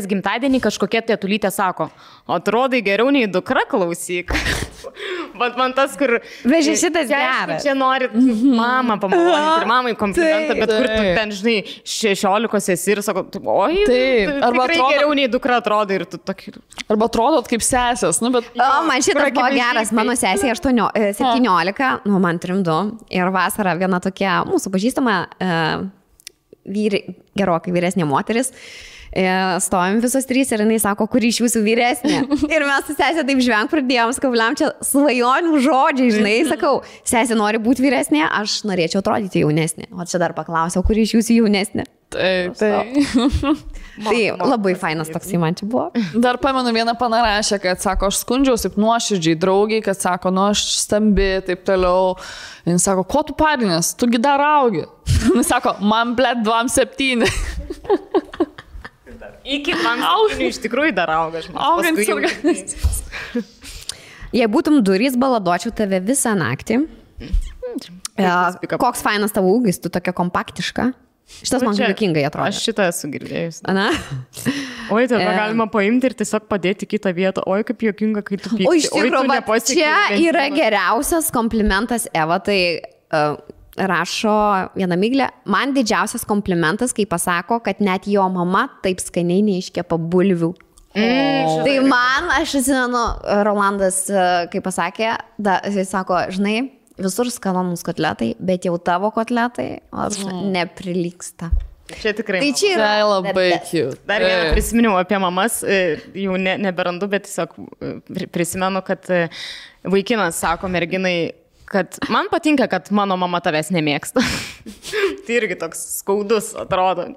gimtadienį kažkokia tėtulytė sako, atrodai geriau nei dukra, klausyk. Bet man tas, kur... Vežė šitas geras. Čia nori mamą pamaloninti ir mamai komplimentą, bet kur tu ten, žinai, 16 esi ir sako, oi, tikrai geriau nei dukra atrodai ir tu tokį... Arba atrodot kaip sesės, bet... Man šitas buvo geras, mano sesė 17, man 32 ir vasarą viena tokia mūsų pažįstama gerokai vyresnė moteris. stovim visos 3 ir jinai sako, kuri iš jūsų vyresnė. Ir mes su sesė taip žvenk pradėjom, sakau, bliam, čia svajonių žodžiai, žinai, sakau, sesė nori būti vyresnė, aš norėčiau atrodyti jaunesnė. O čia dar paklausiau, kuri iš jūsų jaunesnė. Tai. Tai labai fainas toksai man čia buvo. Dar pamenu, vieną panarašę, kad sako, aš skundžiausi nuoširdžiai draugiai, kad sako, nu aš stambi, taip toliau. Jis sako, ko tu parinės, tugi dar augi. Jis sako, man blėt 27. Iki 27 iš tikrųjų dar auga. Augant organizmas. Jei būtum durys, baladočiau tave visą naktį. Koks fainas tavo ūgis, tu tokia kompaktiška. Šitas man juokingai atrodo. Aš šitą esu girdėjus. Ana? Oi, tai galima paimti ir tiesiog padėti kitą vietą. Oi, kaip juokinga, kai tu pyksti. O iš tikrųjų, čia yra geriausias komplimentas Eva, tai rašo viena Miglė. Man didžiausias komplimentas, kai pasako, kad net jo mama taip skaniai neiškepa bulvių. Tai man, aš atsimenu, Rolandas, kai pasakė, jis sako, žinai, visur skanonus kotletai, bet jau tavo kotletai neprilyksta. Čia tikrai. Tai čia yra labai cute. Dar vieną prisiminiau apie mamas, jau neberandu, bet tiesiog prisimenu, kad vaikinas sako merginai, kad man patinka, kad mano mama tavęs nemėgsta. Tai irgi toks skaudus atrodo,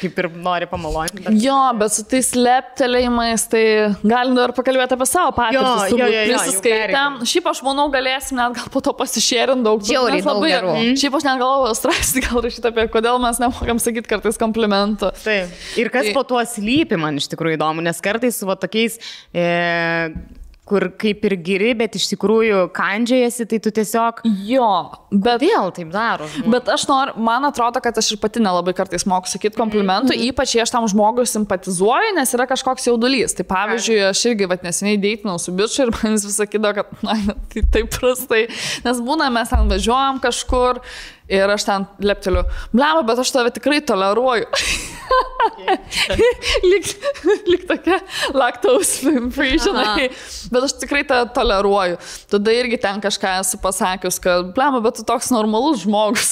kaip ir nori pamalonti. Jo, bet su tais leptelėjimais, tai galim dar pakalbėti apie savo patirtis. Prisiskaitėm. Šiaip aš manau, galėsim net gal po to pasišėrinti daug. Žiauriai daug gerų. Šiaip aš net galvoju straipsnį gal rašyti apie, kodėl mes nemokam sakyti kartais komplimentų. Taip. Ir kas po tuo slypi, man iš tikrųjų įdomu, nes kartais su tokiais... kur kaip ir giri, bet iš tikrųjų kandžiajasi, tai tu tiesiog... Jo, bet... Vėl taip daro. Bet aš noriu, man atrodo, kad aš ir pati nelabai kartais moku sakyti komplimentų, ypač jei aš tam žmogui simpatizuoju, nes yra kažkoks jaudulys. Tai pavyzdžiui, aš irgi neseniai deitinau su bičiu ir man jis vis sakydavo, kad na, tai taip prastai. Nes būna, mes ten važiuojam kažkur ir aš ten lepteliu, blema, bet aš tave tikrai toleruoju. Lyg tokia lactose free, žinai. Bet aš tikrai tą toleruoju. Tada irgi ten kažką esu pasakius, kad blema, bet tu toks normalus žmogus.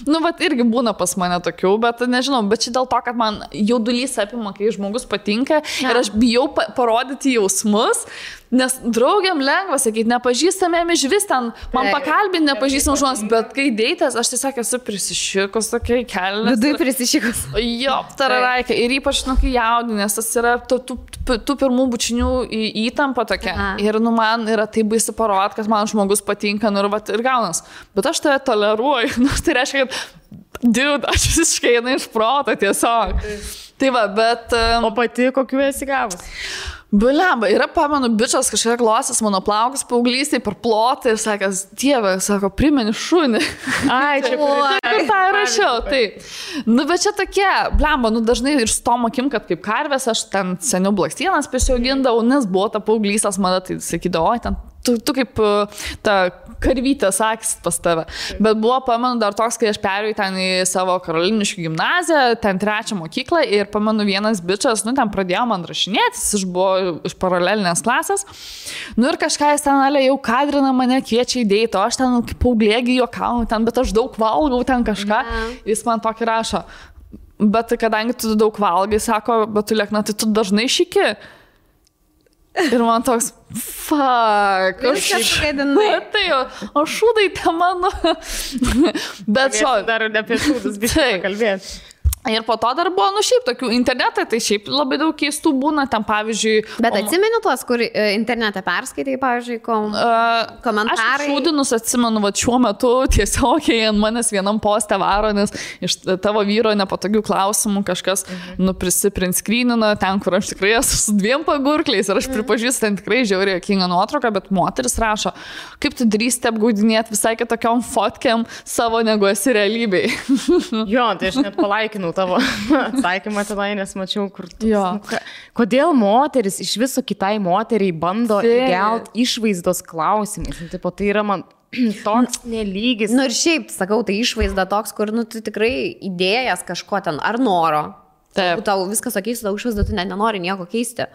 Nu, bet irgi būna pas mane tokių, bet nežinau, bet čia dėl to, kad man jaudulys apima, kai žmogus patinka ir aš bijau parodyti jausmus. Nes draugiam lengva sakyti, nepažįstamėm iš vis ten, man pakalbinti nepažįstam žmonės, bet kai deitas, aš tiesiog esu prisišikus tokiai kelnes. Vidui prisišikus. Jo, tararaikė. Ir ypač, kai jaudinės, tas yra tų pirmų bučinių įtampa tokia. Ir man yra taip baisi parodyti, kad man žmogus patinka, ir gaunas. Bet aš tave toleruoju. Tai reiškia, kad dude, aš visiškai einu iš proto tiesiog. Tai va, bet... O pati kokiu esi gavus? Bulemba, yra, pamenu, bičias kažkiek glosės mano plaukus paauglystėj per plotą ir sakęs, Dieve, sako, primeni šunį. Ai, čia kur tą rašiau, taip. Nu, bet čia tokie, blemba, dažnai ir su tom akim, kad kaip karvės, aš ten seniau blakstienas prisiaugindavau, nes buvo ta paauglystės mada, tai sakydavau, ten tu kaip ta karvytė sakys pas tave. Bet buvo, pamenu, dar toks, kai aš perėjau ten į savo Karoliniškių gimnaziją, ten 3 mokyklą ir pamenu vienas bičias, ten pradėjo man rašinėtis, jis buvo iš paralelinės klasės. Ir kažką jis ten jau kadrina mane, kviečia į deitą, aš ten kaip paauglėgi juokauju ten, bet aš daug valgau ten kažką. Jis man tokį rašo. Bet kadangi tu daug valgai, sako, bet tu liekna, tai tu dažnai šiki. Ir man toks, fuck, aš kažkaidinai. Tai jau, o šūdai te mano. Bet šo... Dar apie šūdus biškai kalbėti. Ir po to dar buvo, šiaip tokių internetai, tai šiaip labai daug keistų būna, ten pavyzdžiui... Bet atsimeni tuos, kur internete perskaitai, pavyzdžiui, komentarai? Aš šūdinus atsimenu, šiuo metu tiesiog, jei ant manęs vienam poste varo, nes iš tavo vyro nepatogių klausimų kažkas prisinskrynino ten, kur aš tikrai esu su 2 pagurkliais ir aš pripažįstu, ten tikrai žiauriai juokinga nuotrauka, bet moteris rašo, kaip tu drįsti apgaudinėti visai kitokiom fotkiam savo negu esi realybėj. Jo, tai aš net palaikinau tavo atsakymą tenai, nes mačiau, kur tu... Kodėl moteris iš viso kitai moteriai bando įgelti išvaizdos klausimais? Tai yra man toks nelygis. Ir šiaip, sakau, tai išvaizda toks, kur tu tikrai idėjas kažko ten, ar noro. Tau viskas sakys, tau išvaizda, tu net nenori nieko keisti.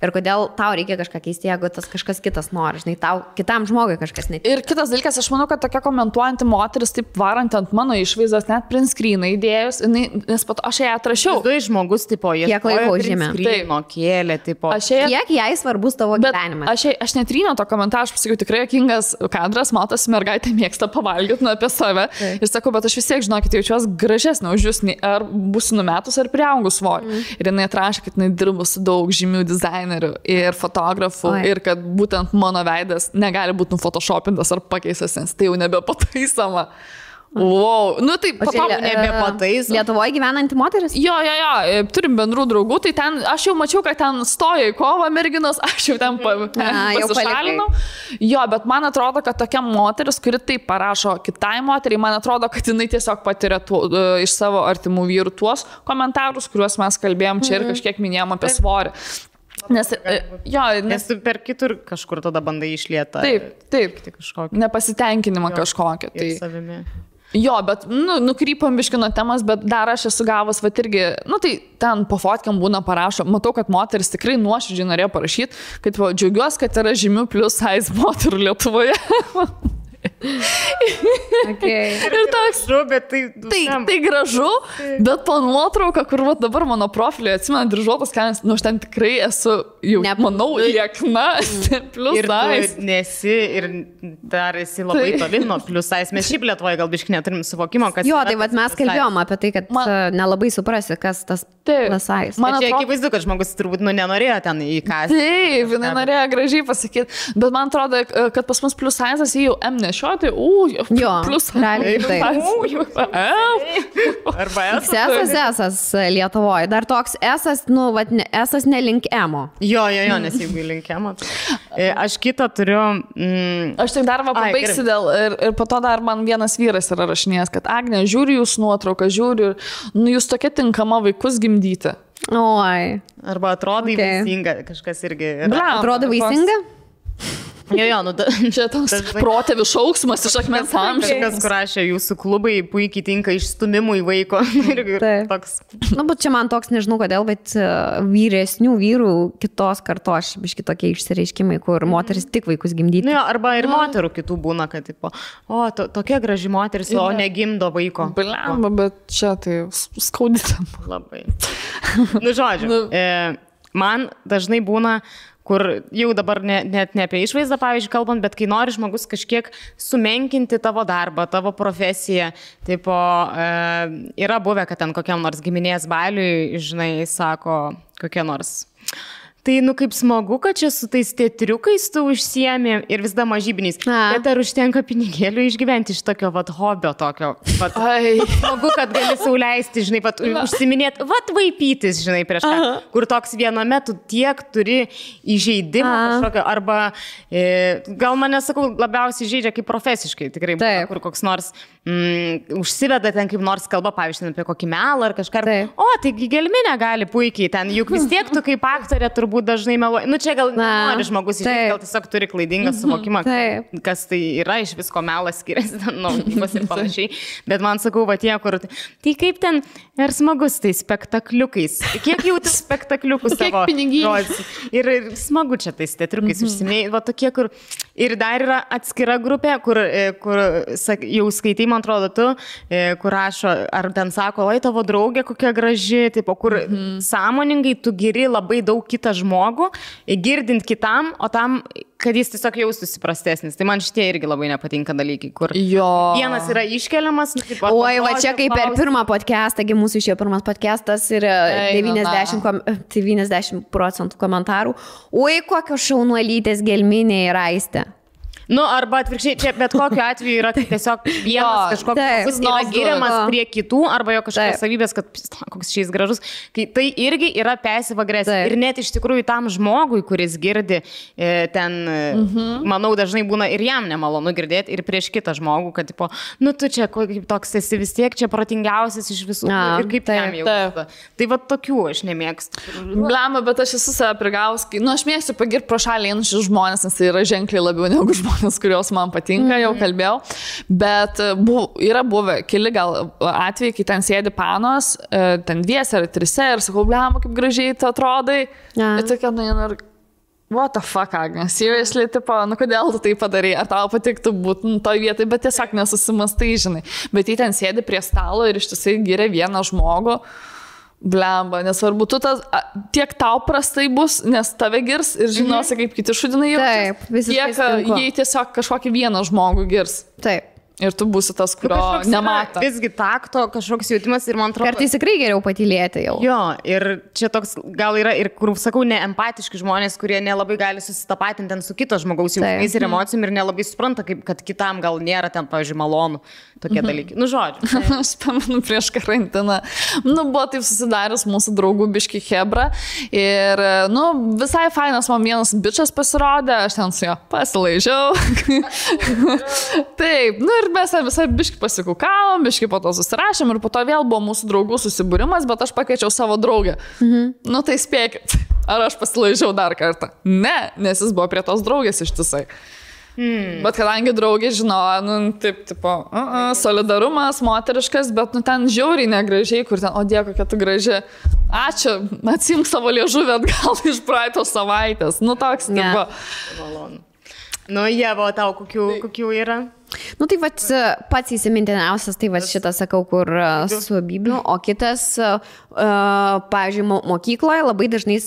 Ir kodėl tau reikia kažką keisti, jeigu tas kažkas kitas nori, žinai, tau kitam žmogui kažkas netinka. Ir kitas dalykas, aš manau, kad tokia komentuojanti moteris, taip varant ant mano išvaizdos, net print screeną įdėjus, nes pat aš ją atrašiau. Du žmogus, tipo, jie kiek laiko užėmė. Kėlė, tipo. Kiek jai svarbus tavo gyvenimas. Aš netryniau to komentarą, aš pasakiau, tikrai jokingas kadras, matosi, mergaitė mėgsta pavalgyti apie save. Ir sakau, bet aš vis tiek, žinokit, jaučiuosi gražesnė už jūs, ar būsiu numetus, ar priaugus svorį. Ir jinai atrašė, kad jinai dirba su daug žymių dizainerių ir fotografų ir kad būtent mano veidas negali būti nufotoshopintas ar pakeistas, nes tai jau nebepataisoma. Wow, nu tai nebepataisoma. Lietuvoje gyvenanti moteris? Jo, turim bendrų draugų, tai ten, aš jau mačiau, kad ten stoja į kovą merginos, aš jau ten pasišalinau. Jo, bet man atrodo, kad tokia moteris, kuri taip parašo kitai moteriai, man atrodo, kad jinai tiesiog patiria iš savo artimų vyrų tuos komentarus, kuriuos mes kalbėjom čia ir kažkiek minėjom apie svorį. Nes tu per kitur kažkur tada bandai išlietą. Taip, nepasitenkinimą kažkokią. Tai jo, bet, nukrypam biškino temas, bet dar aš esu gavus, va irgi, tai ten po fotkiam būna parašo, matau, kad moteris tikrai nuoširdžiai norėjo parašyti, kad džiaugiuosi, kad yra žymių plus size moterų Lietuvoje. Okay. Ir toks, bet tai gražu, bet po nuotrauką, kur dabar mano profilį atsimenu dryžuotas kelnes, aš ten tikrai esu jau, manau, liekna, plus size. Ir nesi, ir dar esi labai toli nuo plus size. Mes šiaip Lietuvoje gal biškai neturim suvokimo, kas... Jo, tai mes kalbėjom apie tai, kad nelabai suprasi, kas tas plus size. Man čia akivaizdu, kad žmogus turbūt nenorėjo ten įkąsti. Taip, jinai norėjo gražiai pasakyti, bet man atrodo, kad pas mus plus size jį jau M nešioti, plus realiai taip. Arba S Lietuvoje. Dar toks S nelink M-o. Jo, nes jeigu link M-o. Aš kitą turiu... Aš tik dar pabaigsiu dėl... Ir po to dar man vienas vyras yra rašinėjęs, kad Agne, žiūri jūs nuotrauką, žiūri, jūs tokia tinkama vaikus gimdyti. Oi. Arba atrodai vaisinga, kažkas irgi... Atrodo vaisinga? Jo, čia toks protėvių šauksmas iš akmens amžiaus. Kažkas, kur rašė, jūsų klubai puikiai tinka išstumimui vaiko. Toks. Bet čia man toks, nežinau kodėl, bet vyresnių vyrų kitos kartos, biški tokie išsireiškimai, kur moteris tik vaikus gimdyti. Arba ir moterų kitų būna, kad tipo, tokia graži moteris, o negimdo vaiko. Blemba, bet čia tai skaudytam. Labai. Žodžiu, man dažnai būna, kur jau dabar net ne apie išvaizdą, pavyzdžiui, kalbant, bet kai nori žmogus kažkiek sumenkinti tavo darbą, tavo profesiją, tipo, yra buvę, kad ten kokiam nors giminės baliui, žinai, sako, kokie nors. Tai, kaip smagu, kad čia su tais teatriukais tu užsiemi ir vis dar mažybiniais. Bet ar užtenka pinigėlių išgyventi iš tokio, hobio tokio? Smagu, kad gali sauliaisti, žinai, užsiminėti, vaipytis, žinai, prieš ką. Kur toks viename tu tiek turi įžeidimą kažkokio, arba gal mane, sakau, labiausiai žaidžia kaip profesiškai, tikrai, kur koks nors užsiveda ten kaip nors kalba, pavyzdžiui, apie kokį melą ar kažką. Taigi gelminė gali puikiai ten, juk vis tiek tu kaip aktorė turbūt dažnai meluoji. Čia gal nori žmogus išėti, gal tiesiog turi klaidingą suvokimą, kas tai yra, iš visko melas skiriasi, gyvas ir panašiai. Bet man sakau, tie, kur... Tai kaip ten ir smagus tai spektakliukais. Kiek jau tai spektakliukus savo žodžius. Ir smagu čia tais teatriukais užsimėjai. Tokie, kur... Ir dar yra atskira grupė, kur jau skaitai, man atrodo, tu, kur rašo, ar ten sako, oi, tavo draugė kokia graži, tipo, kur sąmoningai tu giri labai daug kitą žmogų, girdint kitam, o tam, kad jis tiesiog jaustųsi prastesnis. Tai man šitie irgi labai nepatinka dalykai, kur vienas yra iškeliamas. Oi, va čia kaip per pirmą podcastą, mūsų išėjo pirmas podcastas ir 90% komentarų. Oi, kokios šaunuolytės gelminė yra Aistė. Arba atvirkščiai, čia bet kokiu atveju yra tiesiog vienas kažkoks yra giriamas prie kitų, arba jo kažkokios savybės, kad koks šis gražus. Tai irgi yra passive agresija. Ir net iš tikrųjų tam žmogui, kuris girdi, ten, manau, dažnai būna ir jam nemalonu girdėti, ir prieš kitą žmogų, kad, tipo, tu čia kaip toks esi vis tiek čia protingiausias iš visų. Ir kaip jam jau. Tai va tokių aš nemėgstu. Blema, bet aš esu save prigaus. Aš mėgstu pagirti pro šalį einančius žmonės, nes tai yra ženkliai labiau negu žmonės, kurios man patinka, jau kalbėjau, bet yra buvę keli gal atvejai, kai ten sėdi panos, ten 2 ar 3 ir sakau, blema, kaip gražiai tu atrodai. Ir tokia, What the fuck, Agne? Seriously, tipo, nu kodėl tu tai padarai? Ar tau patiktų būti toj vietai, bet tiesiog nesusimastai, žinai. Bet jį ten sėdi prie stalo ir ištisai giria vieną žmogų. Blemba, nesvarbu, tu tiek tau prastai bus, nes tave girs ir žinosi, kaip kiti šudinai jaučiasi. Taip, visiškai. Jei tiesiog kažkokį vieną žmogų girs. Taip. Ir tu būsi tas, kurio nemato. Visgi takto kažkoks jautimas ir man atrodo. Kartais tikrai geriau patylėti jau. Jo, ir čia toks gal yra ir, kur sakau, neempatiški žmonės, kurie nelabai gali susitapatinti ten su kito žmogaus jausmais ir emocijom ir nelabai supranta, kad kitam gal nėra ten, pavyzdžiui, malonu tokie dalykai. Nu, žodžiu. Aš pamenu prieš karantiną. Nu, buvo taip susidaręs mūsų draugų biški hebra. Ir, nu, visai fainas man vienas bičas pasirodė, aš ten su jo pasilaižiau. Taip, nu ir mes visai biški pasikukavom, biški po to susirašėm ir po to vėl buvo mūsų draugų susibūrimas, bet aš pakviečiau savo draugę. Nu tai spėkit, ar aš pasilaižiau dar kartą? Ne, nes jis buvo prie tos draugės ištisai. Bet kadangi draugė žinojo, nu, taip, tipo, solidarumas, moteriškas, bet, nu, ten žiauriai negražiai, kur ten, o Dieve, kokia tu graži. Ačiū, atsimk savo liežuvį atgal iš praeitos savaitės. Nu, toks, tipo. Malonu. Nu, Ieva, tau kokių yra? Nu, tai pats įsimintiniausias, tai šitas sakau, kur su Bibliu, o kitas, pavyzdžiui, mokykloje labai dažnai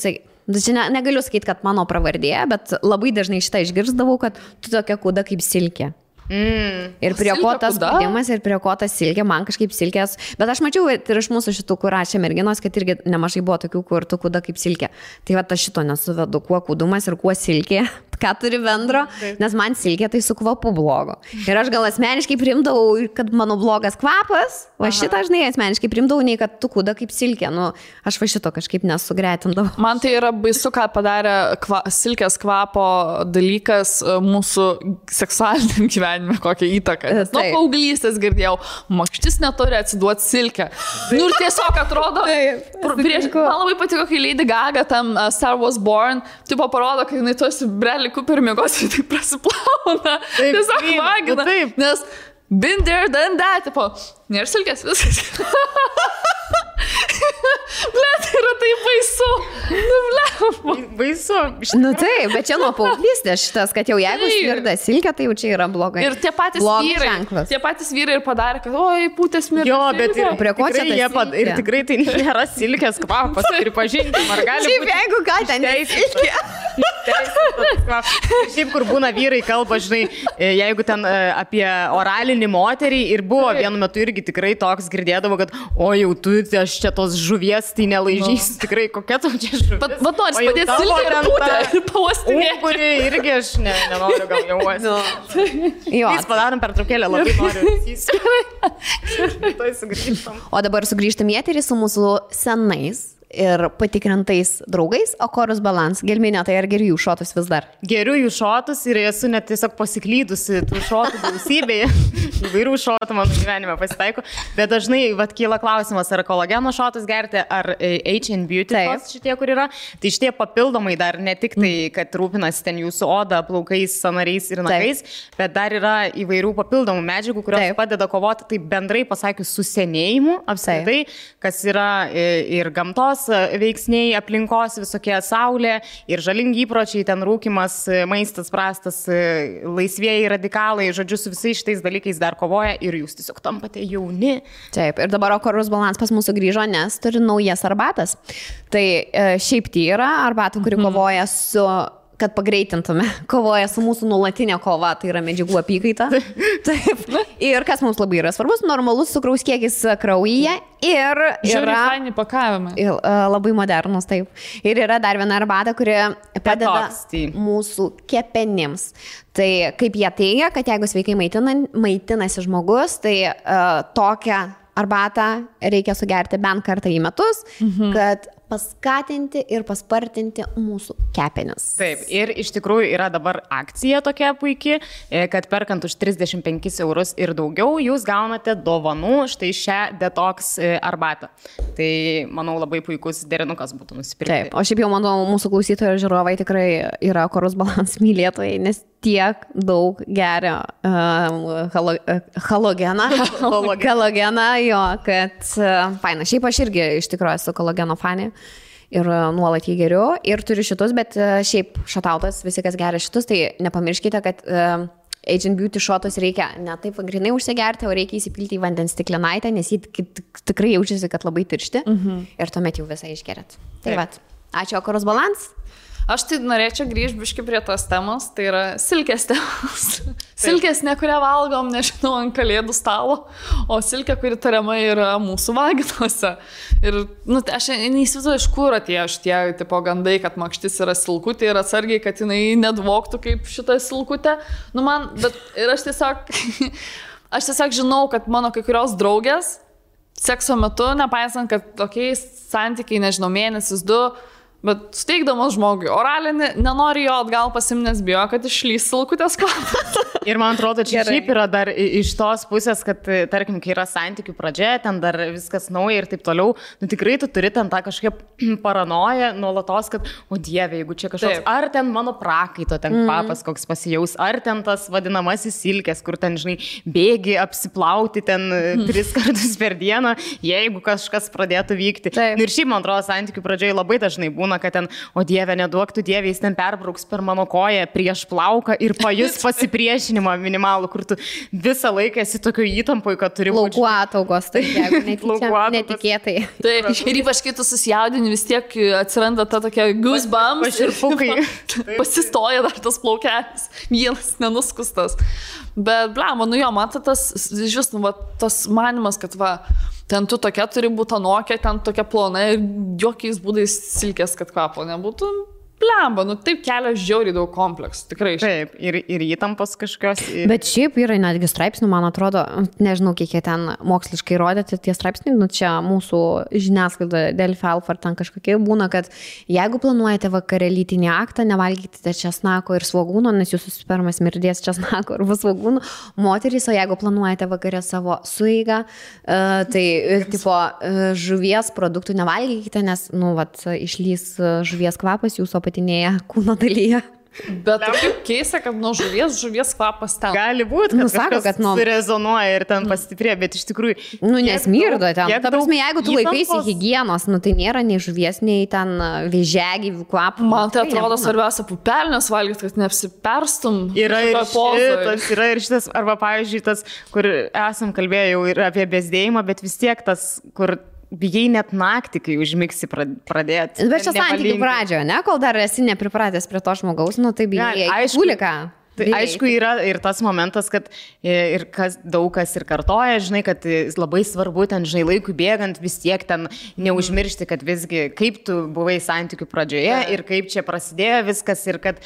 negaliu sakyti, kad mano pravardė, bet labai dažnai šitą išgirsdavau, kad tu tokia kūda kaip silkė. Ir prie ko tas spaudimas, ir prie ko tas silkė, man kažkaip silkės. Bet aš mačiau ir iš mūsų šitų, kur rašė merginos, kad irgi nemažai buvo tokių, kur tu kūda kaip silkė. Tai aš šito nesuvedu, kuo kūdumas ir kuo silkė, ką turi bendro, nes man silkė tai su kvapu blogo. Ir aš gal asmeniškai primdavau, kad mano blogas kvapas, o šitą žinai asmeniškai primdavau, nei kad tu kūda kaip silkė. Nu, aš šito kažkaip nesugretindavau. Man tai yra baisu, ką padarė silkės kvapo dalykas mūsų seksualiniam gyvenimui. Kokią įtaką. Nuo paauglystės girdėjau, makštis neturi atsiduoti silkę. Nu ir tiesiog atrodo, man labai patiko, kai Lady Gaga tam Star Wars Born, tipo parodo, kai jinai tuosi Bradley Cooper miegos ir tai prasiplauna. Tiesiog magina. Nes been there, done that, tipo, nėra silkės viskas. Blet, yra tai baisu. Nu, blet. Baisu. Nu taip, bet čia nuo paauglystės šitas, kad jau jeigu smirda silkė, tai jau čia yra blogai. Ir tie patys vyrai ir padarė, kad oi, pūtės smirda. Jo, bet ir prie ko čia ir tikrai tai nėra silkės kvapas, pripažinkim, ar gali būti. Šiaip jeigu ką, ten silkė. Šiaip, kur būna vyrai kalba, žinai, jeigu ten apie oralinį moterį ir buvo vienu metu irgi tikrai toks girdėdavo, kad o jau tu, aš čia tos žuvies, tai nelaižys, tikrai kokia tu čia žuvis. Bet nors padėti silkę ir pūtę ir pavostinėti. Kuri irgi aš nenoriu gal jauosi. Mes padarom pertraukėlę, labai noriu. O dabar sugrįžtam į eterį su mūsų senais ir patikrintais draugais, o Chorus Balance. Gelminė, tai ar geriu jų šotus vis dar? Geriu jų šotus ir esu net tiesiog pasiklydusi tų šotų gausybėje. Įvairių šotų mano gyvenime pasitaiko. Bet dažnai kyla klausimas, ar kolageno šotus gerti, ar H&M Beauty šitie, kur yra. Tai šitie papildomai dar ne tik tai, kad rūpinasi ten jūsų oda, plaukais, sąnariais ir nagais, bet dar yra įvairių papildomų medžiagų, kurios padeda kovoti, tai bendrai pasakius, su senėjimu apskritai, kas yra ir gamtos veiksniai, aplinkos visokie, saulė ir žalingi įpročiai, ten rūkimas, maistas prastas, laisvieji radikalai, žodžiu, su visais šitais dalykais dar kovoja ir jūs tiesiog tampate jauni. Taip, ir dabar Chorus Balance pas mūsų grįžo, nes turi naujas arbatas. Tai šiaip tai yra arbata, kuri kovoja su, kad pagreitintume, kovoja su mūsų nuolatinė kova, tai yra medžiagų apykaita. Taip. Ir kas mums labai yra svarbus, normalus cukraus kiekis kraujyje ir yra faini pakavimai. Labai modernus, taip. Ir yra dar viena arbata, kuri padeda mūsų kepenims. Tai kaip jie teigia, kad jeigu sveikai maitinasi žmogus, tai tokią arbatą reikia sugerti bent kartą į metus, kad paskatinti ir paspartinti mūsų kepenis. Taip, ir iš tikrųjų yra dabar akcija tokia puikiai, kad perkant už 35 eurus ir daugiau, jūs gaunate dovanų štai šią detox arbatą. Tai, manau, labai puikus derinukas būtų nusipirkti. Taip, o šiaip jau, manau, mūsų klausytojai ir žiūrovai tikrai yra Chorus Balance mylėtojai, nes tiek daug geria halogeną, jo, kad faina. Šiaip aš irgi iš tikrųjų esu kolageno fanė. ir nuolat jį geriu ir turiu šitus, bet šiaip šatautas, visi kas geria šitus, tai nepamirškite, kad Agent Beauty shotus reikia ne taip grinai užsigerti, o reikia įsipilti į vandens stiklinaitę, nes jį tikrai jaučiasi, kad labai tiršti ir tuomet jau visą išgeriat. Tai vat, ačiū Okoros Balans. Aš tai norėčiau grįžti biškai prie tos temos, tai yra silkės temos. Silkės ne kurią valgom, nežinau, ant kalėdų stalo, o silkė, kuri tariamai yra mūsų vaginuose. Ir aš neįsivaizduoju, iš kur atėjo šitie tipo gandai, kad makštis yra silkutė ir atsargiai, kad jinai nedvoktų kaip šitą silkutę. Ir aš tiesiog žinau, kad mano kai kurios draugės sekso metu, nepaisant, kad tokiais santykiai, nežinau, mėnesis, 2, bet suteikdamas žmogui oralinį, nenori jo atgal pasimnės, bijo, kad išlys silkutės kvapas. Ir man atrodo, čia šiaip yra dar iš tos pusės, kad, tarkim, kai yra santykių pradžia, ten dar viskas nauja ir taip toliau, tikrai tu turi ten tą kažkokią paranoją nuolatos, kad, o Dieve, jeigu čia kažkoks, ar ten mano prakaito ten kvapas koks pasijaus, ar ten tas vadinamasis silkės, kur ten, žinai, bėgi apsiplauti ten 3 kartus per dieną, jeigu kažkas pradėtų vykti. Ir šiaip, man atrodo, santykių pradžioje labai dažnai būna, kad ten, o Dieve, neduok tu Dieve, jis ten perbrauks per mano koją prieš plauką ir pajus pasipriešinimą minimalų, kur tu visą laiką esi tokio įtampoje, kad turi būti. Plaukų ataugos, tai jeigu netikėtai. Taip, ir ypač kai tu susijaudini, vis tiek atsiranda ta tokia goosebumps. Paširpukai. Pasistoja dar tas plaukelis, vienas nenuskustas. Bet, blema, matai, tas manimas, kad ten tu tokia turi būti anokia, ten tokia plona ir jokiais būdais silkės, kad kvapo nebūtų. Blemba, taip kelia žiauriai daug kompleksų, tikrai. Taip, ir įtampos kažkokios. Bet šiaip yra netgi straipsnių, man atrodo, nežinau, kiek jie ten moksliškai rodėti tie straipsniai, čia mūsų žiniasklaida Delfi Alfa ar ten kažkokie būna, kad jeigu planuojate vakare lytinį aktą, nevalgykite česnako ir svogūno, nes jūsų spermas mirdės česnako arba svogūno, moterys, o jeigu planuojate vakare savo sueigą, tai tipo žuvies produktų nevalgykite, nes, išlys žuvies kvapas jūsų apatinėje kūno dalyje. Bet kaip keista, kad nuo žuvies kvapas ten. Gali būti, kad sako, kad surezonuoja ir ten pastiprė, bet iš tikrųjų... Nesmirdo ten. Ta prasme, jeigu tu laikaisi higienos, tai nėra nei žuvies, nei ten vėžiagyvių kvapų. Man tai atrodo svarbiausia pupelnes valgyti, kad neapsiperstum. Yra ir šitas, arba pavyzdžiui tas, kur esam kalbėję jau ir apie bezdėjimą, bet vis tiek tas, kur... Bijai net naktį, kai užmigsi pradėti. Bet čia santykių pradžioje, ne? Kol dar esi nepripratęs prie to žmogaus, tai bijai kuliką. Tai aišku, yra ir tas momentas, kad ir daug kas ir kartoja, žinai, kad labai svarbu ten, žinai, laikui bėgant vis tiek ten neužmiršti, kad visgi kaip tu buvai santykių pradžioje ir kaip čia prasidėjo viskas ir kad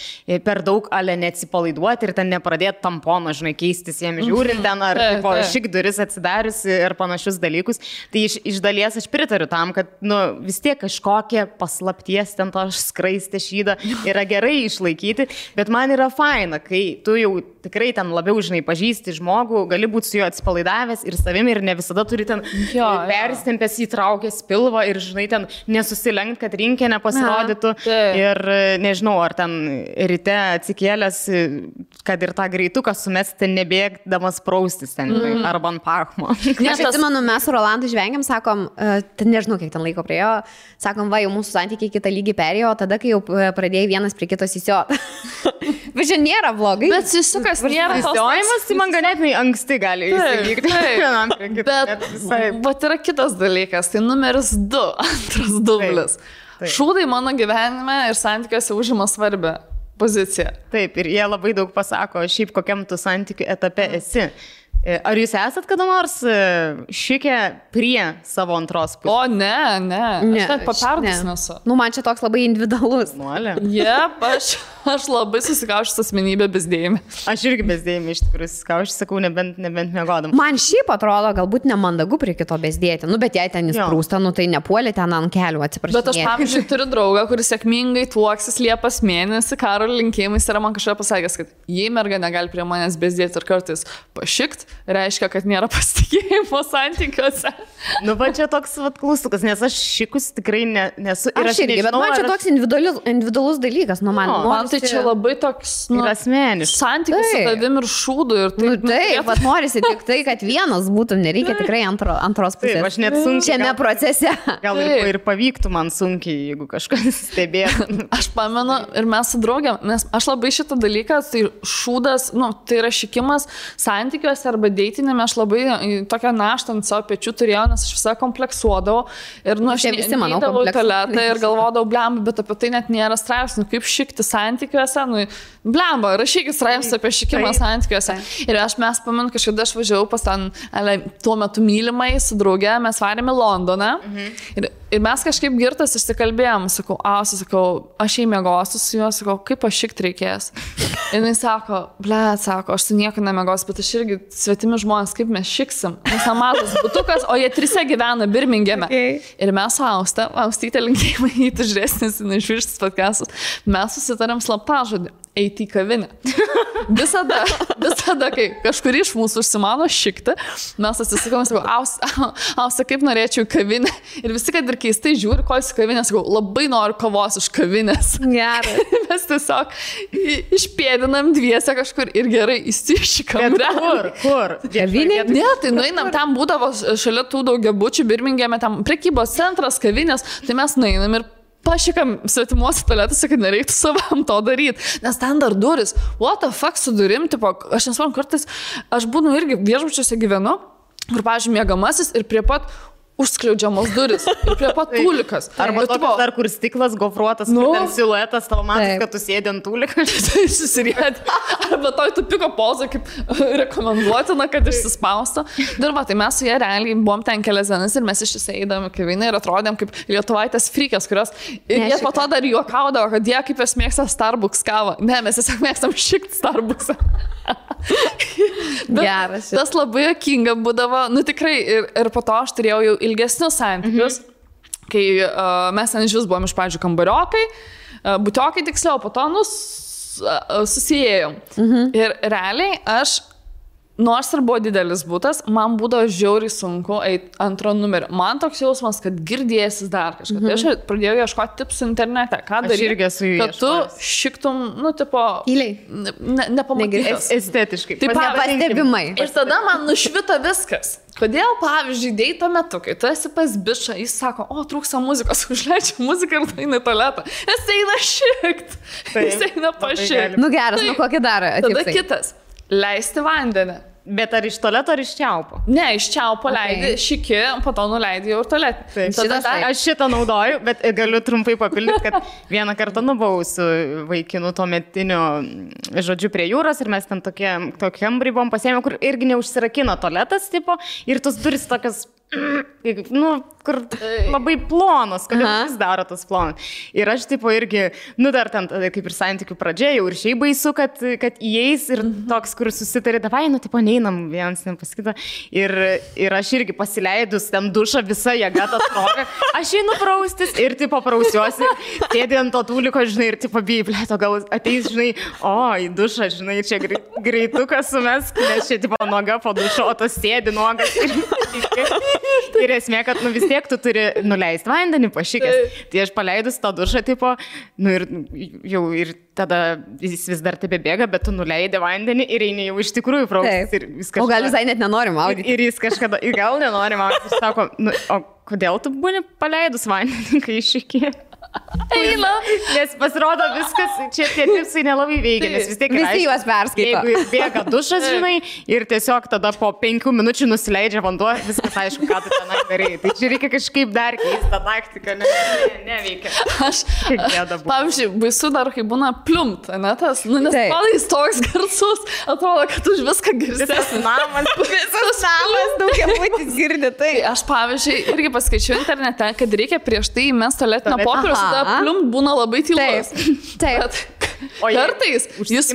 per daug ale neatsipalaiduoti ir ten nepradėti tampono, žinai, keistis jiem žiūrint ten ar šik duris atsidarius ir panašius dalykus. Tai iš dalies aš pritariu tam, kad vis tiek kažkokie paslapties ten to skraistė šydą yra gerai išlaikyti, bet man yra faina, kai tu jau tikrai ten labiau, žinai, pažįsti žmogų, gali būti su juo atsipalaidavęs ir savimi ir ne visada turi ten persitempęs įtraukęs pilvą ir, žinai, ten nesusilenkt, kad rinkė nepasirodytų. Ir nežinau, ar ten ryte atsikėlęs, kad ir tą greituką sumesti nebėgdamas praustis ten, arba ant pachmo. Aš atsimenu, mes su Rolandu žvengiam, sakom, nežinau, kiek ten laiko priejo, sakom, jau mūsų santykiai kitą lygį perėjo, tada, kai jau pradėjai vienas prie kitos įsiot. Bet čia nėra blogai. Bet susukas nėra tos. Įsiojimas, tai man ganėtinai anksti gali įsivykti. Bet yra kitas dalykas, tai numeris 2, antras dublis. Šūdai mano gyvenime ir santykiuose užima svarbią poziciją. Taip, ir jie labai daug pasako, šiaip kokiam tu santykių etape esi. Ar jūs esat kada nors šikę prie savo antros pusės? O, ne. Aš net paperdus nesu. Man čia toks labai individualus. Aš labai susikaušęs asmenybę bezdėjimį. Aš irgi bezdėjimį iš tikrųjų susikaušęs, sakau, nebent miegodam. Man šiaip atrodo galbūt nemandagu prie kito bezdėti. Bet jei ten jis prūsta, tai nepuolė ten ant kelių, atsiprašau. Bet aš, pavyzdžiui, turiu draugą, kuris sėkmingai tuoksis Liepos mėnesį, karo linkėjimais yra man kažką pasakęs, kad jei merga negali prie manęs bezdėti ir kartais pašikt, reiškia, kad nėra pasitikėjimo santykiuose. Va čia toks klaustukas, nes aš šikus tikrai nesu. Aš irgi, bet man čia toks individualus dalykas. Man tai čia labai toks, ir asmeniškas santykis su tavim ir šūdu. Ir taip, taip, vat norisi tik tai, kad vienas būtum, nereikia tikrai antros pusės. Taip, aš net sunkiai. Šiame procese. Gal ir pavyktų man sunkiai, jeigu kažkas stebėtų. Aš pamenu ir mes su draugėm, nes aš labai šitą dalyką, tai šūdas, tai yra šikimas santykiuose arba deitinėme, aš labai tokią naštą ant savo pečių turėjau, nes aš visą kompleksuodavau ir aš neįdavau į tualetą ir galvodavau, blemba, bet apie tai net nėra straipsnių, kaip šikti santykiuose, blemba, rašykit straipsnius apie šikimą santykiuose. Ir mes pamenu, kažkada aš važiavau pas ten, tuo metu mylimai su drauge, mes varėme Londoną ir mes kažkaip girtas išsikalbėjom, sakau, aš jai mėgosiu su juo, sakau, kaip aš šikt reikės. Ir jis sako, aš su nieko nemėgosiu, bet aš irgi svetimi žmonės, kaip mes šiksim. Mes mažas butukas, o jie 3 gyvena Birmingeme. Ir mes su Austytė linkėjimai įtužresnis, išvirštis podcastus, mes susitarėm slaptažodį. Eiti į kavinę. Visada, kai kažkur iš mūsų užsimano šikti, mes atsisakome, sakau, Austa, kaip norėčiau į kavinę. Ir visi, kad ir keistai žiūri, ko į kavinę, sakau, labai noriu kavos iš kavinės. Gerai. Mes tiesiog išpėdinam dviese kažkur ir gerai įsišikam. Kur? Kavinė? Ne, tai nueinam, tam būdavo šalia tų daugiabučių Birmingeme, tam prekybos centras, kavinės, tai mes nueinam ir pašikam svetimuose tualetuose, kad nereiktų savam to daryti. Nes ten dar duris. What the fuck su durim? Tipo, aš nesvarbu, kartais aš būnu irgi viešbučiuose gyvenu, kur, pavyzdžiui, miegamasis ir prie pat užskliaudžiamos duris. Ir prie pat tūlikas. Arba tokios dar, kur stiklas gofruotas, ten siluetas, tavo matas, kad tu sėdi ant tūlikas. Tai susiriedi. Arba toj tupiko poza, kaip rekomenduotina, kad išsispausto. Dirba, tai mes su jie realiai buvom ten kelias dienas ir mes ištisai eidami kavinę ir atrodėm kaip lietuvaitės frykės, kurios ir jie po to dar juokaudavo, kad jie kaip jos mėgsta Starbucks kavą. Ne, mes tiesiog mėgstam šikt Starbucksą. Geras. Tas labai juokinga būdavo, tikrai, ir po to aš turėjau jau ilgesnius santykius, kai mes ten iš vis buvom iš pradžių kambariokai, butiokai tiksliau, po to susijėjom. Ir realiai aš, nors ir buvo didelis butas, man būdavo žiauriai sunku eiti antro numerį. Man toks jausmas, kad girdėsis dar kažką. Tai aš pradėjau ieškoti tipsų internete. Ką daryti, kad tu šiktum, tipo... Tyliai. Nepamatytas. Estetiškai. Taip, nepastebimai. Ir tada man nušvito viskas. Kodėl, pavyzdžiui, deito metu, kai tu esi pas bičą, jis sako, trūksta muzikos, užleidžia muziką ir eina į tualetą. Jis eina šikt. Jis eina pašikt. Geras, kokį dar tipsai? Tada kitas. Leisti vandenį. Bet ar iš tualeto, ar iš čiaupo? Ne, iš čiaupo leidi, šiki, po to nuleidi jau ir tualetį. Aš šitą naudoju, bet galiu trumpai papildyti, kad vieną kartą buvau su vaikinu tuo metiniu, žodžiu, prie jūros ir mes ten tokiam buvom pasiėmę, kur irgi neužsirakino tualetas, tipo, ir tos duris tokios, kur labai plonos, kodėl vis daro tas plonas. Ir aš, tipo, irgi, dar ten, kaip ir santykių pradžia, jau ir šiaip baisu, kad įeis ir toks, kur susitarė, davai, tipo, neinam vienas nepasakyti. Ir aš irgi pasileidus ten dušą visą jėgą tą trogą, aš einu praustis ir, tipo, prausiuosi, sėdė ant to tūliko, žinai, ir, tipo, blėto, gal ateis, žinai, į dušą, žinai, čia greitukas sumesk, nes čia, tipo, noga po dušo, o tas sėdi nogas. Ir esmė, kad vis tiek tu turi nuleisti vandenį pašykęs. Tai aš paleidus tą dušą, tipo, ir tada jis vis dar tebebėga, bet tu nuleidi vandenį ir eini jau iš tikrųjų praustis. O gal visai net nenori maudyti. Ir jis kažkada, gal nenori maudyti, ir sako, o kodėl tu būni paleidus vandenį, kai iššykė? Eina. Nes pasirodo viskas, čia tie tipsai nelabai veikia, nes vis tiek visi juos perskaito. Jeigu bėga dušas, žinai, ir tiesiog tada po 5 minučių nusileidžia vanduo, viskas aišku, ką tu tenai darai. Tai čia reikia kažkaip dar keisti tą taktiką, neveikia. Aš, pavyzdžiui, baisu dar, kai būna pliumt, ne tas, nes palais toks garsus, atrodo, kad už viską girdės. Visas namas daugiabutis girdi. Tai aš, pavyzdžiui, irgi paskaičiau internete, kad reikia prieš tai įmesti tualetinio popieriaus, tada pliumt būna labai tylus. Taip. O kartais jis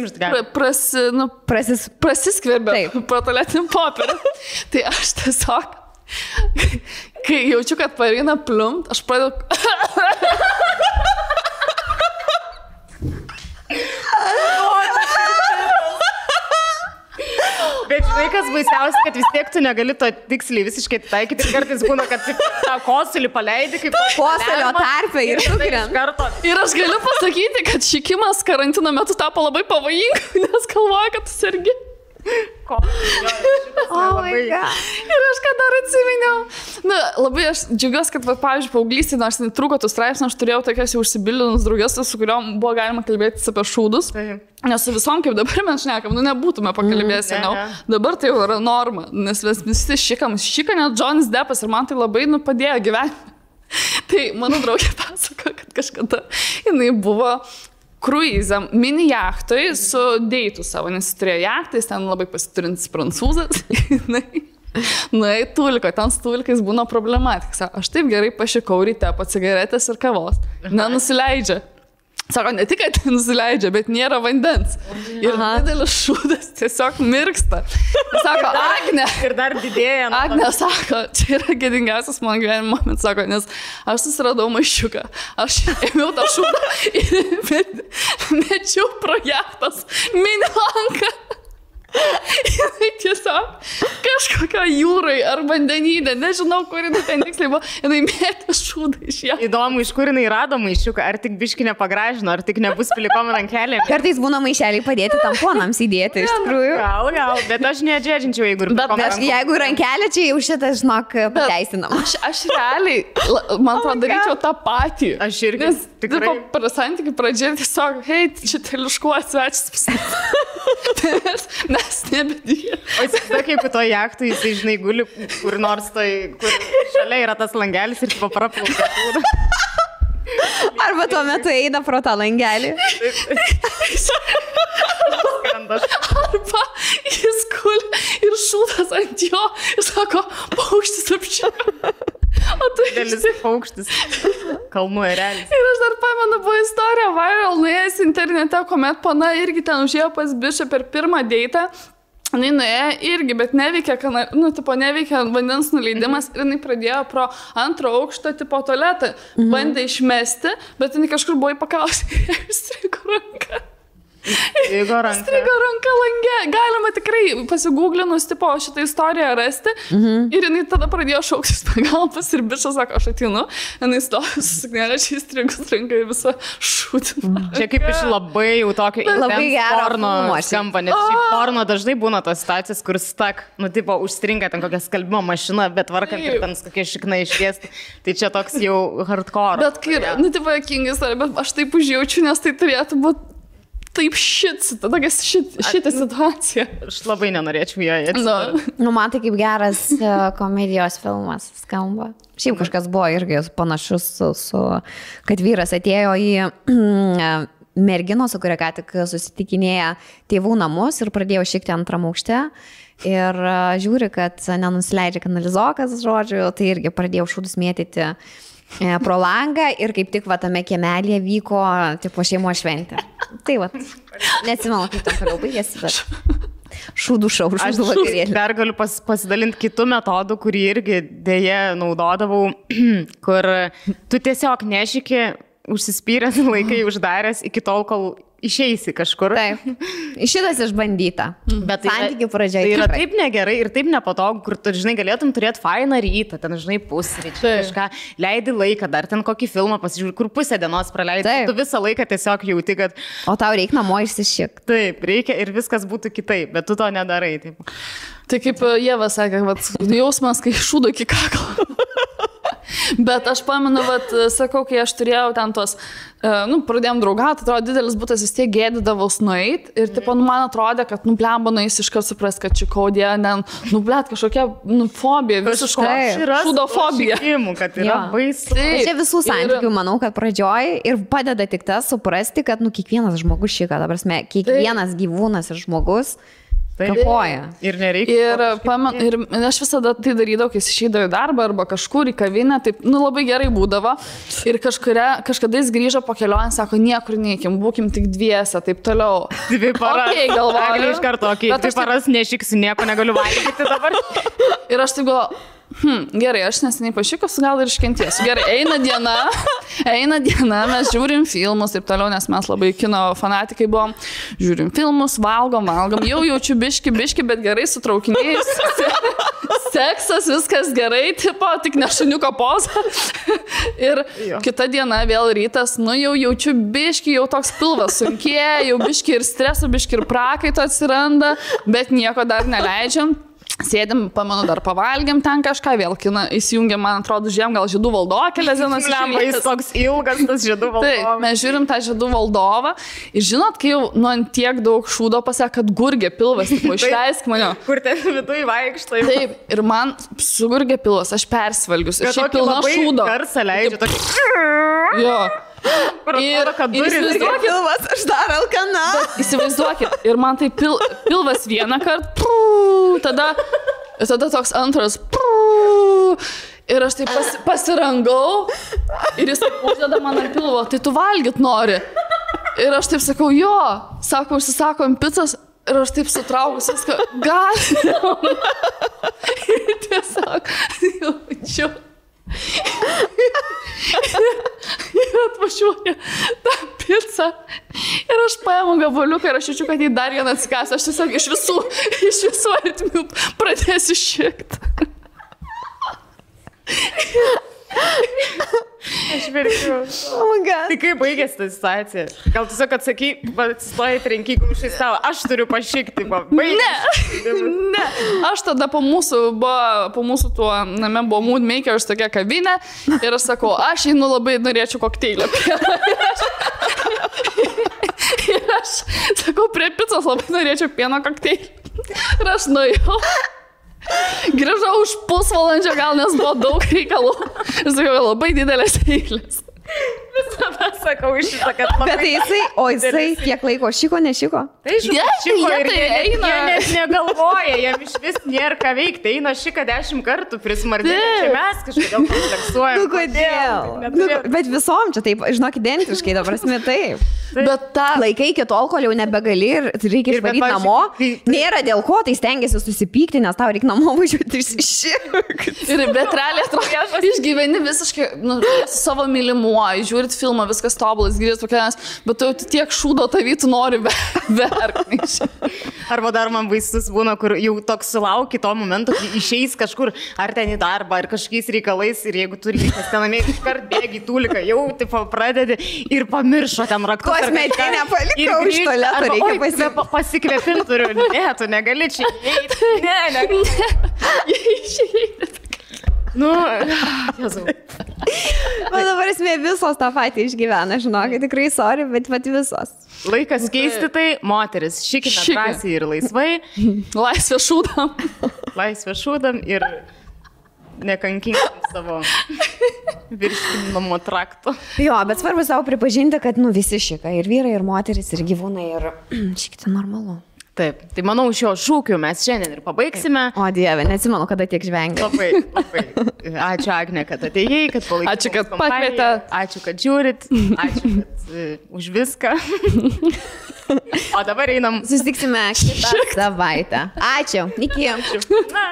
prasiskverbia pro tualetinį popierių. Tai aš tiesiog, kai jaučiu, kad pareina pliumt, aš pradedu... Bet žinai, kas baisiausia, kad vis tiek tu negali to tiksliai visiškai taikyti. Ir kartais būna, kad tą kosulį paleidi, kaip kosulio tarpe ir karto. Ir aš galiu pasakyti, kad šikimas karantino metu tapo labai pavojinga, nes galvoja, kad tu sergi. Ir aš ką dar atsiminiau. Na, labai aš džiaugiuosi, kad, pavyzdžiui, paauglystėje, nors netrūko tų straipsnių, aš turėjau tokias jau užsibilinus drauges, su kuriuom buvo galima kalbėti apie šūdus. Nes su visom, kaip dabar mes šnekam, nebūtume pakalbėję seniau. Dabar tai jau yra norma, nes visi šika net Johnny Deppas ir man tai labai padėjo gyvenime. Tai mano draugė pasako, kad kažkada jinai buvo kruizam, mini jachtoj su deitu savo, nes jis turėjo jachtą, jis ten labai pasiturintis prancūzas. Nuėjo tulko, ten su tulkais būna problematika. Aš taip gerai pašikau ryte po cigaretės ir kavos. Nenusileidžia. Sako, ne tik, kad nusileidžia, bet nėra vandens. Ir didelis šūdas tiesiog mirksta. Sako, Agne. Ir dar didėja. Agne sako, čia yra gėdingiausias mano gyvenimo momentas, sako, nes aš susiradau maišiuką. Aš ėmiau tą šūdą ir mečiau pro jachtos mini lanką. Jinai tiesiog kažkokia jūrai ar vandenyne, nežinau, kur jinai ten tiksliai buvo, jinai mėtė šūdą iš ją. Įdomu, iš kur jinai rado maišiuką, ar tik biški nepagražino, ar tik nebus pilikom rankelėm. Kartais būna maišeliai padėti tamponams įdėti, iš tikrųjų. Gal, bet aš nedžedžinčiau, jeigu rankelė čia jau šitas, žinok, pateisinam. Aš realiai, man atrodo, daryčiau tą patį. Aš irgi. Nes tikrai santykių pradžioje tiesiog, hei, čia teliškuo svečias. Mes nebedėjome. O įsivaizduok, jeigu to jachtui, jisai, žinai, guli kur nors tai, kur šalia yra tas langelis ir papraplaukia. Arba tuo metu eina pro tą langelį. Arba jis guli ir šūdas ant jo ir sako, paukštis apšiko. O tu didelis paukštis. Kalnų erelis. Ir aš dar pamenu, buvo istorija viral, nuėjęs internete, kuomet pana irgi ten užėjo pas bišą per pirmą deitą. Jinai nuėjo irgi, bet neveikia, neveikia vandens nuleidimas ir jinai pradėjo pro antro aukšto tipo tualetą. Bandė išmesti, bet jinai kažkur buvo įpakavusi ir įstrigo ranką. Strigo ranka lange. Galima tikrai pasigūglinus tipo šitą istoriją rasti. Ir jinai tada pradėjo šauktis pagalbos ir bičas sako, aš ateinu. Jinai stovi su suknelė, čia įstrigus ranka į visą šūdį. Čia kaip iš labai jau tokio porno skamba. Nes šiaip porno dažnai būna tos situacijos, kur stak, tipo užstringa ten kokia skalbimo mašina, bet varkant ir ten kokie šiknai išviesti. Tai čia toks jau hardcore. Bet kai, tipo, jokinga istorija, bet aš taip užjaučiu, nes tai turėtų būti taip šitą situaciją. Aš labai nenorėčiau joje. Man tai kaip geras komedijos filmas skamba. Šiaip kažkas buvo irgi panašus kad vyras atėjo į merginos, su kuria ką tik susitikinėja tėvų namus ir pradėjo šikti antram aukšte. Ir žiūri, kad nenusileidžia kanalizokas, žodžiu, tai irgi pradėjo šūdus mėtyti pro langą ir kaip tik tame kiemelėje vyko tipo šeimo šventė. Tai neatsimenu, kaip tam toliau baigėsi, bet šūdų vakarėlį. Aš dar galiu pasidalinti kitų metodų, kurį irgi dėje naudodavau, kur tu tiesiog nešiki, užsispyręs laikai uždaręs iki tol, kol išeisi kažkur. Taip. Šitas išbandyta. Bet santykių pradžioje. Tai yra taip negerai ir taip nepatogu, kur tu, žinai, galėtum turėti fainą rytą, ten, žinai, pusryčių, kažką, leidi laiką, dar ten kokį filmą pasižiūrė, kur pusę dienos praleidi. Tu visą laiką tiesiog jauti, kad... O tau reikia namo išsišik. Taip, reikia ir viskas būtų kitaip, bet tu to nedarai. Taip. Tai kaip Ieva sakė, jausmas, kai šūdo iki kaklo. Bet aš pamenu, sakau, kai aš turėjau ten tos, pradėjom draugauti, atrodo, didelis būtas vis tiek gėdydavos nueit ir, man atrodė, kad, blemba, nueis iškart supras, kad čikaudė, blet, kažkokia, fobija, visiškai šūdofobija. Kad yra baisu. Čia visų santykių, manau, kad pradžioj ir padeda tik tas suprasti, kad, kiekvienas žmogus šika, ta prasme, kiekvienas gyvūnas ir žmogus kapoja. Ir nereikia. Ir aš visada tai darydavau, kai išeidavau į darbą arba kažkur į kavinę, taip, labai gerai būdavo. Ir kažkada jis grįžo po kelionę, sako, niekur neįkim, būkim tik dviese, taip toliau. 2 paras. Okay, galvoju. Iš karto, 2 paras nešiksiu, nieko negaliu valgyti dabar. Ir aš taip galvoju, Gerai, aš neseniai pašikus, gal ir iškentiesiu. Gerai, eina diena, mes žiūrim filmus ir toliau, nes mes labai kino fanatikai buvom. Žiūrim filmus, valgom, jau jaučiu biški, bet gerai sutraukiniais. Seksas, viskas gerai, tipo, tik ne šuniuko poza. Ir kita diena, vėl rytas, jau jaučiu biški, jau toks pilvas sunkėja, jau biški ir streso, biški ir prakaito atsiranda, bet nieko dar neleidžiam. Sėdim, pamenu, dar pavalgėm ten kažką, vėl kiną įsijungėm, man atrodo, žiūrėjom gal Žiedų valdovą kelias dienas. Jis toks ilgas, tas Žiedų valdovas. Taip, mes žiūrim tą Žiedų valdovą ir žinot, kai jau ant tiek daug šūdo pasakė, kad gurgė pilvas, tipo, išleisk mane. Kur ten viduje vaikštai. Taip, ir man sugurgė pilvas, aš persvalgius. Ir šiaip pilna šūdo. Garsą leidžia tokį. Jo. Ir pilvas, aš dar alkana. Įsivaizduokit, ir man tai pilvas vieną kartą, tada toks antras, ir aš taip pasirangau, ir jis taip uždeda man ant pilvo, tai tu valgyt nori. Ir aš taip sakau, jo, sako, užsisakom pizzas, ir aš taip sutraukus viską, gal. Ir tiesiog, jaučiu. Ir atvažiuoja tą pizzą ir aš paimu gabaliuką ir aš jaučiu, kad jį dar vieną atsikąsiu. Aš tiesiog iš visų artimių pradėsiu šikt. Aš verkiu. Oh my God. Tai kaip baigėsi ta situacija? Gal tiesiog atsakai, atsistoji trenky kumščiais tavo, aš turiu pašikti, Ne, aš tada po mūsų tuo name buvo Mood Makers tokia kavinė ir aš sakau, aš einu labai norėčiau kokteilio. Ir aš sakau, prie pizzos labai norėčiau pieno kokteilį. Ir aš nuėjau. Grįžau už pusvalandžio, gal nes buvo daug reikalų. Ir sakiau, labai didelės eilės. Visada sakau iš šitą, kad labai... Bet jisai kiek laiko šiko, nešiko? Tai šiko ir jie net negalvoja, jam iš vis nėra ką veikti. Eina šika 10 kartų prismardinė, čia mes kažkodėl kompleksuojam. Nu kodėl? Bet visom čia taip, žinok, identiškai, ta prasme taip. Bet tą laikai iki tol, kol jau nebegali ir reikia išvaryti namo. Nėra dėl ko, tai stengiasi susipykti, nes tau reikia namo važiuoti išsiširkti. Ir bet realiai atrodo, išgyveni visiškai su savo mylimuoju, žiūrit filmą, viskas tobulas, grįžt pakelias, bet tu tiek šūdo tavytų nori verkti. Arba dar man baisus būna, kur jau toks sulauki to momento, kai išeis kažkur, ar ten į darbą, ar kažkokiais reikalais, ir jeigu turi reikas tenamė, iškart bėgi tūliką, jau tipo pradedi ir pamiršo ten raktus. Kosmetinę palikau iš tualeto, reikia pasikvėpinti turiu. Ne, tu negali čia įeiti. Ne. Išeiti. Nu, Jėzau. Bet dabar esmė visos tą patį išgyvena, žinok, tikrai sorry, bet visos. Laikas keisti tai, moteris, šikime drąsiai ir laisvai. Laisvė šūdam. Laisvė šūdam ir nekankinkim savo virškinimo trakto. Jo, bet svarbu savo pripažinti, kad visi šika, ir vyrai, ir moteris, ir gyvūnai, ir šikti normalu. Taip, tai manau, šio šūkiu mes šiandien ir pabaigsime. O Dieve, neatsimenu, kada tiek žvengia. Labai. Ačiū, Agne, kad atėjai, kad palaikėte. Ačiū, kad pakvietė. Ačiū, kad žiūrit. Ačiū, kad už viską. O dabar einam. Susitiksime kitą savaitę. Ačiū. Iki. Na.